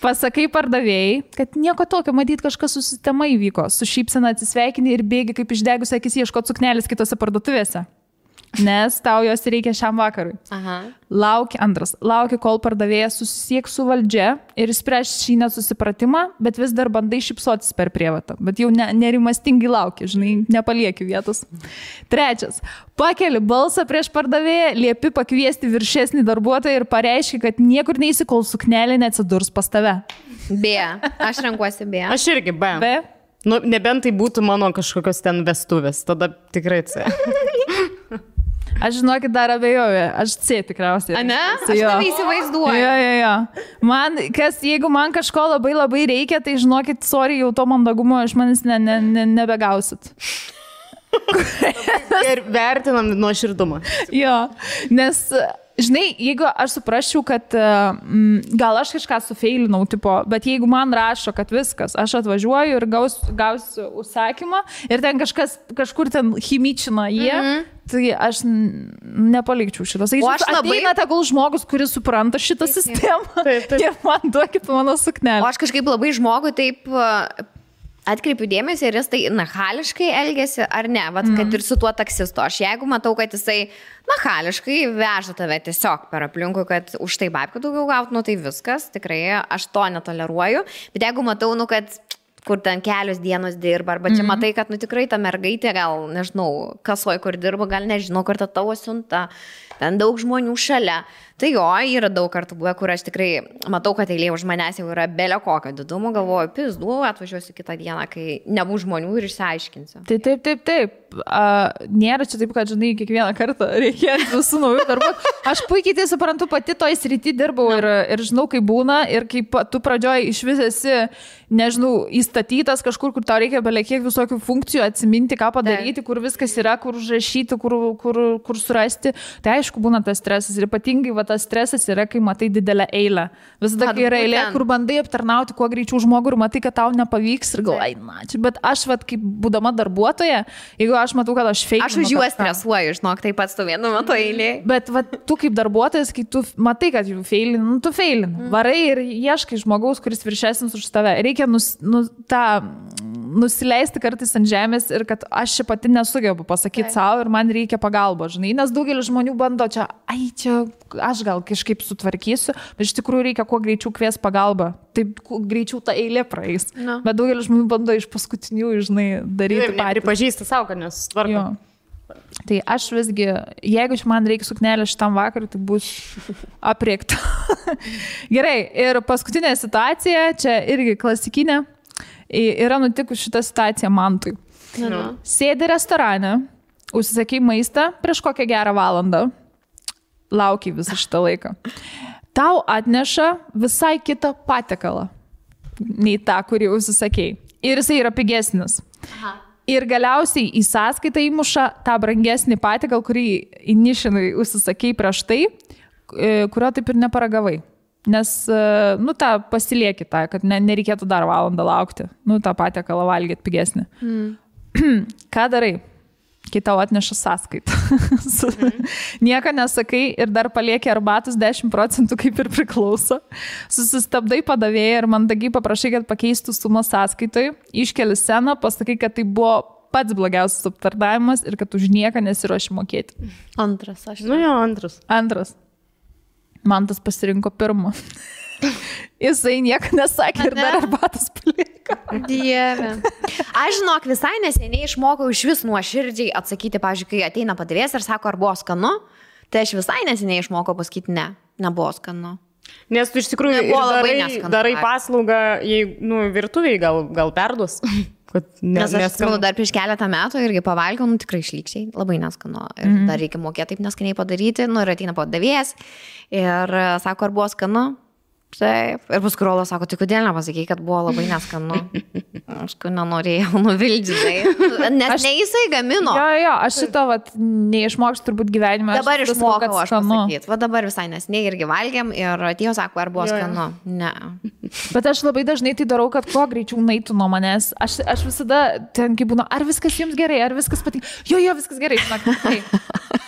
Pasakai pardavėjai, kad nieko tokio, matyt, kažkas su sistema įvyko. Su šypsena atsisveikini ir bėgi kaip išdegus akis ieškoti suknelės kitose parduotuvėse. Nes tau jos reikia šiam vakarui. Aha. Lauki, kol pardavėjas susisieks su valdžia ir spręs šį nesusipratimą, bet vis dar bandai šypsotis per prievartą. Bet jau nerimastingai lauki, žinai, nepalieki vietos. 3. Pakeli balsą prieš pardavėją, liepi pakviesti viršesnį darbuotoją ir pareiški, kad niekur neisi, kol suknelė neatsidurs pas tave. B. Aš renkuosi B. Aš irgi B. Nu, nebent tai būtų mano kažkokios ten vestuvės, tada tikrai C. Aš žinokit, dar abejoju, aš C tikriausiai. A ne? Aš tave įsivaizduoju. Jo. Jeigu man kažko labai labai reikia, tai žinokit, sorry, jau to mandagumo iš manęs nebegausit. Ir vertinam nuoširdumą. Jo, nes, žinai, jeigu aš suprasčiau, kad gal aš kažką sufeilinau, bet jeigu man rašo, kad viskas, aš atvažiuoju ir gausiu užsakymą ir ten kažkur ten chimičina jie, tai aš nepalikčiau šitas. O aš ateina tegul žmogus, kuris supranta šitą sistemą ir man duokit mano suknelę. O aš kažkaip labai žmogui taip... Atkreipiu dėmesį, ar jis tai nachališkai elgesi ar ne, kad ir su tuo taksistu. Aš jeigu matau, kad jisai nachališkai veža tave tiesiog per aplinkų, kad už tai babkių daugiau gauti, tai viskas, tikrai aš to netoleruoju. Bet jeigu matau, kad kur ten kelios dienos dirba, arba čia matai, kad tikrai ta mergaitė gal, nežinau, kasoj kur dirba, gal nežinau, kur ta tavo siunta, ten daug žmonių šalia. Tai jo, yra daug kartų buvę, kur aš tikrai matau, kad eilė už manęs jau yra belio kokio didumo, galvoju, pizdu, atvažiuosiu kitą dieną, kai nebus žmonių ir išsiaiškinsiu. Taip. Nėra čia taip, kad, žinai, kiekvieną kartą reikia visų naujų darbų. Aš puikiai tai suprantu, pati toj srity dirbau ir žinau, kaip būna ir kaip tu pradžioj iš vis esi, nežinau, įstatytas kažkur, kur tau reikia belekiek visokių funkcijų atsiminti, ką padaryti, kur viskas yra, kur užrašyti, kur surasti. Tai aišku, būna tas stresas ir ypatingai tas stresas yra, kai matai didelę eilę. Visada, kai yra eilė, kur bandai aptarnauti kuo greičiau žmogų ir matai, kad tau nepavyks ir galai, bet aš, kaip būdama darbuotoja, jeigu aš matau, kad aš feilinu. Aš už juos stresuoju, žinok, taip pat stovėnu mato eilė. Bet tu kaip darbuotojas, kai tu matai, kad jų feilinu, tu feilinu. Varai ir ieškai žmogaus, kuris viršesnis už tave. Reikia nusileisti kartais ant žemės ir kad aš čia pati nesugebu pasakyti savo ir man reikia pagalbo, žinai, nes daugelis žmonių bando čia aš gal kažkaip sutvarkysiu, bet iš tikrųjų reikia kuo greičiau kvies pagalbą, taip greičiau ta eilė praeis. No. Bet daugelis žmonių bando iš paskutinių, žinai, daryti parį. Pažįsta savo, kad nesutvarko. Tai aš visgi, jeigu man reikia suknelę šitam vakarui, tai bus apriekta. Gerai, ir paskutinė situacija, čia irgi klasikinė, yra nutikus šitą situaciją Mantui. Sėdi restorane, užsisakai maistą prieš kokią gerą valandą. laukiai visą šitą laiką. Tau atneša visai kitą patiekalą, nei tą, kurį užsisakėjai. Ir jisai yra pigesnis. Aha. Ir galiausiai į sąskaitą įmuša tą brangesnį patiekalą, kurį įnišinai užsisakėjai prieš tai, kurio taip ir neparagavai. Nes, tą pasilieki tą, kad nereikėtų dar valandą laukti. Tą patiekalą valgyti pigesnį. Ką darai? Kai tau atneša sąskaitą. Nieko nesakai ir dar palieki arbatus 10%, kaip ir priklauso. Susistabdai padavėją ir mandagiai paprašai, kad pakeistų sumą sąskaitoj, iškeli sceną, pasakai, kad tai buvo pats blogiausias aptarnavimas ir kad už nieką nesiruoši mokėti. Antras, aš. Antras. Man tas pasirinko pirmą. Jisai nieko nesakė ir dar arbatas paliko. Dieve. Aš žinok, visai neseniai išmokau iš vis nuoširdžiai atsakyti, pavyzdžiui, kai ateina padavėjas ir sako, ar buvo skanu, tai aš visai neseniai išmokau pasakyti, nebuvo skanu. Nes tu iš tikrųjų darai paslaugą, virtuviai gal perduos. Nes aš atsimenu, dar prieš keletą metų irgi pavalgiau, tikrai išlykščiai, labai neskanu. Ir dar reikia mokėti taip neskaniai padaryti, ir ateina padavėjas ir sako, ar buvo skanu. Taip. Ir paskui Rolas sako, tai kodėl nepasakei, kad buvo labai neskanu. Aš nenorėjau nuvildžiai. Nes ne jisai gamino. Jo, aš šito neišmokščiau turbūt gyvenime. Dabar išmokau aš pasakyti. Va dabar visai nesniai irgi valgiam ir atėjo sako, ar buvo skanu. Ne. Bet aš labai dažnai tai darau, kad kuo greičiau naitų nuo manęs. Aš visada ten kaip būna, ar viskas jums gerai, ar viskas patinka. Jo, viskas gerai, žinok.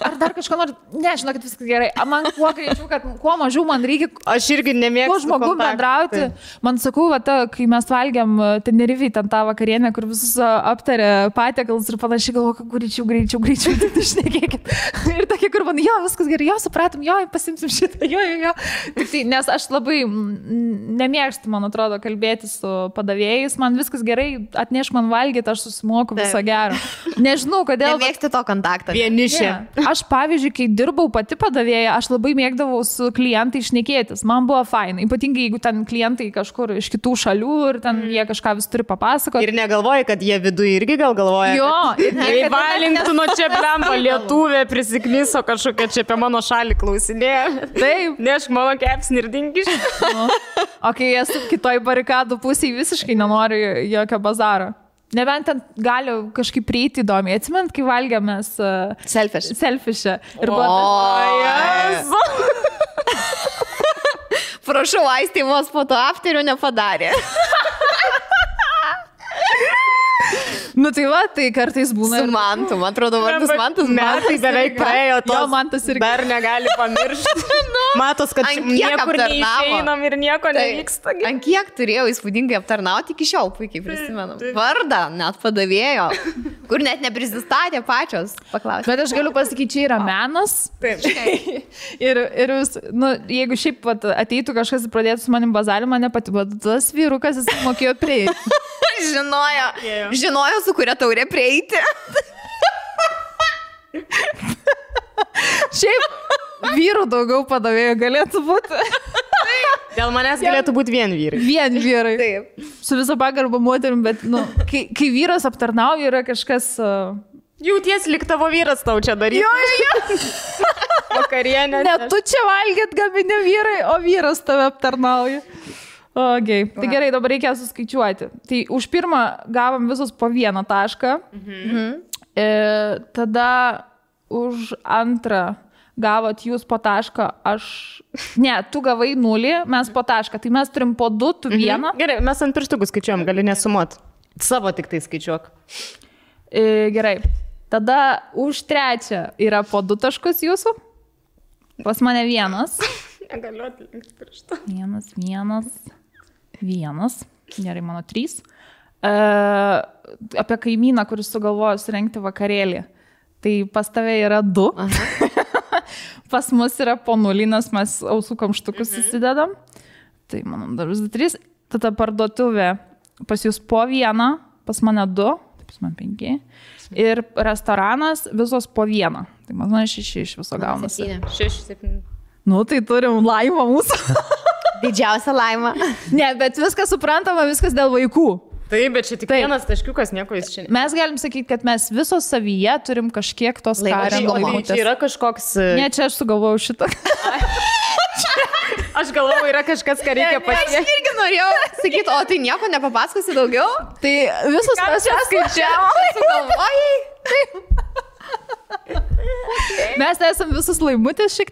Ar dar kažko nori? Ne, žinok, kad viskas gerai. Man kuo greičiau, kad kuo mažiau man reikia. Aš irgi nemėgstu. Žmogum bendrauti. Man sakau, kai mes valgiam Tenerifei ten tą vakarienę, kur visus aptarė patiekalus ir panašiai, galvoju, greičiau, tai šnekėkit. Ir tokie, kur man, viskas gerai, supratom, pasimsim šitą, Tik tai, nes aš labai nemėgstu, man atrodo, kalbėti su padavėjais, man viskas gerai, atnešk man valgyti, aš susimoku viso gero. Nežinau, kodėl. Nemėgsti to kontaktą. Vienišė. Aš, pavyzdžiui, kai dirbau pati padavėja, aš labai mėgdavau su klientai šnekėtis, man buvo fainai. Ypatingai, jeigu ten klientai kažkur iš kitų šalių ir ten jie kažką vis turi papasakoti. Ir negalvoji, kad jie viduje irgi gal galvoja. Jo. Ir valintų nuo čia blemba lietuvė prisiknyso kažkokia čia apie mano šalį klausinėje. Taip. Nešk mano kepsnį ir dingiš. O kai esu kitoj barikadų pusėje, visiškai nenoriu jokio bazaro. Nebent ten gali kažkaip prieiti įdomiai. Atsimint, kai valgėmės selfišę. Ir buvo Prašau, Aistė vos po to afterio nepadarė. Tai va, tai kartais būna. Su Mantu, man atrodo, vardas Mantas. Metai beveik praėjo, Mantas irgi dar negali pamiršti. Matos, kad niekur neišeinam ir nieko nevyksta. Ant kiek turėjau įspūdingai aptarnauti, iki šiol puikiai prisimenu. Vardą net padavėjo, kur net neprisistatė pačios. Paklausė. Bet aš galiu pasakyti, čia yra menas. Taip. Ir jeigu šiaip ateitų kažkas ir pradėtų su manim bazarį, mane pati, bet tas vyrukas jis mokėjo prieiti. Žinojo, su kuria taurė prieiti. Šiaip vyrų daugiau padavėjų galėtų būti. Dėl manęs galėtų būti vien vyrai. Vien vyrai. Taip. Su viso pagarba moterim, bet kai vyras aptarnauja, yra kažkas... Jauties lyg tavo vyras tau čia daryti. Jo. Vakarienė. Ne, tu čia valgėt gamini vyrai, o vyras tave aptarnauja. Okay. Tai gerai, dabar reikia suskaičiuoti. Tai už pirmą gavom visus po 1 tašką. Tada už antrą gavot jūs po tašką, Ne, tu gavai 0, mes po tašką. Tai mes turim po 2, tu 1. Gerai, mes ant pirštukų skaičiuojam, gali nesumuot. Savo tik tai skaičiuok. Gerai. Tada už 3 yra po 2 taškus jūsų. Pas mane 1. Negaliu atlinkti pirštą. 1. Gerai, mano 3. Apie kaimyną, kuris sugalvojo surengti vakarėlį. Tai pas tave yra 2. Pas mus yra po 0, nes mes ausų kamštukus įsidedam. Tai mano dar 3. Tada parduotuvė pas jūs po 1, pas mane 2, pas man 5. Ir restoranas visos po 1. Tai man 6 iš viso gaunasi. 6, 7. Tai turim laimą mūsų. Didžiausia laima. Ne, bet viskas suprantama, viskas dėl vaikų. Taip, bet čia tik vienas taškiukas, nieko jis čia. Mes galim sakyti, kad mes visos savyje turim kažkiek tos Karen laimutės. Čia yra kažkoks... Ne, čia aš sugalvojau šitą. Aš galvoju, yra kažkas, ką reikia pasiekti. Aš irgi norėjau sakyti, o tai nieko nepapasakosi daugiau? Tai visos mes čia skaičiavome. Sugalvojai? Mes esame visus laimutės šiek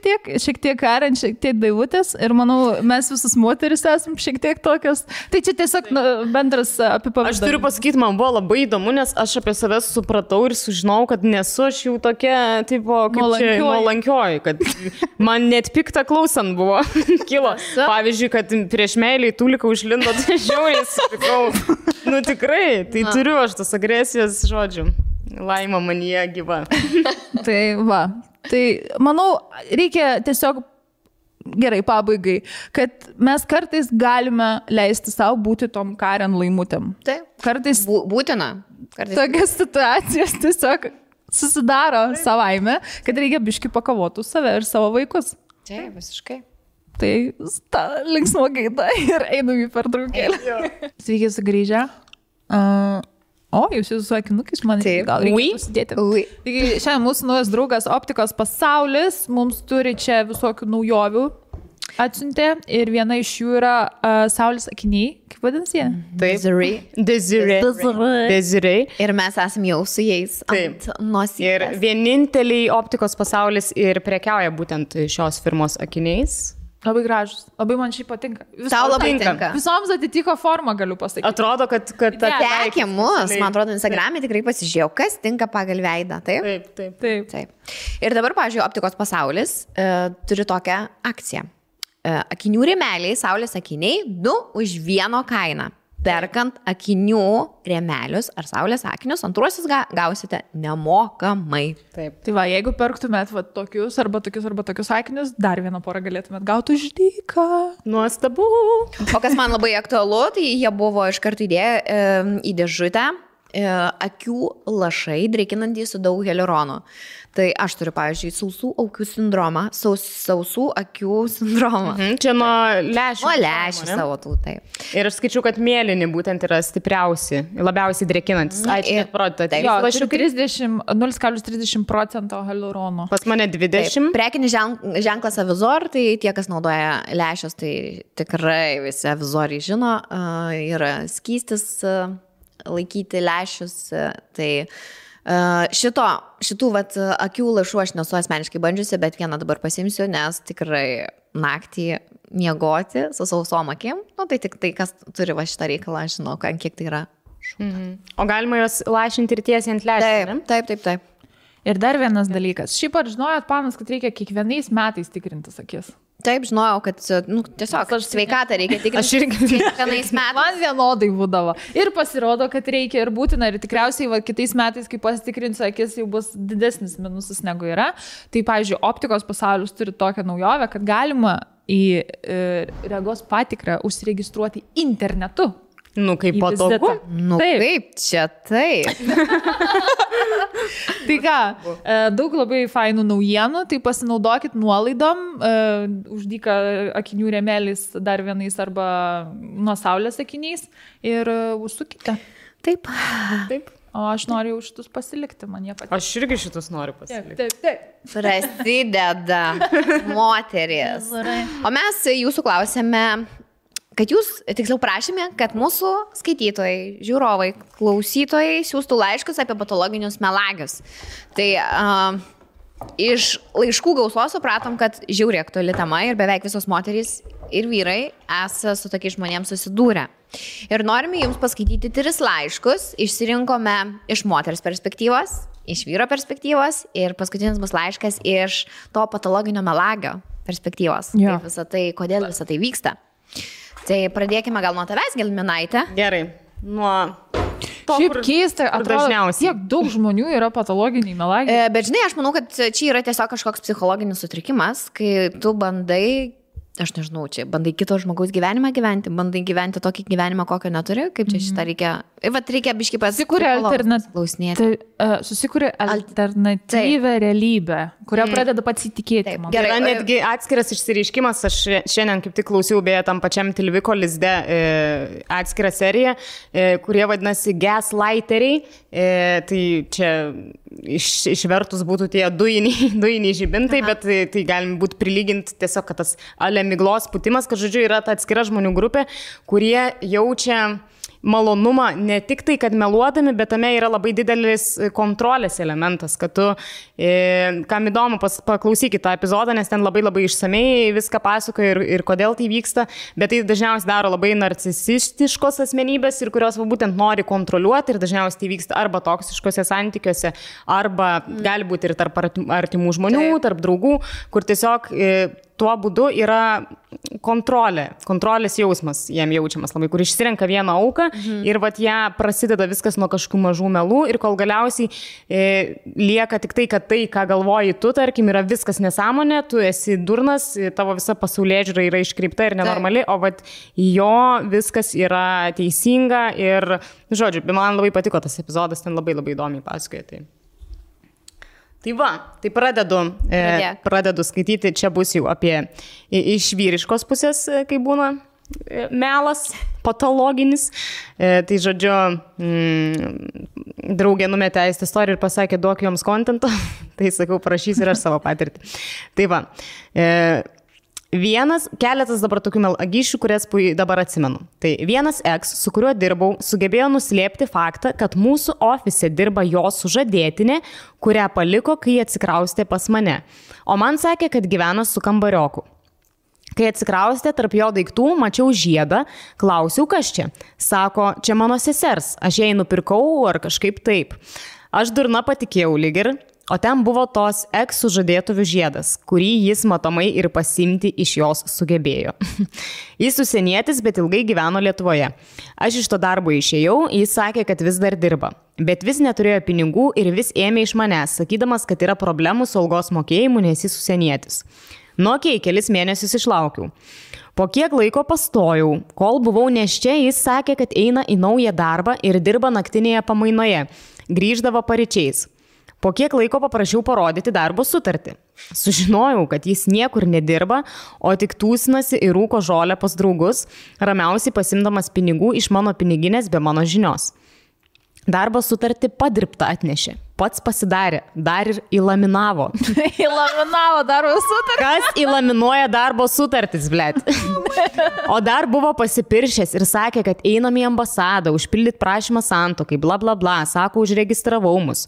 tiek Karen, šiek tiek Daivutės ir manau, mes visus moteris esame šiek tiek tokios. Tai čia tiesiog bendras apipavyzdys. Aš turiu pasakyti, man buvo labai įdomu, nes aš apie save supratau ir sužinau, kad nesu aš jau tokia, tipo, kaip čia nuolankioji, kad man net pikta klausant buvo kilo. Pavyzdžiui, kad prieš meilį Tulika užlindo, tai žiauriai supikau. Nu tikrai, tai turiu aš tas agresijos žodžių. Laima manyje gyva. Tai va. Tai manau, reikia tiesiog gerai pabaigai, kad mes kartais galime leisti savo būti tom Karen laimutėm. Taip. Kartais būtina. Tokias situacijas tiesiog susidaro savaime, kad reikia biški pakovoti save ir savo vaikus. Taip, visiškai. Tai linksmo gaida ir einam į pertraukėlę. Sveiki sugrįžę. O, jūs su akinukais man gal reikia pasidėti. Taigi šiandien mūsų naujas draugas Optikos pasaulis mums turi čia visokių naujovių atsiuntė ir viena iš jų yra saulės akiniai. Kaip vadinasi jie? Desiree. Ir mes esame jau su jais ant nosies. Ir vieninteliai Optikos pasaulis ir prekiauja būtent šios firmos akiniais. Labai gražus, labai man šiai patinka. Tau labai tinka. Visoms atitiko formą, galiu pasakyti. Atrodo, kad Sekė mus, man atrodo, Instagram'e tikrai pasižiūrėjau, kas tinka pagal veidą, taip? Taip. Ir dabar, pavyzdžiui, Optikos pasaulis turi tokią akciją. Akinių rėmeliai, saulės akiniai, 2 už 1 kainą. Perkant akinių rėmelius ar saulės akinius, antruosius gausite nemokamai. Taip. Tai va, jeigu perktumėt va, tokius arba tokius akinius, dar vieną porą galėtumėt gauti už dyką. Nuostabu. O kas man labai aktualu, tai jie buvo iš karto įdėję į dėžutę akių lašai, drėkinantys su daug hialuronų. Tai aš turiu, pavyzdžiui, sausų akių sindromą, sausų akių sindromą. Čia nuo lešių. Nuo lešių savo tų, taip. Ir aš skaičiu, kad mėlyni būtent yra stipriausi, labiausiai drėkinantis. Ačiū, parodyte. Jo, 0,30% hialurono. Pas mane 20. Taip. Prekinis ženklas Avizor, tai tie, kas naudoja lešius, tai tikrai visi Avizoriai žino, yra skystis laikyti lešius, tai šitų vat, akių lašų aš nesu asmeniškai bandžiusi, bet vieną dabar pasimsiu, nes tikrai naktį miegoti su sausom akim, nu, tai tik tai, kas turi va šitą reikalą, žinau, kiek tai yra. O galima jos lašinti ir tiesiai ant lešių? Taip. Ir dar vienas dalykas. Šiaip ar žinojot, panas, kad reikia kiekvienais metais tikrintis akis? Taip, žinojau, kad tiesiog sveikatą reikia tikrinti. Aš irgi kiekvienais metais. Man vienodai būdavo. Ir pasirodo, kad reikia ir būtina. Ir tikriausiai kitais metais, kai pasitikrinsiu akis, jau bus didesnis minusas negu yra. Tai, pavyzdžiui, Optikos pasaulis turi tokią naujovę, kad galima į regos patikrą užsiregistruoti internetu. Nu, kaip patogu. Nu, taip, čia taip. Tai ką, daug labai fainų naujienų, tai pasinaudokit nuolaidom, uždyka akinių rėmelis dar vienais arba nuo saulės akiniais ir užsukite. Taip. O aš noriu jau šitus pasilikti, man jie patinka. Aš irgi šitus noriu pasilikti. Taip. Prasideda moteris. O mes jūsų klausėme, kad jūs, tiksliau prašėme, kad mūsų skaitytojai, žiūrovai, klausytojai siūstų laiškus apie patologinius melagius. Tai iš laiškų gausos supratom, kad žiauriai aktuali tema ir beveik visos moterys ir vyrai esą su tokiais žmonėms susidūrę. Ir norime jums paskaityti 3 laiškus, išsirinkome iš moters perspektyvos, iš vyro perspektyvos ir paskutinis bus laiškas iš to patologinio melagio perspektyvos. Jo. Kaip visą tai, kodėl visą tai vyksta. Tai pradėkime gal nuo tavęs, Gelminaitė. Gerai. Nuo to, šiaip keista, atrodo, dažniausiai. tiek daug žmonių yra patologiniai melagiai. Bet žinai, aš manau, kad čia yra tiesiog kažkoks psichologinis sutrikimas, kai tu bandai aš nežinau, čia bandai kito žmogaus gyvenimą gyventi, bandai gyventi tokį gyvenimą, kokio neturi, kaip čia šitą reikia, reikia biškai susikūrė alternatyvę realybę, kurią pradeda pasitikėti. Gerai, netgi atskiras išsireiškimas, aš šiandien kaip tik klausiau, beje, tam pačiam Tilviko lizde atskirą seriją, kurie vadinasi gaslighteriai, tai čia išvertus būtų tie dujiniai žibintai, bet tai galim būti prilyginti tiesiog, kad tas miglos putimas, kad žodžiu yra ta atskira žmonių grupė, kurie jaučia malonumą ne tik tai, kad meluodami, bet tame yra labai didelis kontrolės elementas, kad tu, kam įdomu, paklausykit tą epizodą, nes ten labai labai išsamei viską pasakoja ir kodėl tai vyksta, bet tai dažniausiai daro labai narcisistiškos asmenybės ir kurios būtent nori kontroliuoti ir dažniausiai tai vyksta arba toksiškose santykiuose, arba gali būti ir tarp artimų žmonių, tarp draugų, kur tiesiog tuo būdu yra kontrolės jausmas jam jaučiamas labai, kur išsirenka vieną auką ir vat ją prasideda viskas nuo kažkokių mažų melų ir kol galiausiai lieka tik tai, kad tai, ką galvoji tu, tarkim, yra viskas nesąmonė, tu esi durnas, tavo visa pasaulėžiūra yra iškreipta ir nenormali, o vat jo viskas yra teisinga ir, žodžiu, man labai patiko tas epizodas, ten labai labai įdomiai pasakoja. Tai va, tai pradedu skaityti, čia bus jau apie iš vyriškos pusės, kai būna melas, patologinis. Tai žodžiu, draugė numetė į istoriją ir pasakė, duok joms kontento, tai sakau, prašys ir aš savo patirtį. Tai va, keletas dabar tokių melagyšių, kurias dabar atsimenu. Tai vienas eks, su kuriuo dirbau, sugebėjo nuslėpti faktą, kad mūsų ofise dirba jo sužadėtinė, kurią paliko, kai atsikraustė pas mane. O man sakė, kad gyvena su kambarioku. Kai atsikraustė tarp jo daiktų, mačiau žiedą, klausiau, kas čia. Sako, čia mano sesers, aš jai nupirkau ar kažkaip taip. Aš durna patikėjau lyg ir. O ten buvo tos eks-sužadėtuvių žiedas, kurį jis matomai ir pasimti iš jos sugebėjo. Jis užsienietis, bet ilgai gyveno Lietuvoje. Aš iš to darbo išėjau, jis sakė, kad vis dar dirba. Bet vis neturėjo pinigų ir vis ėmė iš manęs, sakydamas, kad yra problemų su algos mokėjimu, nes jis užsienietis. Kelis mėnesius išlaukiau. Po kiek laiko pastojau, kol buvau neščia, jis sakė, kad eina į naują darbą ir dirba naktinėje pamainoje. Grįždavo paryčiais. Po kiek laiko paprašiau parodyti darbo sutartį. Sužinojau, kad jis niekur nedirba, o tik tūsinasi ir rūko žolę pas draugus, ramiausiai pasimdamas pinigų iš mano piniginės be mano žinios. Darbo sutartį padirbtą atnešė. Pats pasidarė, dar ir įlaminavo. Įlaminavo darbo sutartį? Kas įlaminuoja darbo sutartis, blėt? O dar buvo pasipiršęs ir sakė, kad einam į ambasadą, užpildyti prašymą santuokai, bla bla bla, sako, užregistravau mus.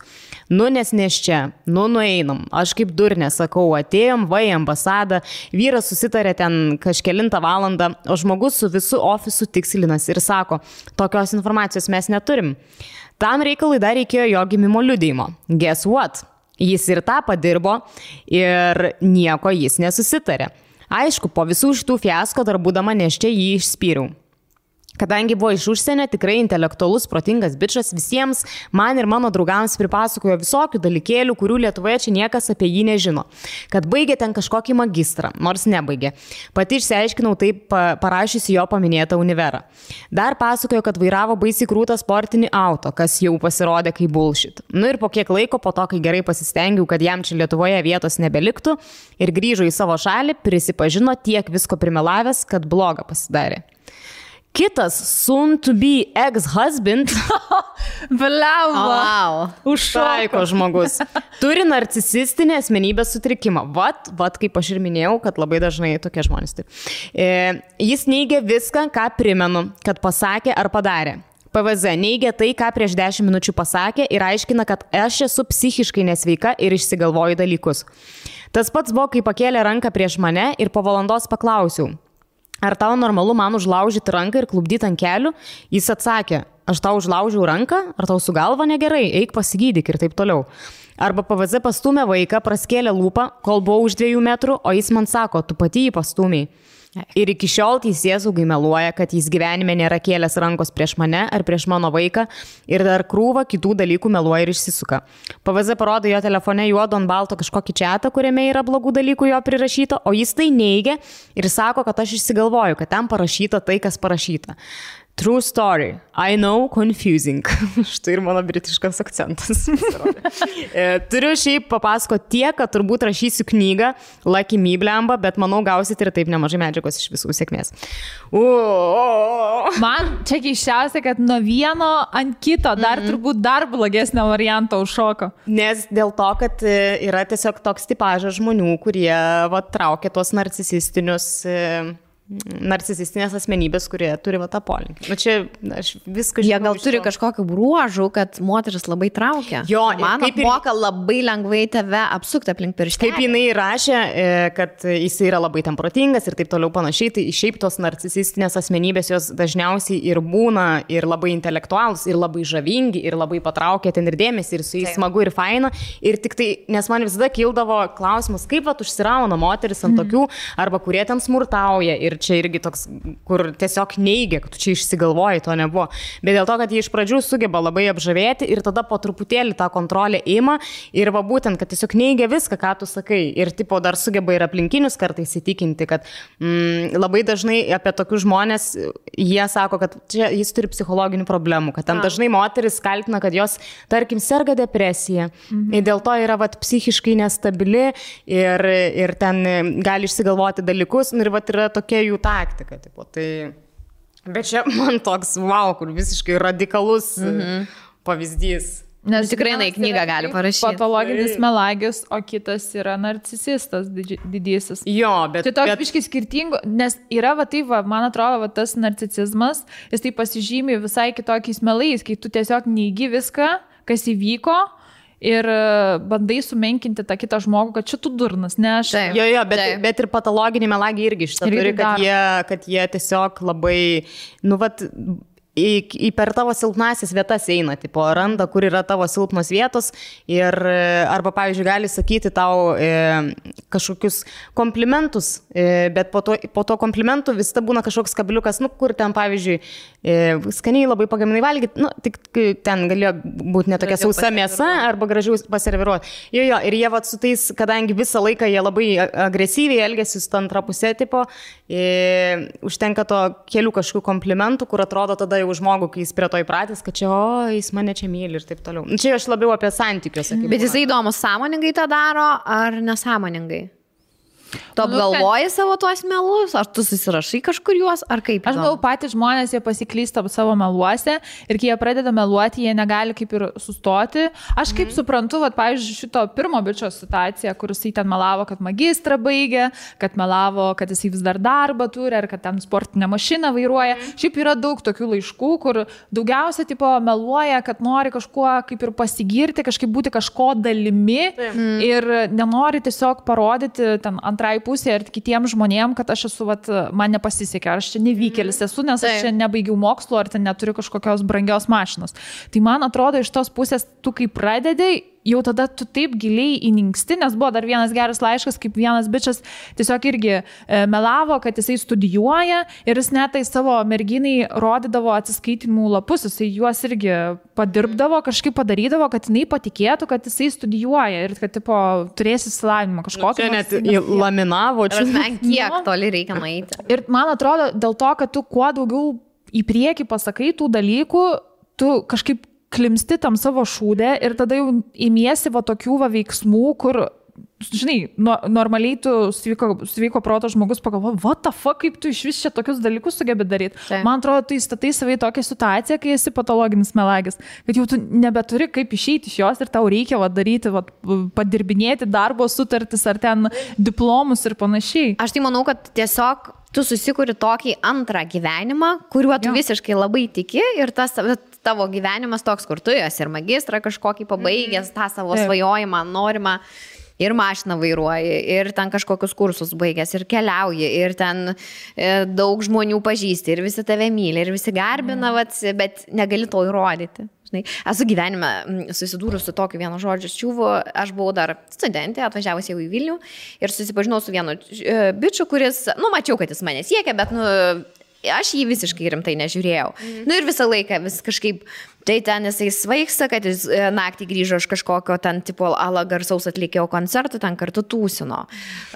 Nes čia, nueinam. Aš kaip durnė sakau, atėjom, va į ambasadą, vyras susitarė ten kažkelintą valandą, o žmogus su visu ofisu tikslinas ir sako, tokios informacijos mes neturim. Tam reikalui dar reikėjo jo gimimo liudijimo. Guess what? Jis ir tą padirbo ir nieko jis nesusitarė. Aišku, po visų šitų fiasko dar būdama neščia jį išspyriau. Kadangi buvo iš užsienio, tikrai intelektualus, protingas bičas, visiems man ir mano draugams pripasakojo visokių dalykėlių, kurių Lietuvoje čia niekas apie jį nežino. Kad baigė ten kažkokį magistrą, nors nebaigė. Pati išsiaiškinau taip parašysi jo paminėtą univerą. Dar pasakojo, kad vairavo baisiai krūtą sportinį auto, kas jau pasirodė kaip bullshit. Ir po kiek laiko, po to, kai gerai pasistengiau, kad jam čia Lietuvoje vietos nebeliktų ir grįžo į savo šalį, prisipažino tiek visko primelavęs, kad bloga pasidarė. Kitas soon to be ex-husband užšaiko žmogus. Turi narcisistinę asmenybės sutrikimą. Vat, kaip aš ir minėjau, kad labai dažnai tokie žmonės. Jis neigia viską, ką primenu, kad pasakė ar padarė. PVZ neigia tai, ką prieš 10 minučių pasakė ir aiškina, kad aš esu psichiškai nesveika ir išsigalvoju dalykus. Tas pats buvo, kai pakėlė ranką prieš mane ir po valandos paklausiau. Ar tau normalu man užlaužyti ranką ir klubdyti ant kelių? Jis atsakė, aš tau užlaužiau ranką, ar tau su galva negerai, eik pasigydyk ir taip toliau. Arba PVZ pastumė vaiką, praskėlė lūpą, kol buvau už 2 metrų, o jis man sako, tu pati jį pastūmiai. Ir iki šiol teisėsaugai meluoja, kad jis gyvenime nėra kėlęs rankos prieš mane ar prieš mano vaiką ir dar krūvą kitų dalykų meluoja ir išsisuka. PVZ parodo jo telefone juodo ant balto kažkokį chatą, kuriame yra blogų dalykų jo prirašyta, o jis tai neigia ir sako, kad aš išsigalvoju, kad ten parašyta tai, kas parašyta. True story. I know, confusing. Štai ir mano britiškas akcentas. Turiu šiaip papasakoti tiek, kad turbūt rašysiu knygą Lucky Me blemba, bet manau gausit ir taip nemažai medžiagos iš visų sėkmės. Man čia keiščiausia, kad nuo vieno ant kito dar turbūt dar blogesnio varianto užšoko. Nes dėl to, kad yra tiesiog toks tipažas žmonių, kurie traukia tuos narcisistinės asmenybės, kurie turi tą polinkį. Nu, čia aš viską žinau. Jie gal turi kažkokių bruožų, kad moteris labai traukia. Jo, man moka labai lengvai tave apsukti aplink pirštelį. Kaip jinai rašė, kad jis yra labai ten protingas ir taip toliau panašiai, tai šiaip tos narcisistinės asmenybės jos dažniausiai ir būna ir labai intelektualus, ir labai žavingi, ir labai patraukia ten ir dėmesį, ir su jais smagu ir faina. Ir tik tai, nes man visada kildavo klausimas, kaip užsirauna moteris ant tokių, arba kurie ten smurtauja. Ir čia irgi toks, kur tiesiog neigia, kad tu čia išsigalvoji, to nebuvo. Bet dėl to, kad jie iš pradžių sugeba labai apžavėti ir tada po truputėlį tą kontrolę ima ir va būtent, kad tiesiog neigia viską, ką tu sakai. Ir tipo dar sugeba ir aplinkinius kartais įtikinti, kad labai dažnai apie tokius žmonės jie sako, kad čia jis turi psichologinių problemų, kad ten dažnai moteris kaltina, kad jos, tarkim, serga depresija. Ir dėl to yra psichiškai nestabili ir ten gali išsigalvoti dalykus. Ir yra tokia jų taktika. Tipo, tai... Bet čia man toks, wow, kur visiškai radikalus pavyzdys. Nes tikrai į knygą gali parašyti. Patologinis melagis, o kitas yra narcisistas didysis. Jo, bet... Tai toks biškai skirtingo, nes yra, man atrodo, tas narcisizmas, jis tai pasižymi visai kitokiais melais, kai tu tiesiog neigi viską, kas įvyko, ir bandai sumenkinti tą kitą žmogų, kad čia tu durnas, ne aš. Jo, bet ir patologinį melagį irgi šitą turi, kad jie tiesiog labai, per tavo silpnasis vietas eina, tipo, randa, kur yra tavo silpnos vietos ir arba, pavyzdžiui, gali sakyti tau kažkokius komplimentus, bet po to komplimentų vis ta būna kažkoks kabliukas, kur ten, pavyzdžiui, skaniai labai pagaminai valgyti, tik ten galėjo būti netokia sausa mėsa arba gražiau paserviruoti. Jo, ir jie su tais, kadangi visą laiką jie labai agresyviai elgėsi su antra pusė, tipo, užtenka to kelių kažkokių komplimentų, kur atrodo tada jau žmogų, kai jis prie to įpratęs, kad čia, jis mane čia myli ir taip toliau. Čia aš labiau apie santykius. Bet jisai įdomus, sąmoningai tą daro ar nesąmoningai? Tu apgalvoji savo tuos melus, ar tu susirašai kažkur juos, ar kaip? Aš manau, patys žmonės, jie pasiklysta savo meluose ir kai jie pradeda meluoti, jie negali kaip ir sustoti. Aš kaip suprantu, pavyzdžiui, šito pirmo bičio situaciją, kur jisai ten melavo, kad magistrą baigė, kad melavo, kad jisai vis dar darbą turi, ar kad ten sportinę mašiną vairuoja. Šiaip yra daug tokių laiškų, kur daugiausia tipo meluoja, kad nori kažkuo kaip ir pasigirti, kažkaip būti kažko dalimi ir nenori tiesiog parodyti ten antrai pusė ir kitiems žmonėms, kad aš esu, man nepasisekė, ar aš čia nevykėlis esu, nes aš čia nebaigiau mokslo, ar ten neturiu kažkokios brangios mašinos. Tai man atrodo, iš tos pusės, tu kai pradedai, jau tada tu taip giliai įninksti, nes buvo dar vienas geras laiškas, kaip vienas bičas tiesiog irgi melavo, kad jisai studijuoja ir jis net tai savo merginai rodydavo atsiskaitimų lapus, jisai juos irgi padirbdavo, kažkaip padarydavo, kad jinai patikėtų, kad jisai studijuoja ir kad tipo turės išsilavinimą kažkokį. Čia net laminavo, čia kiek toli reikia nueiti. Ir man atrodo, dėl to, kad tu kuo daugiau į priekį pasakai tų dalykų, tu kažkaip klimsti tam savo šūdę ir tada jau imiesi tokių veiksmų, kur, žinai, normaliai tu sveiko proto žmogus pagalvoja, what the fuck, kaip tu iš vis čia tokius dalykus sugebi daryti. Man atrodo, tu įstatai savai tokią situaciją, kai esi patologinis melagis, kad jau tu nebeturi kaip išeiti iš jos ir tau reikia daryti, padirbinėti darbo sutartis ar ten diplomus ir panašiai. Aš tai manau, kad tiesiog tu susikuri tokį antrą gyvenimą, kuriuo tu visiškai labai tiki ir tas tavo gyvenimas toks, kur tu esi ir magistrą kažkokį pabaigęs, tą savo svajojimą, norimą. ir mašiną vairuoji, ir ten kažkokius kursus baigęs, ir keliauji, ir ten daug žmonių pažįsti, ir visi tave myli, ir visi garbina, bet negali to įrodyti. Esu gyvenime susidūrus su tokiu vienu žodžiu čiūvu, aš buvau dar studentė, atvažiavus jau į Vilnių ir susipažinau su vienu bičiu, kuris, mačiau, kad jis mane siekia, bet, aš jį visiškai rimtai nežiūrėjau. Ir visą laiką vis kažkaip, tai ten jisai svaigsta, kad jis naktį grįžo iš kažkokio ten tipo ala garsaus atlikėjo koncertų, ten kartu tūsino.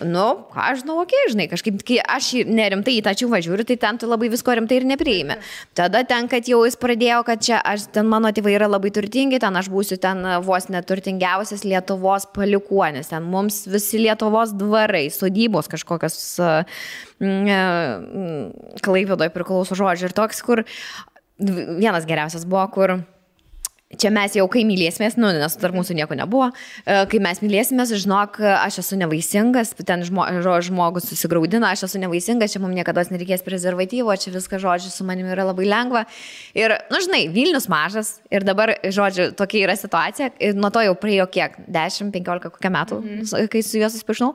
Aš žinau, žinai, kažkaip, kai aš nerimtai į tą čiūvą žiūriu, tai ten tu labai visko rimtai ir nepriimi. Tada ten, kad jau jis pradėjo, kad čia ten mano tėvai yra labai turtingi, ten aš būsiu ten vos neturtingiausias Lietuvos palikuonis, ten mums visi Lietuvos dvarai, sodybos kažkokios Klaipėdoje priklauso žodžiai ir toks, kur vienas geriausias buvo, kur čia mes jau kai mylėsimės, nes tarp mūsų nieko nebuvo, kai mes mylėsimės, žinok, aš esu nevaisingas, ten žmogus susigraudina, aš esu nevaisingas, čia mums niekada nereikės prezervatyvo, čia viskas, žodžiu, su manimi yra labai lengva. Ir, žinai, Vilnius mažas ir dabar, žodžiu, tokia yra situacija, nuo to jau praėjo kiek, 10-15 kokią metų, kai su juo susipažinau.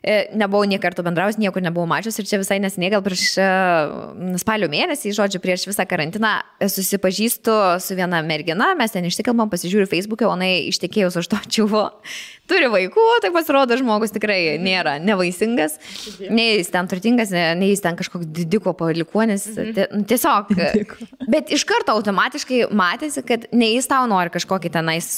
Nebuvau nie kartų bendraus, niekur nebuvau mačius ir čia visai nesiniai, gal prieš spalio mėnesį, žodžiu, prieš visą karantiną susipažįstu su viena mergina, mes ten išsikalbam, pasižiūriu Facebook'e, o jinai ištekėjus už to čiuvo, turi vaikų, tai pasirodo žmogus tikrai nėra nevaisingas, nei jis ten turtingas, nei jis ten kažkoks didiko palikuonis, tiesiog, bet iš karto automatiškai matėsi, kad nei jis tau nori kažkokį tenais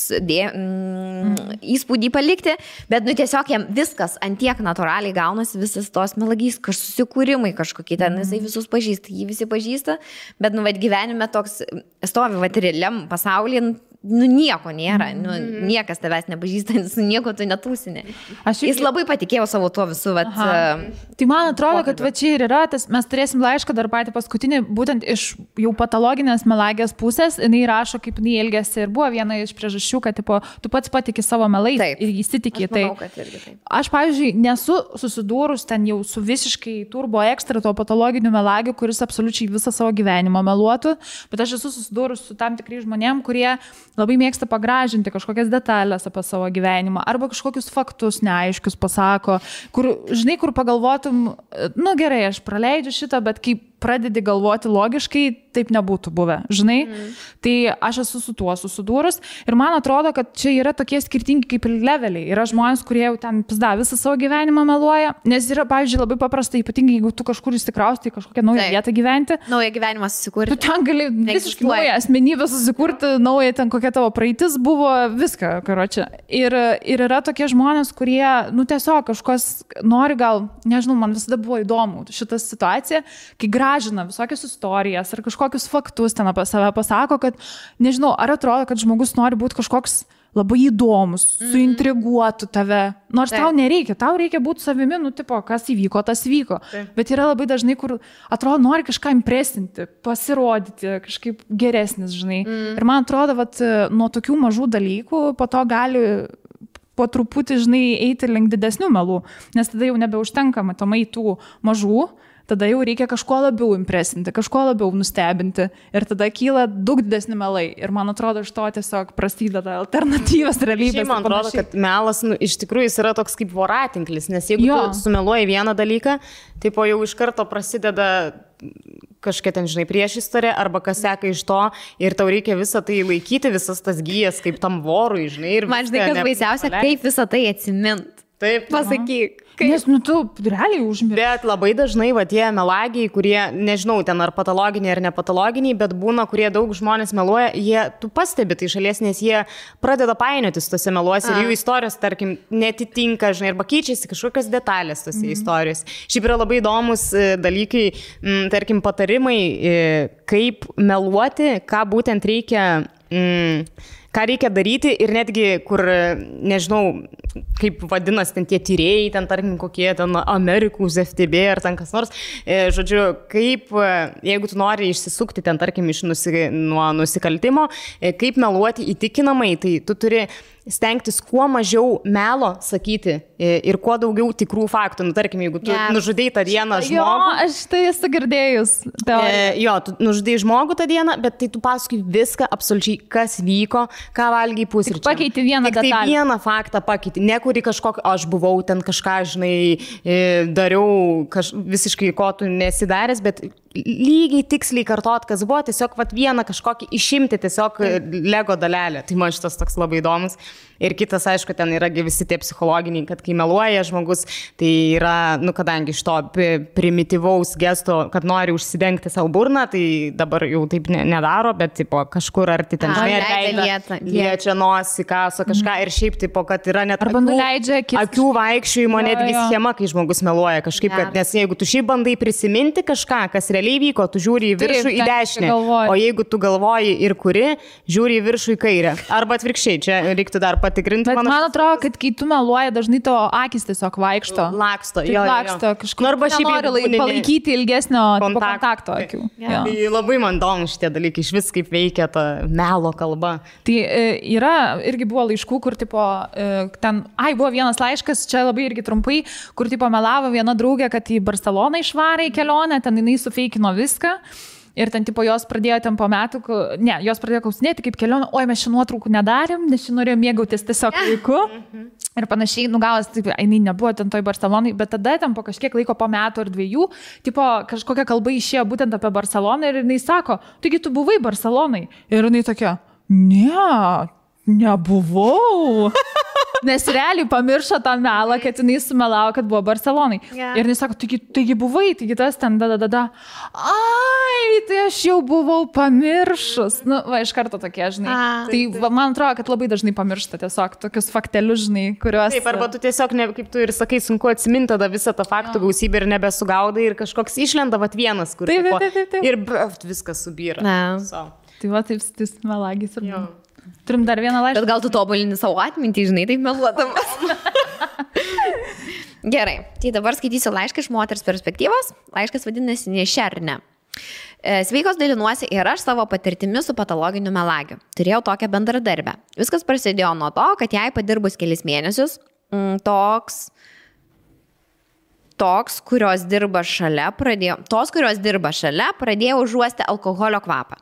įspūdį palikti, bet tiesiog jam viskas antiek natūraliai gaunasi, visas tos melagys, susikūrimai kažkokie ten, jisai visus pažįsta, jį visi pažįsta, bet gyvenime toks stovi realiam pasaulyje, nieko nėra, niekas tavęs nepažįsta, su nieko tu netūsini. Jis labai patikėjo savo tuo visų. Tai man atrodo, kad čia ir yra, mes turėsim laišką dar patį paskutinį, būtent iš jau patologinės melagės pusės, jinai rašo, kaip jinai elgėsi ir buvo viena iš priežasčių, kad tu pats patiki savo melais ir įsitikė. Aš, pavyzdžiui, nesu susidūrus ten jau su visiškai turbo ekstra to patologiniu melagiu, kuris absoliučiai visą savo gyvenimą meluotų, bet aš esu susidūrus su tam tikrai žmonėm, kurie labai mėgsta pagražinti kažkokias detalės apie savo gyvenimą arba kažkokius faktus neaiškius pasako, kur, žinai, kur pagalvotum, gerai, aš praleidžiu šitą, bet kai pradedi galvoti logiškai, taip nebūtų buvę, žinai. Tai aš esu su tuo susidūrus ir man atrodo, kad čia yra tokie skirtingi kaip ir leveliai. Yra žmonės, kurie jau ten visą savo gyvenimą meluoja, nes yra, pavyzdžiui, labai paprasta, ypatingai jeigu tu kažkur įsikrausti į kažkokią naują vietą gyventi. Naują gyvenimą susikurti. Tu ten gali visiškai naują asmenybę susikurti, naują ten kokia tavo praeitis buvo, viską, karočią. Ir yra tokie žmonės, kurie, tiesiog kažkas nori gal, nežinau, man visada buvo įdomu šitą situaciją, kai gražina visokias istorijas ar kažkokius faktus ten apie save pasako, kad, nežinau, ar atrodo, kad žmogus nori būti kažkoks labai įdomus, suintriguotų tave. Nors tau nereikia, tau reikia būti savimi, kas įvyko, tas vyko. Bet yra labai dažnai, kur atrodo, nori kažką impresinti, pasirodyti, kažkaip geresnis, žinai. Ir man atrodo, nuo tokių mažų dalykų po to gali po truputį, žinai, eiti link didesnių melų, nes tada jau nebeužtenka matomai tų mažų, tada jau reikia kažko labiau impresinti, kažko labiau nustebinti ir tada kyla daug didesni melai. Ir man atrodo, iš to tiesiog prasideda alternatyvos realybės. Šiaip man atrodo, kad melas iš tikrųjų jis yra toks kaip voratinklis, nes jeigu tu sumeluoji vieną dalyką, tai po jau iš karto prasideda kažkokia ten, žinai, priešistorė arba kas seka iš to ir tau reikia visą tai laikyti, visas tas gyjas kaip tam vorui, žinai. Ir man žinai, kas baisiausia, kaip visą tai atsimint. Taip. Pasakyk. Nes, tu realiai užmiršti. Bet labai dažnai, tie melagiai, kurie, nežinau, ten ar patologiniai ar nepatologiniai, bet būna, kurie daug žmonės meluoja, tu pastebi tai šalies, nes jie pradeda painiotis tose meluose ir jų istorijos, tarkim, netitinka, žinai, arba keičiasi kažkokios detalės tose istorijos. Šiaip yra labai įdomus dalykai, tarkim, patarimai, kaip meluoti, ką būtent reikia ką reikia daryti ir netgi, kur, nežinau, kaip vadinasi ten tie tyrėjai, ten tarkim kokie ten Amerikos FTB ar ten kas nors, žodžiu, kaip, jeigu tu nori išsisukti ten tarkim nuo nusikaltimo, kaip meluoti įtikinamai, tai tu turi stengtis kuo mažiau melo sakyti ir kuo daugiau tikrų faktų. Nu, tarkim, jeigu tu nužudėjai tą dieną žmogų. Jo, aš tai esu girdėjus. Jo, tu nužudėjai žmogų tą dieną, bet tai tu paskui viską absoliučiai, kas vyko, ką valgiai pusryčiam. Pakeiti vieną detalę. Tai vieną faktą pakeiti. Nekuri kažkokį, aš buvau ten kažką, žinai, dariau visiškai, ko tu nesidaręs, bet lygiai tiksliai kartot, kas buvo, tiesiog vieną kažkokį išimti, tiesiog Lego dalelę. Tai man šitas toks labai įdomus. Ir kitas, aišku, ten yra visi tie psichologiniai, kad kai meluoja žmogus, tai yra, nu, kadangi iš to primityvaus gesto, kad nori užsidengti savo burną, tai dabar jau taip nedaro, bet tipo, kažkur arti ten liečia nosį, kaso kažką ir šiaip, tipo, kad yra net akių vaikščiojimo netgi schema, kai žmogus meluoja kažkaip, kad, nes jeigu tu šiaip bandai prisiminti kažką, kas realiai vyko, tu žiūri į viršų, į dešinę, o jeigu tu galvoji ir kuri, žiūri į viršų, į kairę. Arba atvirkščiai, čia reiktų dar patikrinti. Bet man atrodo, kad kai tu meluoji, dažnai tavo akis tiesiog vaikšto. Laksto, laksto kažkur. Arba šiaip palaikyti ilgesnio kontakto akių. Tai labai man įdomu šitie dalykai, iš vis kaip veikia ta melo kalba. Tai yra, irgi buvo laiškų, kur tipo, ten, buvo vienas laiškas, čia labai irgi trumpai, kur tipo melavo viena draugė, kad į Barceloną išvarė į kelionę, ten jinai sufeikino viską. Ir ten, tipo, jos pradėjo ten po metų, jos pradėjo klausinėti kaip kelionė, oi, mes šią nuotraukų nedarėm, nes šią norėjom mėgautis tiesiog laiku. Ir panašiai, nugavęs, taip, jinai nebuvo ten toj Barcelonai, bet tada ten po kažkiek laiko, po metų ar dviejų, tipo, kažkokia kalba išėjo būtent apie Barceloną ir jinai sako, taigi tu buvai Barcelonai. Ir jinai tokia, nebuvau. Nes realiai pamiršo tą melą, kad jinai sumelavo, kad buvo Barcelonai. Ir jinai sako, taigi buvai, taigi tas ten Ai, tai aš jau buvau pamiršus. Nu, iš karto tokie, žinai. Tai man atrodo, kad labai dažnai pamiršta tiesiog tokius faktelius, žinai, kuriuos... Taip, arba tu tiesiog, kaip tu ir sakai, sunku atsiminti tada visą tą faktų gausybę ir nebesugaudai ir kažkoks išlenda vienas, kur ir viskas subyra. Tai va, taip, melagis ir... Turim dar vieną laišką. Bet gal tu tobulini savo atmintį, žinai, taip meluodamas. Gerai, tai dabar skaitysiu laišką iš moters perspektyvos. Laiškas vadinasi Nešernė. Sveikos, dalinuosi ir aš savo patirtimi su patologiniu melagiu. Turėjau tokią bendradarbę. Viskas prasidėjo nuo to, kad jai padirbus kelis mėnesius, tos, kurios dirba šalia, pradėjo užuosti alkoholio kvapą.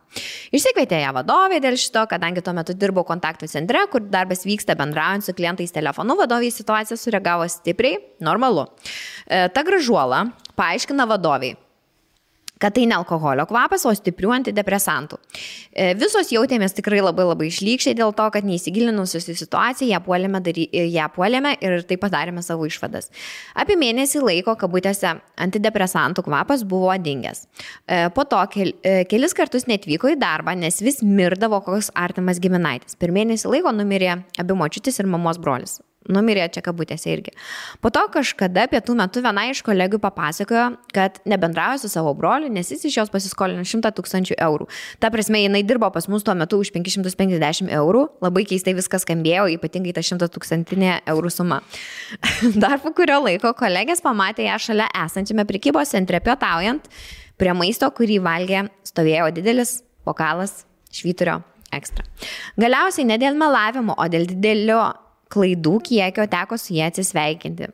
Išsikvietė ją vadovė dėl šito, kadangi tuo metu dirbau kontaktų centre, kur darbas vyksta bendraujant su klientais telefonu, vadovė į situaciją sureagavo stipriai, normalu. Ta gražuola paaiškina vadoviai, kad tai ne alkoholio kvapas, o stiprių antidepresantų. Visos jautėmės tikrai labai labai išlykščiai dėl to, kad neįsigilinusios į situaciją ją puolėme ir taip padarėme savo išvadas. Apie mėnesį laiko, kabutėse, antidepresantų kvapas buvo dingęs. Po to kelis kartus netvyko į darbą, nes vis mirdavo koks artimas giminaitis. Per mėnesį laiko numirė abi močiutės ir mamos brolis. Numirė čia kabutėse irgi. Po to kažkada pietų metu viena iš kolegų papasakojo, kad nebendrauja su savo broliu, nes jis iš jos pasiskolino 100 000 eurų. Ta prasme, jinai dirbo pas mus tuo metu už 550 eurų. Labai keistai viskas skambėjo, ypatingai ta 100 000 eurų suma. Dar po kurio laiko kolegės pamatė ją šalia esančiame prekybos centre pietaujant. Prie maisto, kurį valgė, stovėjo didelis bokalas švyturio ekstra. Galiausiai ne dėl melavimo, o dėl didelio klaidų kiekio teko su jie atsisveikinti.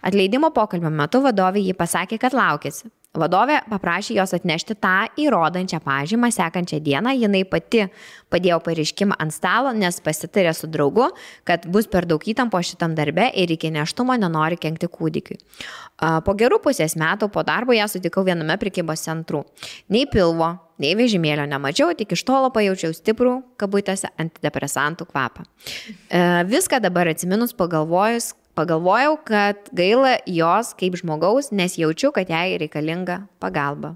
Atleidimo pokalbio metu vadovė jį pasakė, kad laukėsi. Vadovė paprašė jos atnešti tą įrodančią pažymą sekančią dieną. Jinai pati padėjo pareiškimą ant stalo, nes pasitarė su draugu, kad bus per daug įtampo šitam darbe ir iki nėštumo nenori kenkti kūdikiui. Po gerų pusės metų po darbo ją sutikau viename prekybos centrų. Nei pilvo, nei vežimėlio nemačiau, tik iš tolo pajaučiau stiprų, kabutėse, antidepresantų kvapą. Viską dabar atsiminus pagalvojau, kad gaila jos kaip žmogaus, nes jaučiu, kad jai reikalinga pagalba.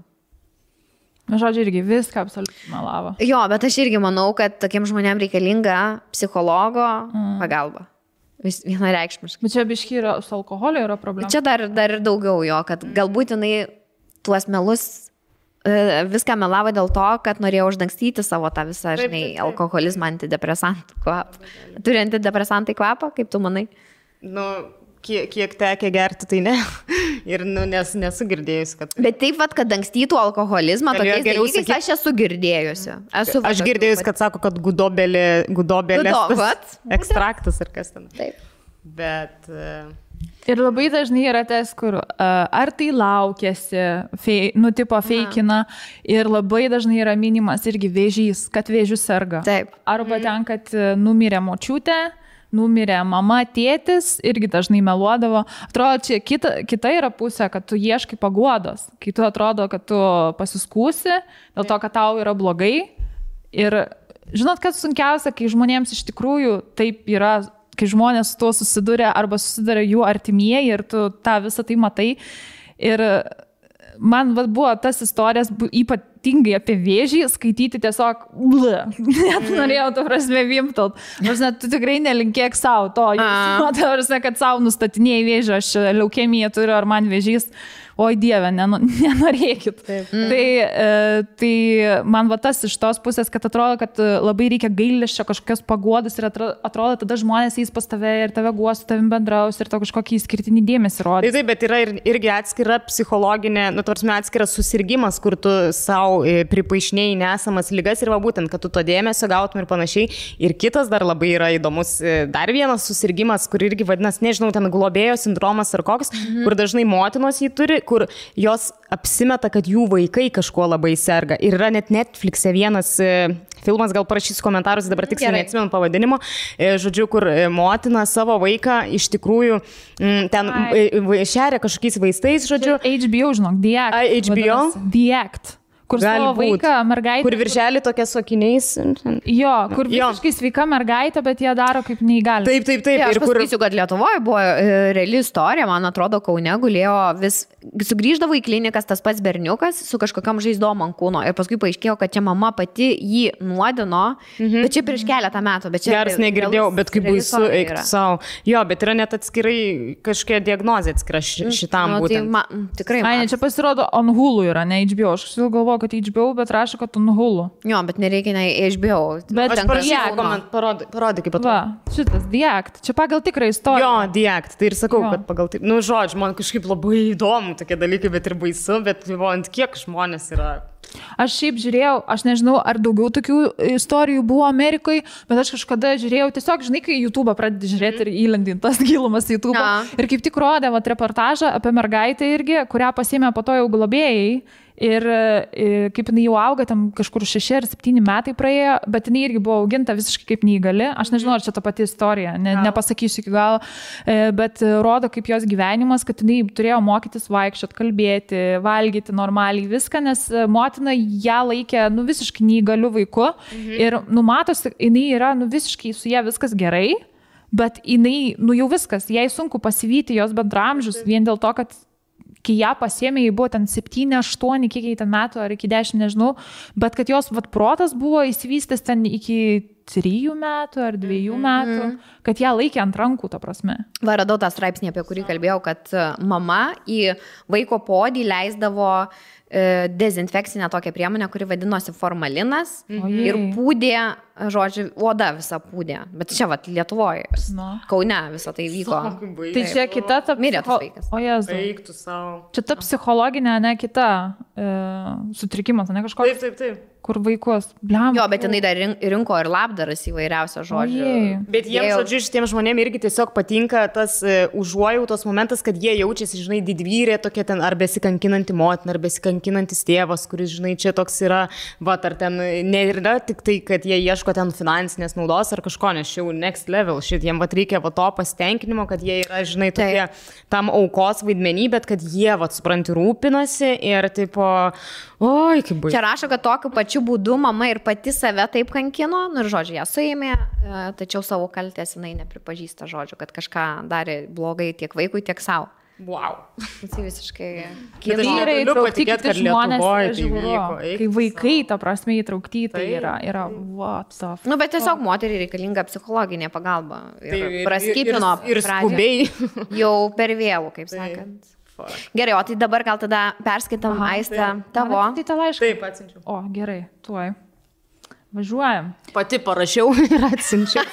Žodžiu, irgi viską absoliučiai melavo. Jo, bet aš irgi manau, kad tokiem žmonėm reikalinga psichologo pagalba. Vienareikšmiškai. Bet čia biški su alkoholiu yra problema. Čia dar ir daugiau jo, kad galbūt jinai tuos melus viską melavo dėl to, kad norėjo uždangstyti savo tą visą, žinai, alkoholizmą, antidepresantų kvapą. Turi antidepresantai kvapą, kaip tu manai? Nu, kiek tekia gerti, tai ne. Ir nesu girdėjusi, kad... Bet taip, kad ankstytų alkoholizmą, tokiais dalykais aš esu girdėjusi. Aš girdėjusi, kad sako, kad gudobelės ekstraktas ar kas ten. Taip. Bet... Ir labai dažnai yra tas, kur ar tai laukėsi, tipo feikina, ir labai dažnai yra minimas irgi vėžys, kad vėžių serga. Taip. Arba ten, kad numirė močiutė, numirė mama, tėtis, irgi dažnai meluodavo. Atrodo, čia kita yra pusė, kad tu ieškai paguodos, kai tu atrodo, kad tu pasiskūsi, dėl to, kad tau yra blogai. Ir žinot, kas sunkiausia, kai žmonėms iš tikrųjų taip yra, kai žmonės su tuo susiduria arba susiduria jų artimieji ir tu tą visą tai matai. Ir man buvo tas istorijas ypatingai apie vėžį skaityti tiesiog, net norėjau to prasme vimtalt. Tu tikrai nelinkėk savo to, kad savo nustatinėjai vėžį, aš leukemiją turiu ar man vėžys. Oi Dieve, nenorėkit. Tai man va tas iš tos pusės, kad atrodo, kad labai reikia gailesčio kažkokios paguodos ir atrodo, tada žmonės eis pas tave ir tave guos, su tavim bendraus ir to kažkokį skirtinį dėmesį rodys. Taip, bet yra irgi atskira psichologinė, atskiras susirgymas, kur tu savo pripaišinėjai nesamas lygas ir va būtent, kad tu to dėmesio gautum ir panašiai. Ir kitas dar labai yra įdomus, dar vienas susirgymas, kur irgi vadinasi, nežinau, ten globėjo sindromas ar koks, kur dažnai motinos jį turi, kur jos apsimeta, kad jų vaikai kažkuo labai serga. Ir yra net Netflix'e vienas filmas, gal parašysiu komentarus, dabar tiksliai neatsimenu pavadinimo, žodžiu, kur motina savo vaiką iš tikrųjų ten šeria kažkokiais vaistais, žodžiu. HBO, žinok, The Act. HBO? The Act. Kur savo vaiką, mergaitę. Kur viršelį tokia su akiniais. Jo, kur visiškai sveika mergaitė, bet jie daro kaip neįgali. Taip. Aš pasakysiu, kad Lietuvoje buvo reali istorija, man atrodo, Kaune gulėjo vis, sugrįždavo į klinikas tas pats berniukas su kažkokiam žaizdom ant kūno ir paskui paaiškėjo, kad čia mama pati jį nuodino, bet čia prieš keletą metų. Geras negirdėjau, bet kaip baisu, eiktų savo. Jo, bet yra net atskirai kažkokia diagnozė atskira šitam būtent. Tikrai. Ai, čia pasirodo on Hulu yra, ne HBO. Aš galvoju, kad HBO, bet rašo, kad on Hulu. Jo, bet nereikia ne HBO. Bet aš parašysiu, parodai kaip atrodo. Va, šitas The Act. Čia pagal tikrą istoriją. Jo, The Act. Tai ir sakau, kad pagal taip. Nu, žodžiu, man kažkaip labai įdomu tokie dalykai, bet ir baisu, bet ant kiek žmonės yra. Aš šiaip žiūrėjau, aš nežinau, ar daugiau tokių istorijų buvo Amerikoje, bet aš kažkada žiūrėjau, tiesiog, žinai, kai YouTube'ą pradedi žiūrėti ir įlendinti tas gilumas YouTube'ą. Ir kaip tik rodė reportažą apie mergaitę irgi, kurią pasiėmė po to jau globėjai. Ir kaip jinai jau auga, tam kažkur 6 ar 7 metai praėjo, bet jinai irgi buvo auginta visiškai kaip neįgali. Aš nežinau, ar čia ta pati istorija, nepasakysiu iki galo, bet rodo kaip jos gyvenimas, kad jinai turėjo mokytis vaikščiot, kalbėti, valgyti normaliai viską, nes motina ją laikė visiškai neįgaliu vaiku ir numatosi, jinai yra visiškai su ją viskas gerai, bet jinai, jau viskas, jai sunku pasivyti jos bendramžius vien dėl to, kad kai ją pasiėmė, jai buvo ten 7, 8, kiek jai ten metų, ar iki 10, nežinau, bet kad jos protas buvo įsivystęs ten iki 3 metų ar 2 metų, kad ją laikė ant rankų, ta prasme. Va, radau tą straipsnį, apie kurį kalbėjau, kad mama į vaiko podį leisdavo dezinfekcinę tokią priemonę, kuri vadinosi formalinas ir pūdė, žodžiu, oda visą pūdė. Bet čia, Lietuvoje, Kaune visą tai vyko. Tai čia kita ta... Mirė tas vaikas. O Jezu. Eiktų savo. Čia ta psichologinė, ne kita sutrikimas, ne kažkoks. Taip. Kur vaikus. Bliam. Jo, bet jinai dar rinko ir labdaras įvairiausio žodžio. Bet jiems, žodžiu, šitiems žmonėms irgi tiesiog patinka tas užuojautos momentas, kad jie jaučiasi, žinai, didvyrė tokia ten ar besikankinanti motina, ar besikankinantis tėvas, kuris, žinai, čia toks yra, ar ten nėra tik tai, kad jie ieško ten finansinės naudos ar kažko, nes čia jau next level, jiems reikia to pasitenkinimo, kad jie yra, žinai, tokie tam aukos vaidmenį, bet kad jie, supranti, rūpinasi ir tipo, oi, kaip baisu. Čia rašo, kad tokiu pačiu būdu mama ir pati save taip kankino, ir žodžiu, ją suėmė, tačiau savo kaltės jinai nepripažįsta, žodžiu, kad kažką darė blogai tiek vaikui, tiek savo. Wow. Tai visiškai... Vyrai įtraukti kiti žmonės, kai vaikai, ta prasme, įtraukti, tai yra what the fuck. Bet tiesiog moteriai reikalinga psichologinė pagalba. Ir praskipino ir skubiai. Jau per vėlų, kaip sakant. Gerai, o tai dabar gal tada perskaitam, Aiste, tavo. Tai tą laišką. Taip, atsinčiau. O, gerai, tuoj. Važiuojam. Pati parašiau ir atsinčiau.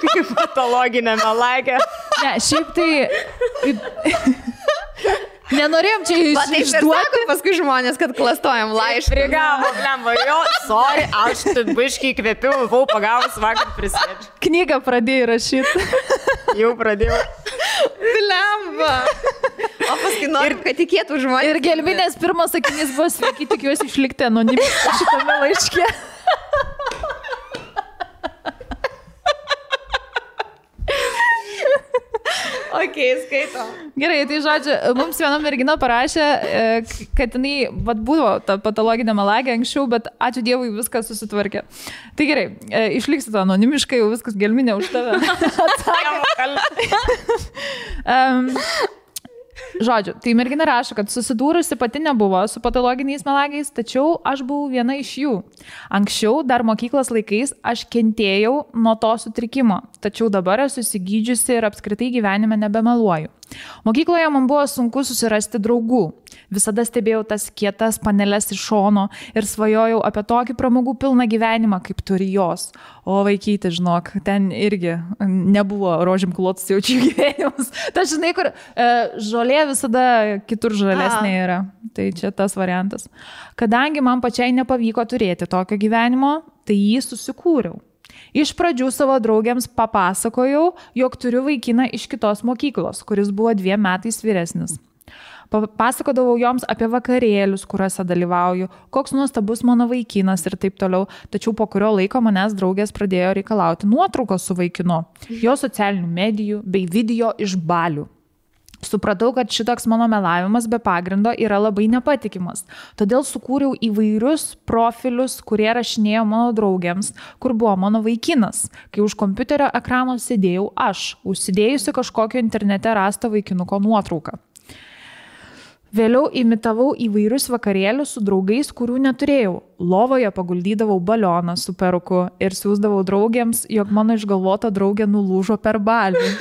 Kaip patologinė melagė. Ne, šiaip tai... Nenorėjom čia išduoti. Paskui žmonės, kad klastojam laišką. Prigavo, blemba, jo, sorry, aš biškai įkvėpiau, buvau pagavus vakar prisėdžiu. Knygą pradėjai rašyti. Jau pradėjau. Blemba. O paskui norim, kad tikėtų žmonės. Ir gelminės pirmas sakinys buvo sveiki, tikiuosi išlikti anonimiškai šitame laiške. Ok, skaitom. Gerai, tai žodžiu, mums viena mergina parašė, kad jinai buvo ta patologinė melagė anksčiau, bet ačiū Dievui viskas susitvarkė. Tai gerai, išliksi to anonimiškai, jau viskas gelminė už tave. Žodžiu, tai mergina rašo, kad susidūrusi pati nebuvo su patologiniais melagiais, tačiau aš buvau viena iš jų. Anksčiau, dar mokyklos laikais, aš kentėjau nuo to sutrikimo, tačiau dabar esu įsigydžiusi ir apskritai gyvenime nebemeluoju. Mokykloje man buvo sunku susirasti draugų. Visada stebėjau tas kietas paneles iš šono ir svajojau apie tokį pramogų pilną gyvenimą, kaip turi jos. O vaikyti, žinok, ten irgi nebuvo rožėm klotas jaučių gyvenimas. Ta žinai, kur žolė visada kitur žalesnė yra. Tai čia tas variantas. Kadangi man pačiai nepavyko turėti tokio gyvenimo, tai jį susikūriau. Iš pradžių savo draugėms papasakojau, jog turiu vaikiną iš kitos mokyklos, kuris buvo 2 metais vyresnis. Pasakodavau joms apie vakarėlius, kuriuose dalyvauju, koks nuostabus mano vaikinas ir taip toliau, tačiau po kurio laiko manęs draugės pradėjo reikalauti nuotraukos su vaikinu, jo socialinių medijų bei video iš balių. Supratau, kad šitoks mano melavimas be pagrindo yra labai nepatikimas. Todėl sukūriau įvairius profilius, kurie rašinėjo mano draugėms, kur buvo mano vaikinas, kai už kompiuterio ekrano sėdėjau aš, užsidėjusi kažkokio internete rastą vaikinuko nuotrauką. Vėliau imitavau įvairius vakarėlius su draugais, kurių neturėjau. Lovoje paguldydavau balioną su peruku ir siųsdavau draugėms, jog mano išgalvota draugė nulūžo per balį.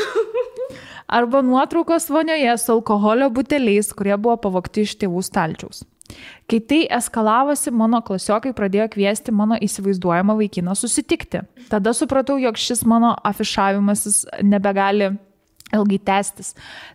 Arba nuotraukos vonioje su alkoholio buteliais, kurie buvo pavogti iš tėvų stalčiaus. Kai tai eskalavosi, mano klasiokai pradėjo kviesti mano įsivaizduojamą vaikiną susitikti. Tada supratau, jog šis mano afišavimasis nebegali ilgai tęstis.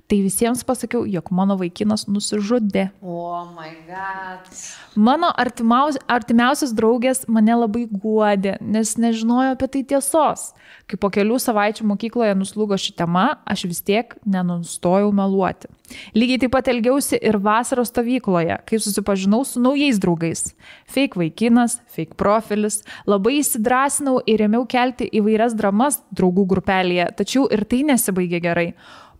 Tai visiems pasakiau, jog mano vaikinas nusižudė. Oh my God. Mano artimiausias draugės mane labai guodė, nes nežinojo apie tai tiesos. Kai po kelių savaičių mokykloje nuslūgo ši tema, aš vis tiek nenustojau meluoti. Lygiai taip pat elgiausi ir vasaros stovykloje, kai susipažinau su naujais draugais. Fake vaikinas, fake profilis. Labai įsidrasinau ir ėmiau kelti įvairias dramas draugų grupelėje, tačiau ir tai nesibaigė gerai.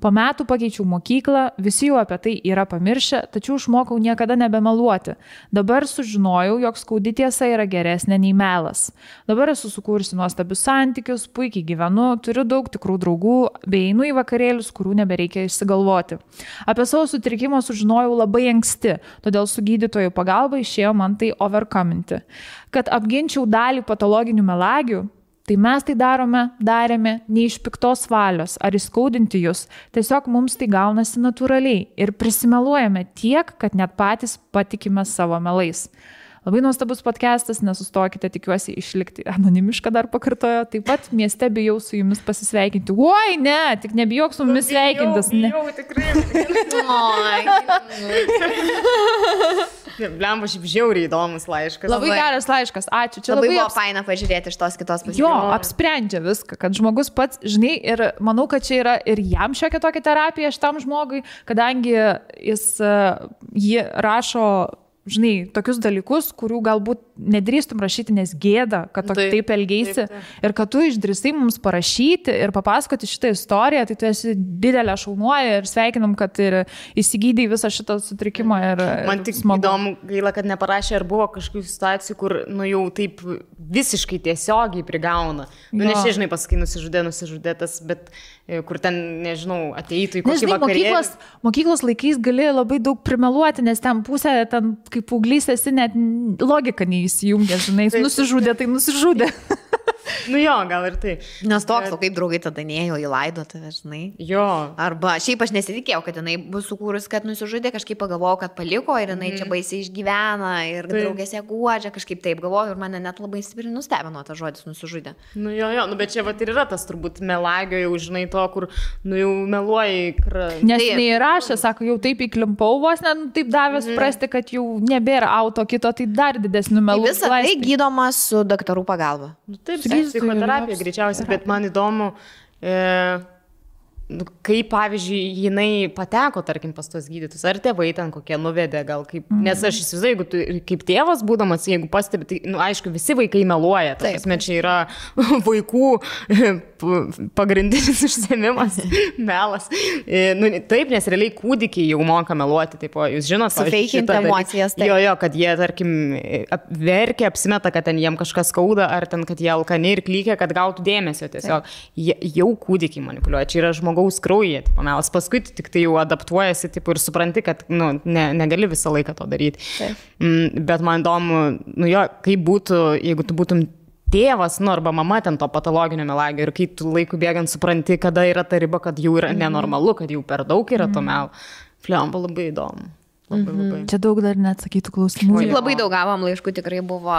Po metų pakeičiau mokyklą, visi jau apie tai yra pamiršę, tačiau išmokau niekada nebemeluoti. Dabar sužinojau, jog skaudi tiesa yra geresnė nei melas. Dabar esu sukūrusi nuostabius santykius, puikiai gyvenu, turiu daug tikrų draugų, bei einu į vakarėlius, kurių nebereikia išsigalvoti. Apie savo sutrikimą sužinojau labai anksti, todėl su gydytojų pagalba išėjo man tai overcominti. Kad apginčiau dalį patologinių melagių, tai mes tai darėme ne iš piktos valios ar įskaudinti jūs, tiesiog mums tai gaunasi natūraliai ir prisimeluojame tiek, kad net patys patikime savo melais. Labai nuostabus podcastas, nesustokite, tikiuosi išlikti anonimišką dar pakartojo. Taip pat mieste bijau su jumis pasisveikinti. Oi, ne, tik nebijok su mumis sveikintis. Bijau, tikrai. Blemba, šiaip žiauriai įdomus laiškas. Labai geras laiškas, ačiū. Čia labai buvo faina pažiūrėti iš tos kitos pusės. Jo, apsprendžia viską, kad žmogus pats, žinai, ir manau, kad čia yra ir jam šiokia tokia terapija šitam žmogui, kadangi jį rašo, žinai, tokius dalykus, kurių galbūt nedrįstum rašyti, nes gėda, kad taip elgeisi. Ir kad tu išdrįstai mums parašyti ir papasakoti šitą istoriją, tai tu esi didelė šaunuoja ir sveikinam, kad ir įsigydai visą šitą sutrikimą. Man tik įdomu, gaila, kad neparašė, ar buvo kažkokių situacijų, kur, jau taip visiškai tiesiogiai prigauna. Nežinai, pasakai, nusižudė tas, bet kur ten, nežinau, ateitų į kokį vakarėlį. Mokyklos laikais gali labai daug primeluoti, nes ten pusė, ten kaip paauglys esi, net logika neįsijungia, žinai, nusižudė, tai nusižudė. Nu jo, gal ir tai. Nes toks, o kaip draugai tada nėjo į laidotuvę, žinai. Jo. Arba šiaip aš nesitikėjau, kad jinai bus sukūrus, kad nusižudė, kažkaip pagalvojau, kad paliko ir jinai čia baisiai išgyvena ir draugės ją guodžia, kažkaip taip galvoju ir mane net labai stipriai nustebino tas žodis nusižudė. Nu jo, bet čia vat ir yra tas turbūt melagio jau, žinai, to, kur, nu jau meluoji. Nes neįrašė, sako, jau taip įklimpau vos, taip davė suprasti, kad jau nebėra auto kito, tai dar didesnių melų. Visą tai gydoma su daktarų pagalba. Nu, taip, psichoterapija greičiausiai, bet man įdomu, kaip, pavyzdžiui, jinai pateko, tarkim, pas tos gydytus, ar tėvai ten kokie nuvedė, gal kaip, nes aš įsivaizduoju, jeigu tu kaip tėvas būdamas, jeigu pastebi, tai, nu, aišku, visi vaikai meluoja, tai čia yra vaikų pagrindinis užsiėmimas, melas. Nu, taip, nes realiai kūdikiai jau moka meluoti, taip, jūs žinot, sufeikinti emocijas. Jo, kad jie, tarkim, verkia, apsimeta, kad ten jiem kažkas skauda, ar ten, kad jie alkani ir klykia, kad gautų dėmesio tiesiog. Jau kūdikiai manipuliuoja, čia yra žmogaus kraujyje, tipo, melas. Paskui tik tai jau adaptuojasi, tipo, ir supranti, kad, nu, negali visą laiką to daryti. Bet man įdomu, nu jo, kaip būtų, jeigu tu būtum tėvas, nu, arba mama ten to patologinio melagio ir kai tu laiku bėgant supranti, kada yra ta riba, kad jau yra nenormalu, kad jau per daug yra to melo. Fliamba, labai įdomu. Labai. Čia daug dar neatsakytų klausimų. Labai daug gavom laiškų, tikrai buvo.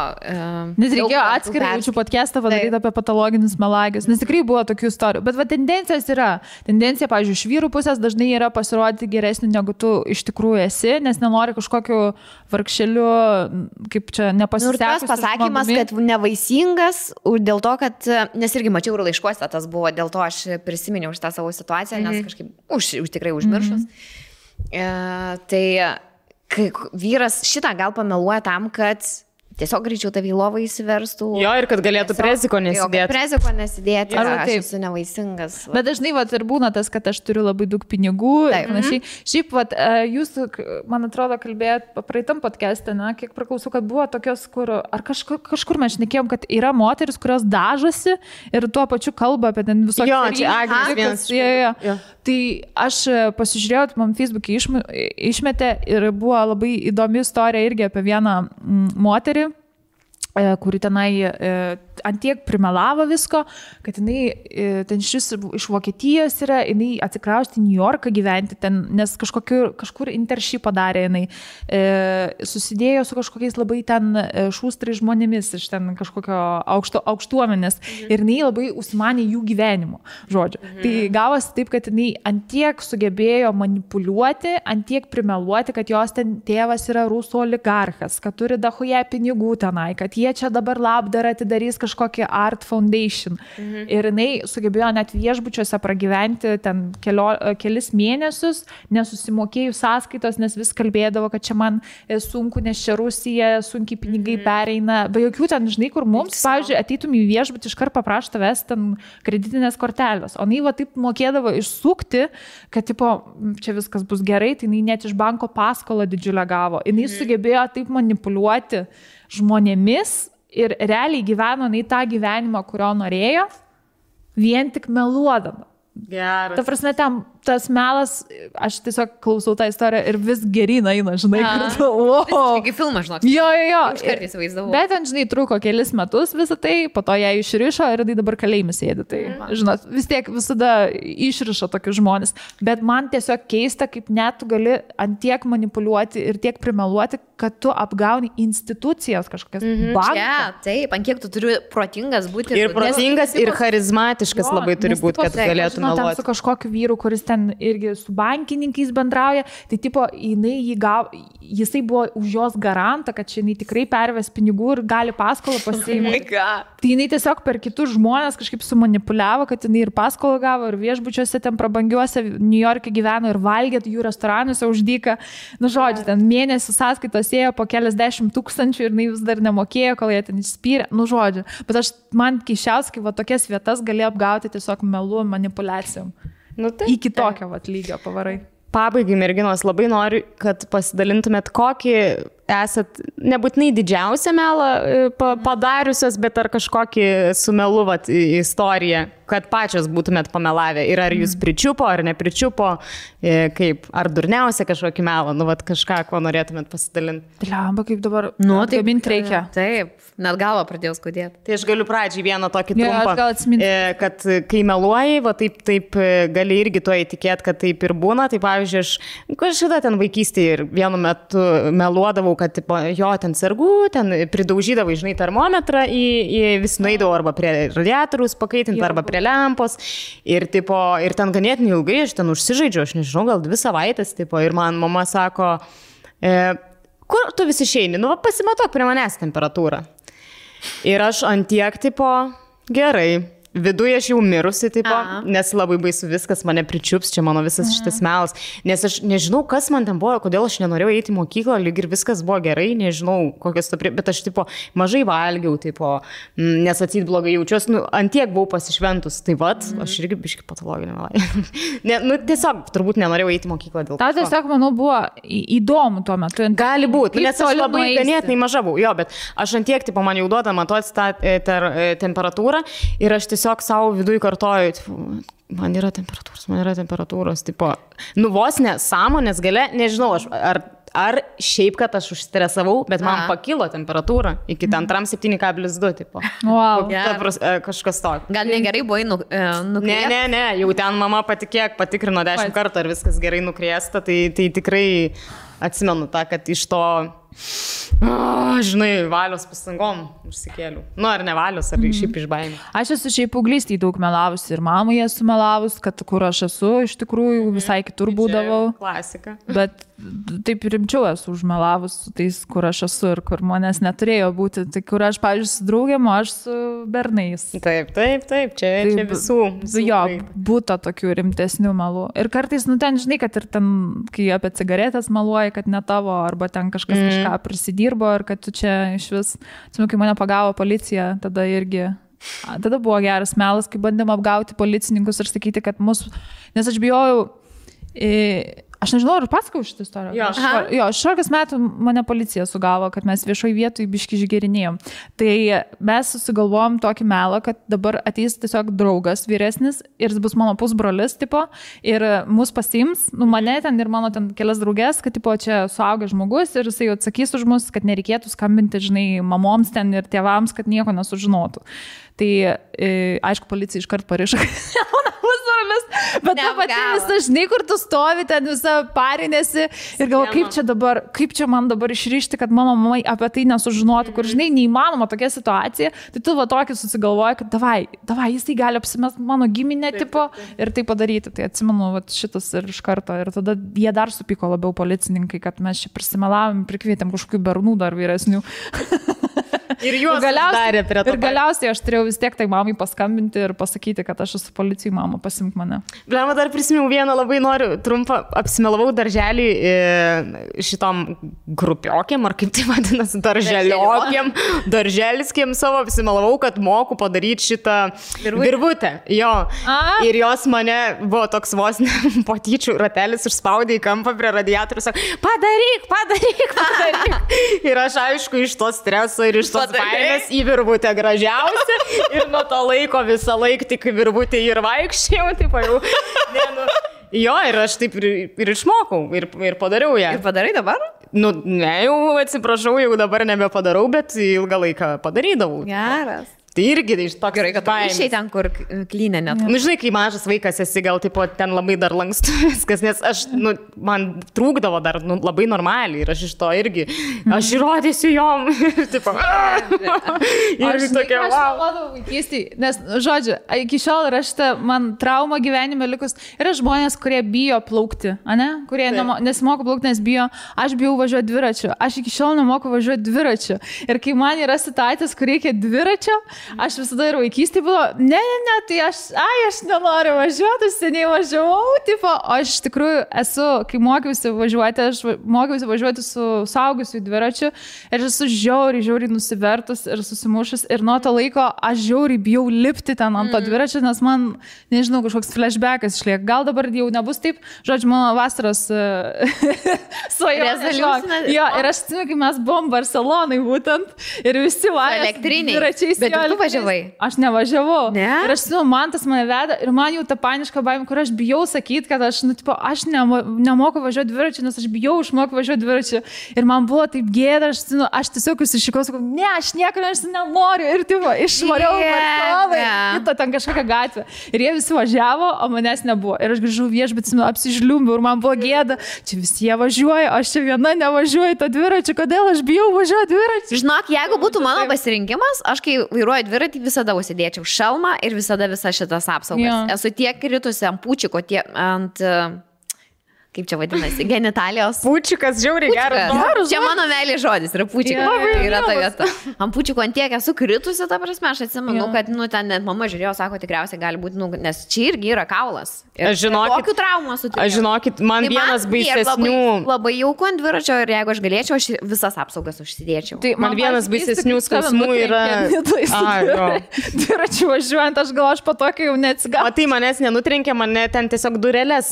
Nes reikėjo atskirai jaučiu podcastą padaryti apie patologinius melagius, nes tikrai buvo tokių istorijų. Bet va, tendencijos yra. Tendencija, pavyzdžiui, iš vyrų pusės dažnai yra pasirodyti geresnį, negu tu iš tikrųjų esi, nes nenori kažkokiu vargšeliu, kaip čia nepasisekusiu. Ir tas pasakymas, kad nevaisingas, dėl to, kad, nes irgi mačiau ir laiškuose, tas buvo, dėl to aš prisiminiau šitą savo situaciją, nes kažkaip tikrai užmiršus. Tai kai vyras šitą gal pameluoja tam, kad tiesiog greičiau tavį lovą įsiverstų. Jo, ir kad galėtų preziko nesidėti. Preziko nesidėti, aš esu nevaisingas. Bet dažnai ir būna tas, kad aš turiu labai daug pinigų. Šiaip, jūs, man atrodo, kalbėjot praeitam podcast'e, kiek priklausau, kad buvo tokios, kur, ar kažkur mes šnekėjom, kad yra moteris, kurios dažosi ir tuo pačiu kalba apie ten visokius. Jo, čia Agnės vienas. Tai aš pasižiūrėjau, man Facebook'e išmetė ir buvo labai įdomi istorija irgi apie vieną moterį, kuri tenai antiek primelavo visko, kad jinai ten iš Vokietijos yra, jinai atsikraustė į New Yorką gyventi ten, nes kažkur internship padarė jinai, susidėjo su kažkokiais labai ten šūstrai žmonėmis iš ten kažkokio aukštuomenės ir jinai labai užsimanė jų gyvenimo, žodžiu. Tai gavosi taip, kad jinai antiek sugebėjo manipuliuoti, antiek primeluoti, kad jos ten tėvas yra rusų oligarchas, kad turi dahoje pinigų tenai, kad jie čia dabar labdarą atidarys kažkokią Art Foundation. Ir jinai sugebėjo net viešbučiuose pragyventi ten kelis mėnesius, nesusimokėjus sąskaitos, nes vis kalbėdavo, kad čia man sunku, nes čia Rusija, sunkiai pinigai pereina. Be jokių ten, žinai, kur mums, pavyzdžiui, ateitum į viešbutį, iškart paprašo tavęs ten kreditinės kortelės. O jinai va taip mokėdavo išsukti, kad tipo, čia viskas bus gerai, tai jinai net iš banko paskolą didžiulę gavo. Jinai sugebėjo taip manipuliuoti žmonėmis ir realiai gyveno nei tą gyvenimą, kurio norėjo, vien tik meluodama. Geras. Ta prasme, tas melas, aš tiesiog klausau tą istoriją ir vis geryn eina, žinai, kartu. Kaip filmas, žinok. Jo. Aš kartais vaizdavau. Bet ten, žinai, truko kelis metus visą tai, po to ją išrišo ir tai dabar kalėjime sėdi. Tai, žinot, vis tiek visada išrišo tokius žmonės. Bet man tiesiog keista, kaip net tu gali antiek manipuliuoti ir tiek primeluoti, kad tu apgauni institucijas kažkokias. Ja, taip, ant kiek tu turi protingas būti. Ir protingas, ir charizmatiškas labai turi būti, kad galėtum meluoti. Su kažkokiu vyru, kuris ten irgi su bankininkais bendrauja, tai tipo, jisai buvo už jos garantą, kad čia jinai tikrai perves pinigų ir gali paskolą pasiimti. Tai jinai tiesiog per kitus žmonės kažkaip sumanipuliavo, kad jinai ir paskolą gavo, ir viešbučiuose ten prabangiuose New York'e gyveno, ir valgė jų restoranuose už dyką. Nu, žodžiu, ten mėnesių sąskaitos ėjo po keliasdešimt tūkstančių ir jinai vis dar nemokėjo, kol jie ten išspyrė. Nu, žodžiu. Bet man keisčiausiai, kai va tokias vietas gali apgauti tiesiog melu manipulacijom. Nu, tai, iki tokio lygio pavarai. Pabaigai, merginos, labai noriu, kad pasidalintumėt, kokį esat nebūtinai didžiausią melą padariusios, bet ar kažkokį su melu istoriją kad pačios būtumėt pamelavę ir ar jūs pričiupo, ar nepričiupo, kaip, ar durniausia kažkokį melą, nu, vat kažką, ko norėtumėt pasidalinti. Lemba, kaip dabar, tai mint reikia. Taip, net galva pradėjau skaudėti. Tai aš galiu pradžiai vieną tokį trumpą, kad kai meluoji, va taip gali irgi tuo įtikėti, kad taip ir būna. Tai pavyzdžiui, aš kažkada ten vaikystėje ir vienu metu meluodavau, kad tipo, jo ten sergu, ten pridaužydavau, žinai, termometrą vis nueidavau arba prie radiatoriaus pakaitinti, arba prie lempos. Ir ten ganėtinai ilgai aš ten užsižaidžiu, aš nežinau, gal 2 savaitės, tipo, ir man mama sako, kur tu vis išeini, nu, pasimatok prie manęs temperatūrą. Ir aš antiek, tipo, gerai. Viduje aš jau mirusi, tipo, nes labai baisu viskas, mane pričiups, čia mano visas šitas melas. Nes aš nežinau, kas man ten buvo, kodėl aš nenorėjau eiti į mokyklą, lyg ir viskas buvo gerai, nežinau, kokios to bet aš, tipo, mažai valgiau, tipo, nes atseit blogai jaučiuosi, nu, antiek buvau pasišventus, tai vat, aš irgi biški patologinė melai. Nu, tiesiog, turbūt nenorėjau eiti į mokyklą dėl to. Tau tiesiog, manau, buvo įdomu tuo metu. Gali būti, nes aš labai ganėtinai maža buvau, jo, bet aš antiek, tipo, man jau duoda matuoti tą temperatūrą ir aš tiesiog savo viduje kartoju, man yra temperatūros, tipo, nu vos ne, sąmonės gale, nežinau, ar šiaip, kad aš užstresavau, bet man pakilo temperatūra iki 7,2, tipo. Wow. Kažkas tokio. Gal negerai buvai nukriesta? Ne, jau ten mama patikrino 10 kartų, ar viskas gerai nukriesta, tai tikrai atsimenu tą, kad iš to, žinai, valios pastangom užsikėliau. Nu, ar ne valios, ar šiaip iš baimės. Aš esu šiaip paauglystėje daug melavus ir mamai esu melavus, kad kur aš esu, iš tikrųjų visai kitur būdavau. Klasika. Bet taip rimčiau esu užmelavus su tais, kur aš esu ir kur manęs neturėjo būti. Tai kur aš, pavyzdžiui, su draugėm, aš su bernais. Taip, čia visų. Jo, būta tokių rimtesnių melų. Ir kartais, nu ten, žinai, kad ir ten, kai apie cigaretės meluoji, kad ne tavo, arba ten kažkas kažką prisidirbo ir kad tu čia iš vis, kai mane pagavo policija, tada buvo geras melas, kai bandėm apgauti policininkus ir sakyti, kad nes aš bijojau, aš nežinau, ar pasakau šitą istoriją. Jo, 16 metų mane policija sugavo, kad mes viešoj vietoj biški išgerinėjom. Tai mes susigalvojom tokį melą, kad dabar ateis tiesiog draugas vyresnis ir bus mano pusbrolis, tipo, ir mus pasiims, nu mane ten ir mano ten kelias draugės, kad tipo, čia suaugęs žmogus ir jisai atsakys už mus, kad nereikėtų skambinti, žinai, mamoms ten ir tėvams, kad nieko nesužinotų. Tai, aišku, policija iškart parišo, bet ta pati visa, žinai, kur tu stovi, ten visa parinėsi ir galvo, kaip čia man dabar išrišti, kad mano mamai apie tai nesužinotų, kur, žinai, neįmanoma tokia situacija, tai tu va tokį susigalvoji, kad davai, jisai gali apsimest mano giminę tipo ir tai padaryti. Tai atsimenu va, šitas ir iš karto. Ir tada jie dar supyko labiau policininkai, kad mes čia prisimelavom, prikvietėm kažkokių bernų dar vyresnių. Ir juos darė prie to. Ir galiausiai aš turėjau vis tiek tai mamai paskambinti ir pasakyti, kad aš esu policijai, mama, pasimk mane. Blema, dar prisimenu vieną, labai noriu trumpą, apsimelavau darželį šitom grupiokiam, ar kaip tai vadinasi, darželiskėm savo, apsimelavau, kad moku padaryti šitą virvutę. Jo. Ir jos mane buvo toks vos patyčių ratelis, užspaudė į kampą prie radiatorių, sako, padaryk. Ir aš aišku iš to streso ir iš tos baimės į virvutę gražiausia ir nuo to laiko visą laiką tik virvutę ir vaikščiau, taip jau. Jo, ir aš taip ir išmokau ir padariau ją. Ir padarai dabar? Nu, ne, jau atsiprašau, jau dabar nebepadarau, bet ilgą laiką padarydavau. Geras. Tai irgi iš tokio gerai, kad išėjai ten, kur klynė net. Nu, žinai, kai mažas vaikas esi, gal tipo, ten labai dar lankstu viskas, nes aš, man trūkdavo dar labai normaliai ir aš iš to irgi, aš įrodysiu jom. Tipo, ir tokia, wow. Aš malodavau vaikystėj, nes, žodžiu, iki šiol yra šitą man trauma gyvenime likus. Yra žmonės, kurie bijo plaukti, ane? Kurie nesimoko plaukti, nes bijo. Aš bijau važiuoti dviračiu. Aš iki šiol nemoku važiuoti dviračiu. Ir kai man yra situacijos, kur reikia dviračio, aš visada ir vaikystėje buvo, ne, tai aš nenoriu važiuoti, seniai važiavau, tipo, aš iš tikrųjų esu, kai mokiausi važiuoti su suaugusiu dviračiu ir aš esu žiauriai nusivertus ir susimušus ir nuo to laiko aš žiauriai bijau lipti ten ant to dviračio, nes man, nežinau, kažkoks flashbackas išlieka. Gal dabar jau nebus taip, žodžiu, mano vasaros svajonė. Jo, ir aš atsimenu, kai mes buvom Barcelonai būtent ir visi važiavo dviračiais. tu važiavai? Aš nevažiavau. Ne? Ir aš, man tas mane veda ir man jau ta paniška baimė, kur aš bijau sakyti, kad aš, aš nemoku važiuoti dviračiu, nes aš bijau išmokti važiuoti dviračiu. Ir man buvo taip gėda, aš tiesiog užsišikau, sakau, ne, aš niekur nenoriu. Ir išvariau kitą ten kažkokią gatvę. Ir jie visi važiavo, o manęs nebuvo. Ir aš grįžau viešbutį, apsižliumbiau ir man buvo gėda. Čia visi jie važiuoja, aš čia viena nevažiuoju to dviračiu, kodėl aš bijau važiuoti dviračiu. Žinok, jeigu būtų mano pasirinkimas, aš kai vairuoju dviratį visada užsidėčiau šalmą ir visada visas šitas apsaugas. Jo. Esu tiek kritusi ant pučiko, ant... Kaip čia vadinasi, genitalijos. Pučikas, žiauriai geras. Čia mano meilė žodis yra pučikas. Yeah, yra ta vieta. Ant pučiko ant tiek esu kritusi, ta prasme, aš atsimenu, kad, ten net mama žiūrėjo, sako, tikriausiai gali būti, nes čia irgi yra kaulas. Aš žinokit, kokių traumų sutikau. Aš žinokit, man vienas baisesnių. Labai jauku ant dviračio ir jeigu aš galėčiau, aš visas apsaugas užsidėčiau. Tai man vienas baisesnių skausmų yra... Dviračiu važiuojant, aš gal aš po tokio jau neatsigau. O tai manęs nenutrenkė, mane ten tiesiog durelės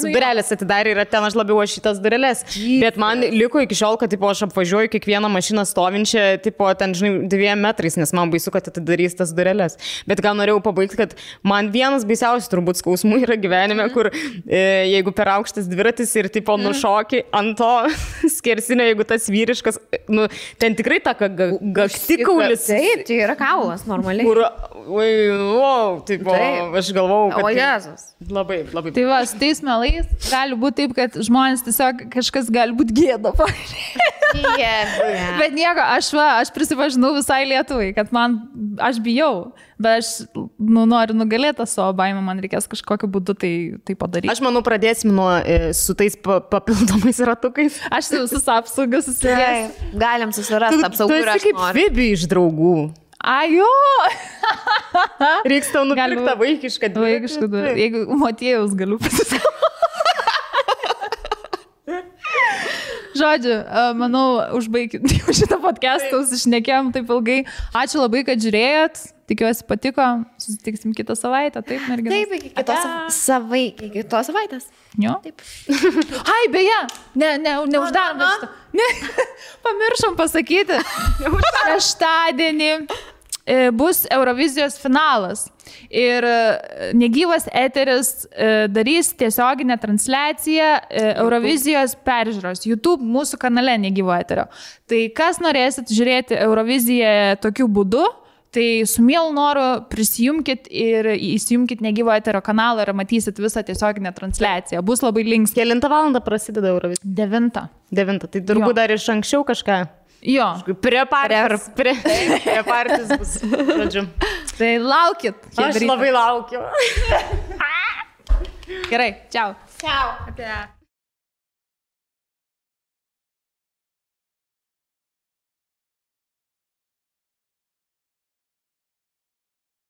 atidarė ir ten aš labiau šitas durelės. Bet man liko iki šiol, kad aš apvažiuoju kiekvieną mašiną stovinčią, ten, žinai, 2 metrais, nes man baisu, kad atidarys tas durelės. Bet gal norėjau pabaigti, kad man vienas baisiausias turbūt skausmų yra gyvenime, kur jeigu per aukštas dviratis ir nušoki ant to skersinio, jeigu tas vyriškas, ten tikrai ta gaktikaulis. Taip, tai yra kaulas normaliai. Kur, aš galvau, kad... O Jėzus. Labai. Tai va, su tais melais gali būti taip, kad žmonės tiesiog kažkas gali būti gėda. Bet nieko, aš prisipažinau visai Lietuvai, kad aš bijau, bet aš noriu nugalėti savo baimę, man reikės kažkokiu būdu tai padaryti. Aš manau, pradėsim su tais papildomais ratukais. Aš visus apsaugas susidėsiu. Galim susirasti apsaugų ir aš noriu. Tu esi kaip Fibi iš Draugų. Ajo! Reiks tau nupirkti tą vaikišką dviratį. Jeigu Motiejaus galiu pasisakyti. Žodžiu, manau, užbaigit šitą podcastą, sušnekėjom taip ilgai. Ačiū labai, kad žiūrėjot. Tikiuosi patiko. Susitiksim kitą savaitę. Taip, merginas. Taip, iki kitos savaitės. Jo. Taip. Ai, beje, neuždarom šitą. Ne, pamiršom pasakyti. Šeštadienį bus Eurovizijos finalas. Ir negyvas eteris darys tiesioginę transliaciją Eurovizijos peržiūros YouTube mūsų kanale negyvo eterio. Tai kas norėsit žiūrėti Euroviziją tokiu būdu, tai su mielu noru prisijungkit ir įsijungkit negyvo eterio kanalą ir matysit visą tiesioginę transliaciją. Bus labai linksma. Kelintą valandą prasideda Eurovizija? 9. 9. Tai turbūt dar iš anksčiau kažką. Jo. Prie partijos bus. Žodžiu. Tai laukit. Aš labai laukiu. Gerai, čiau. Čiau.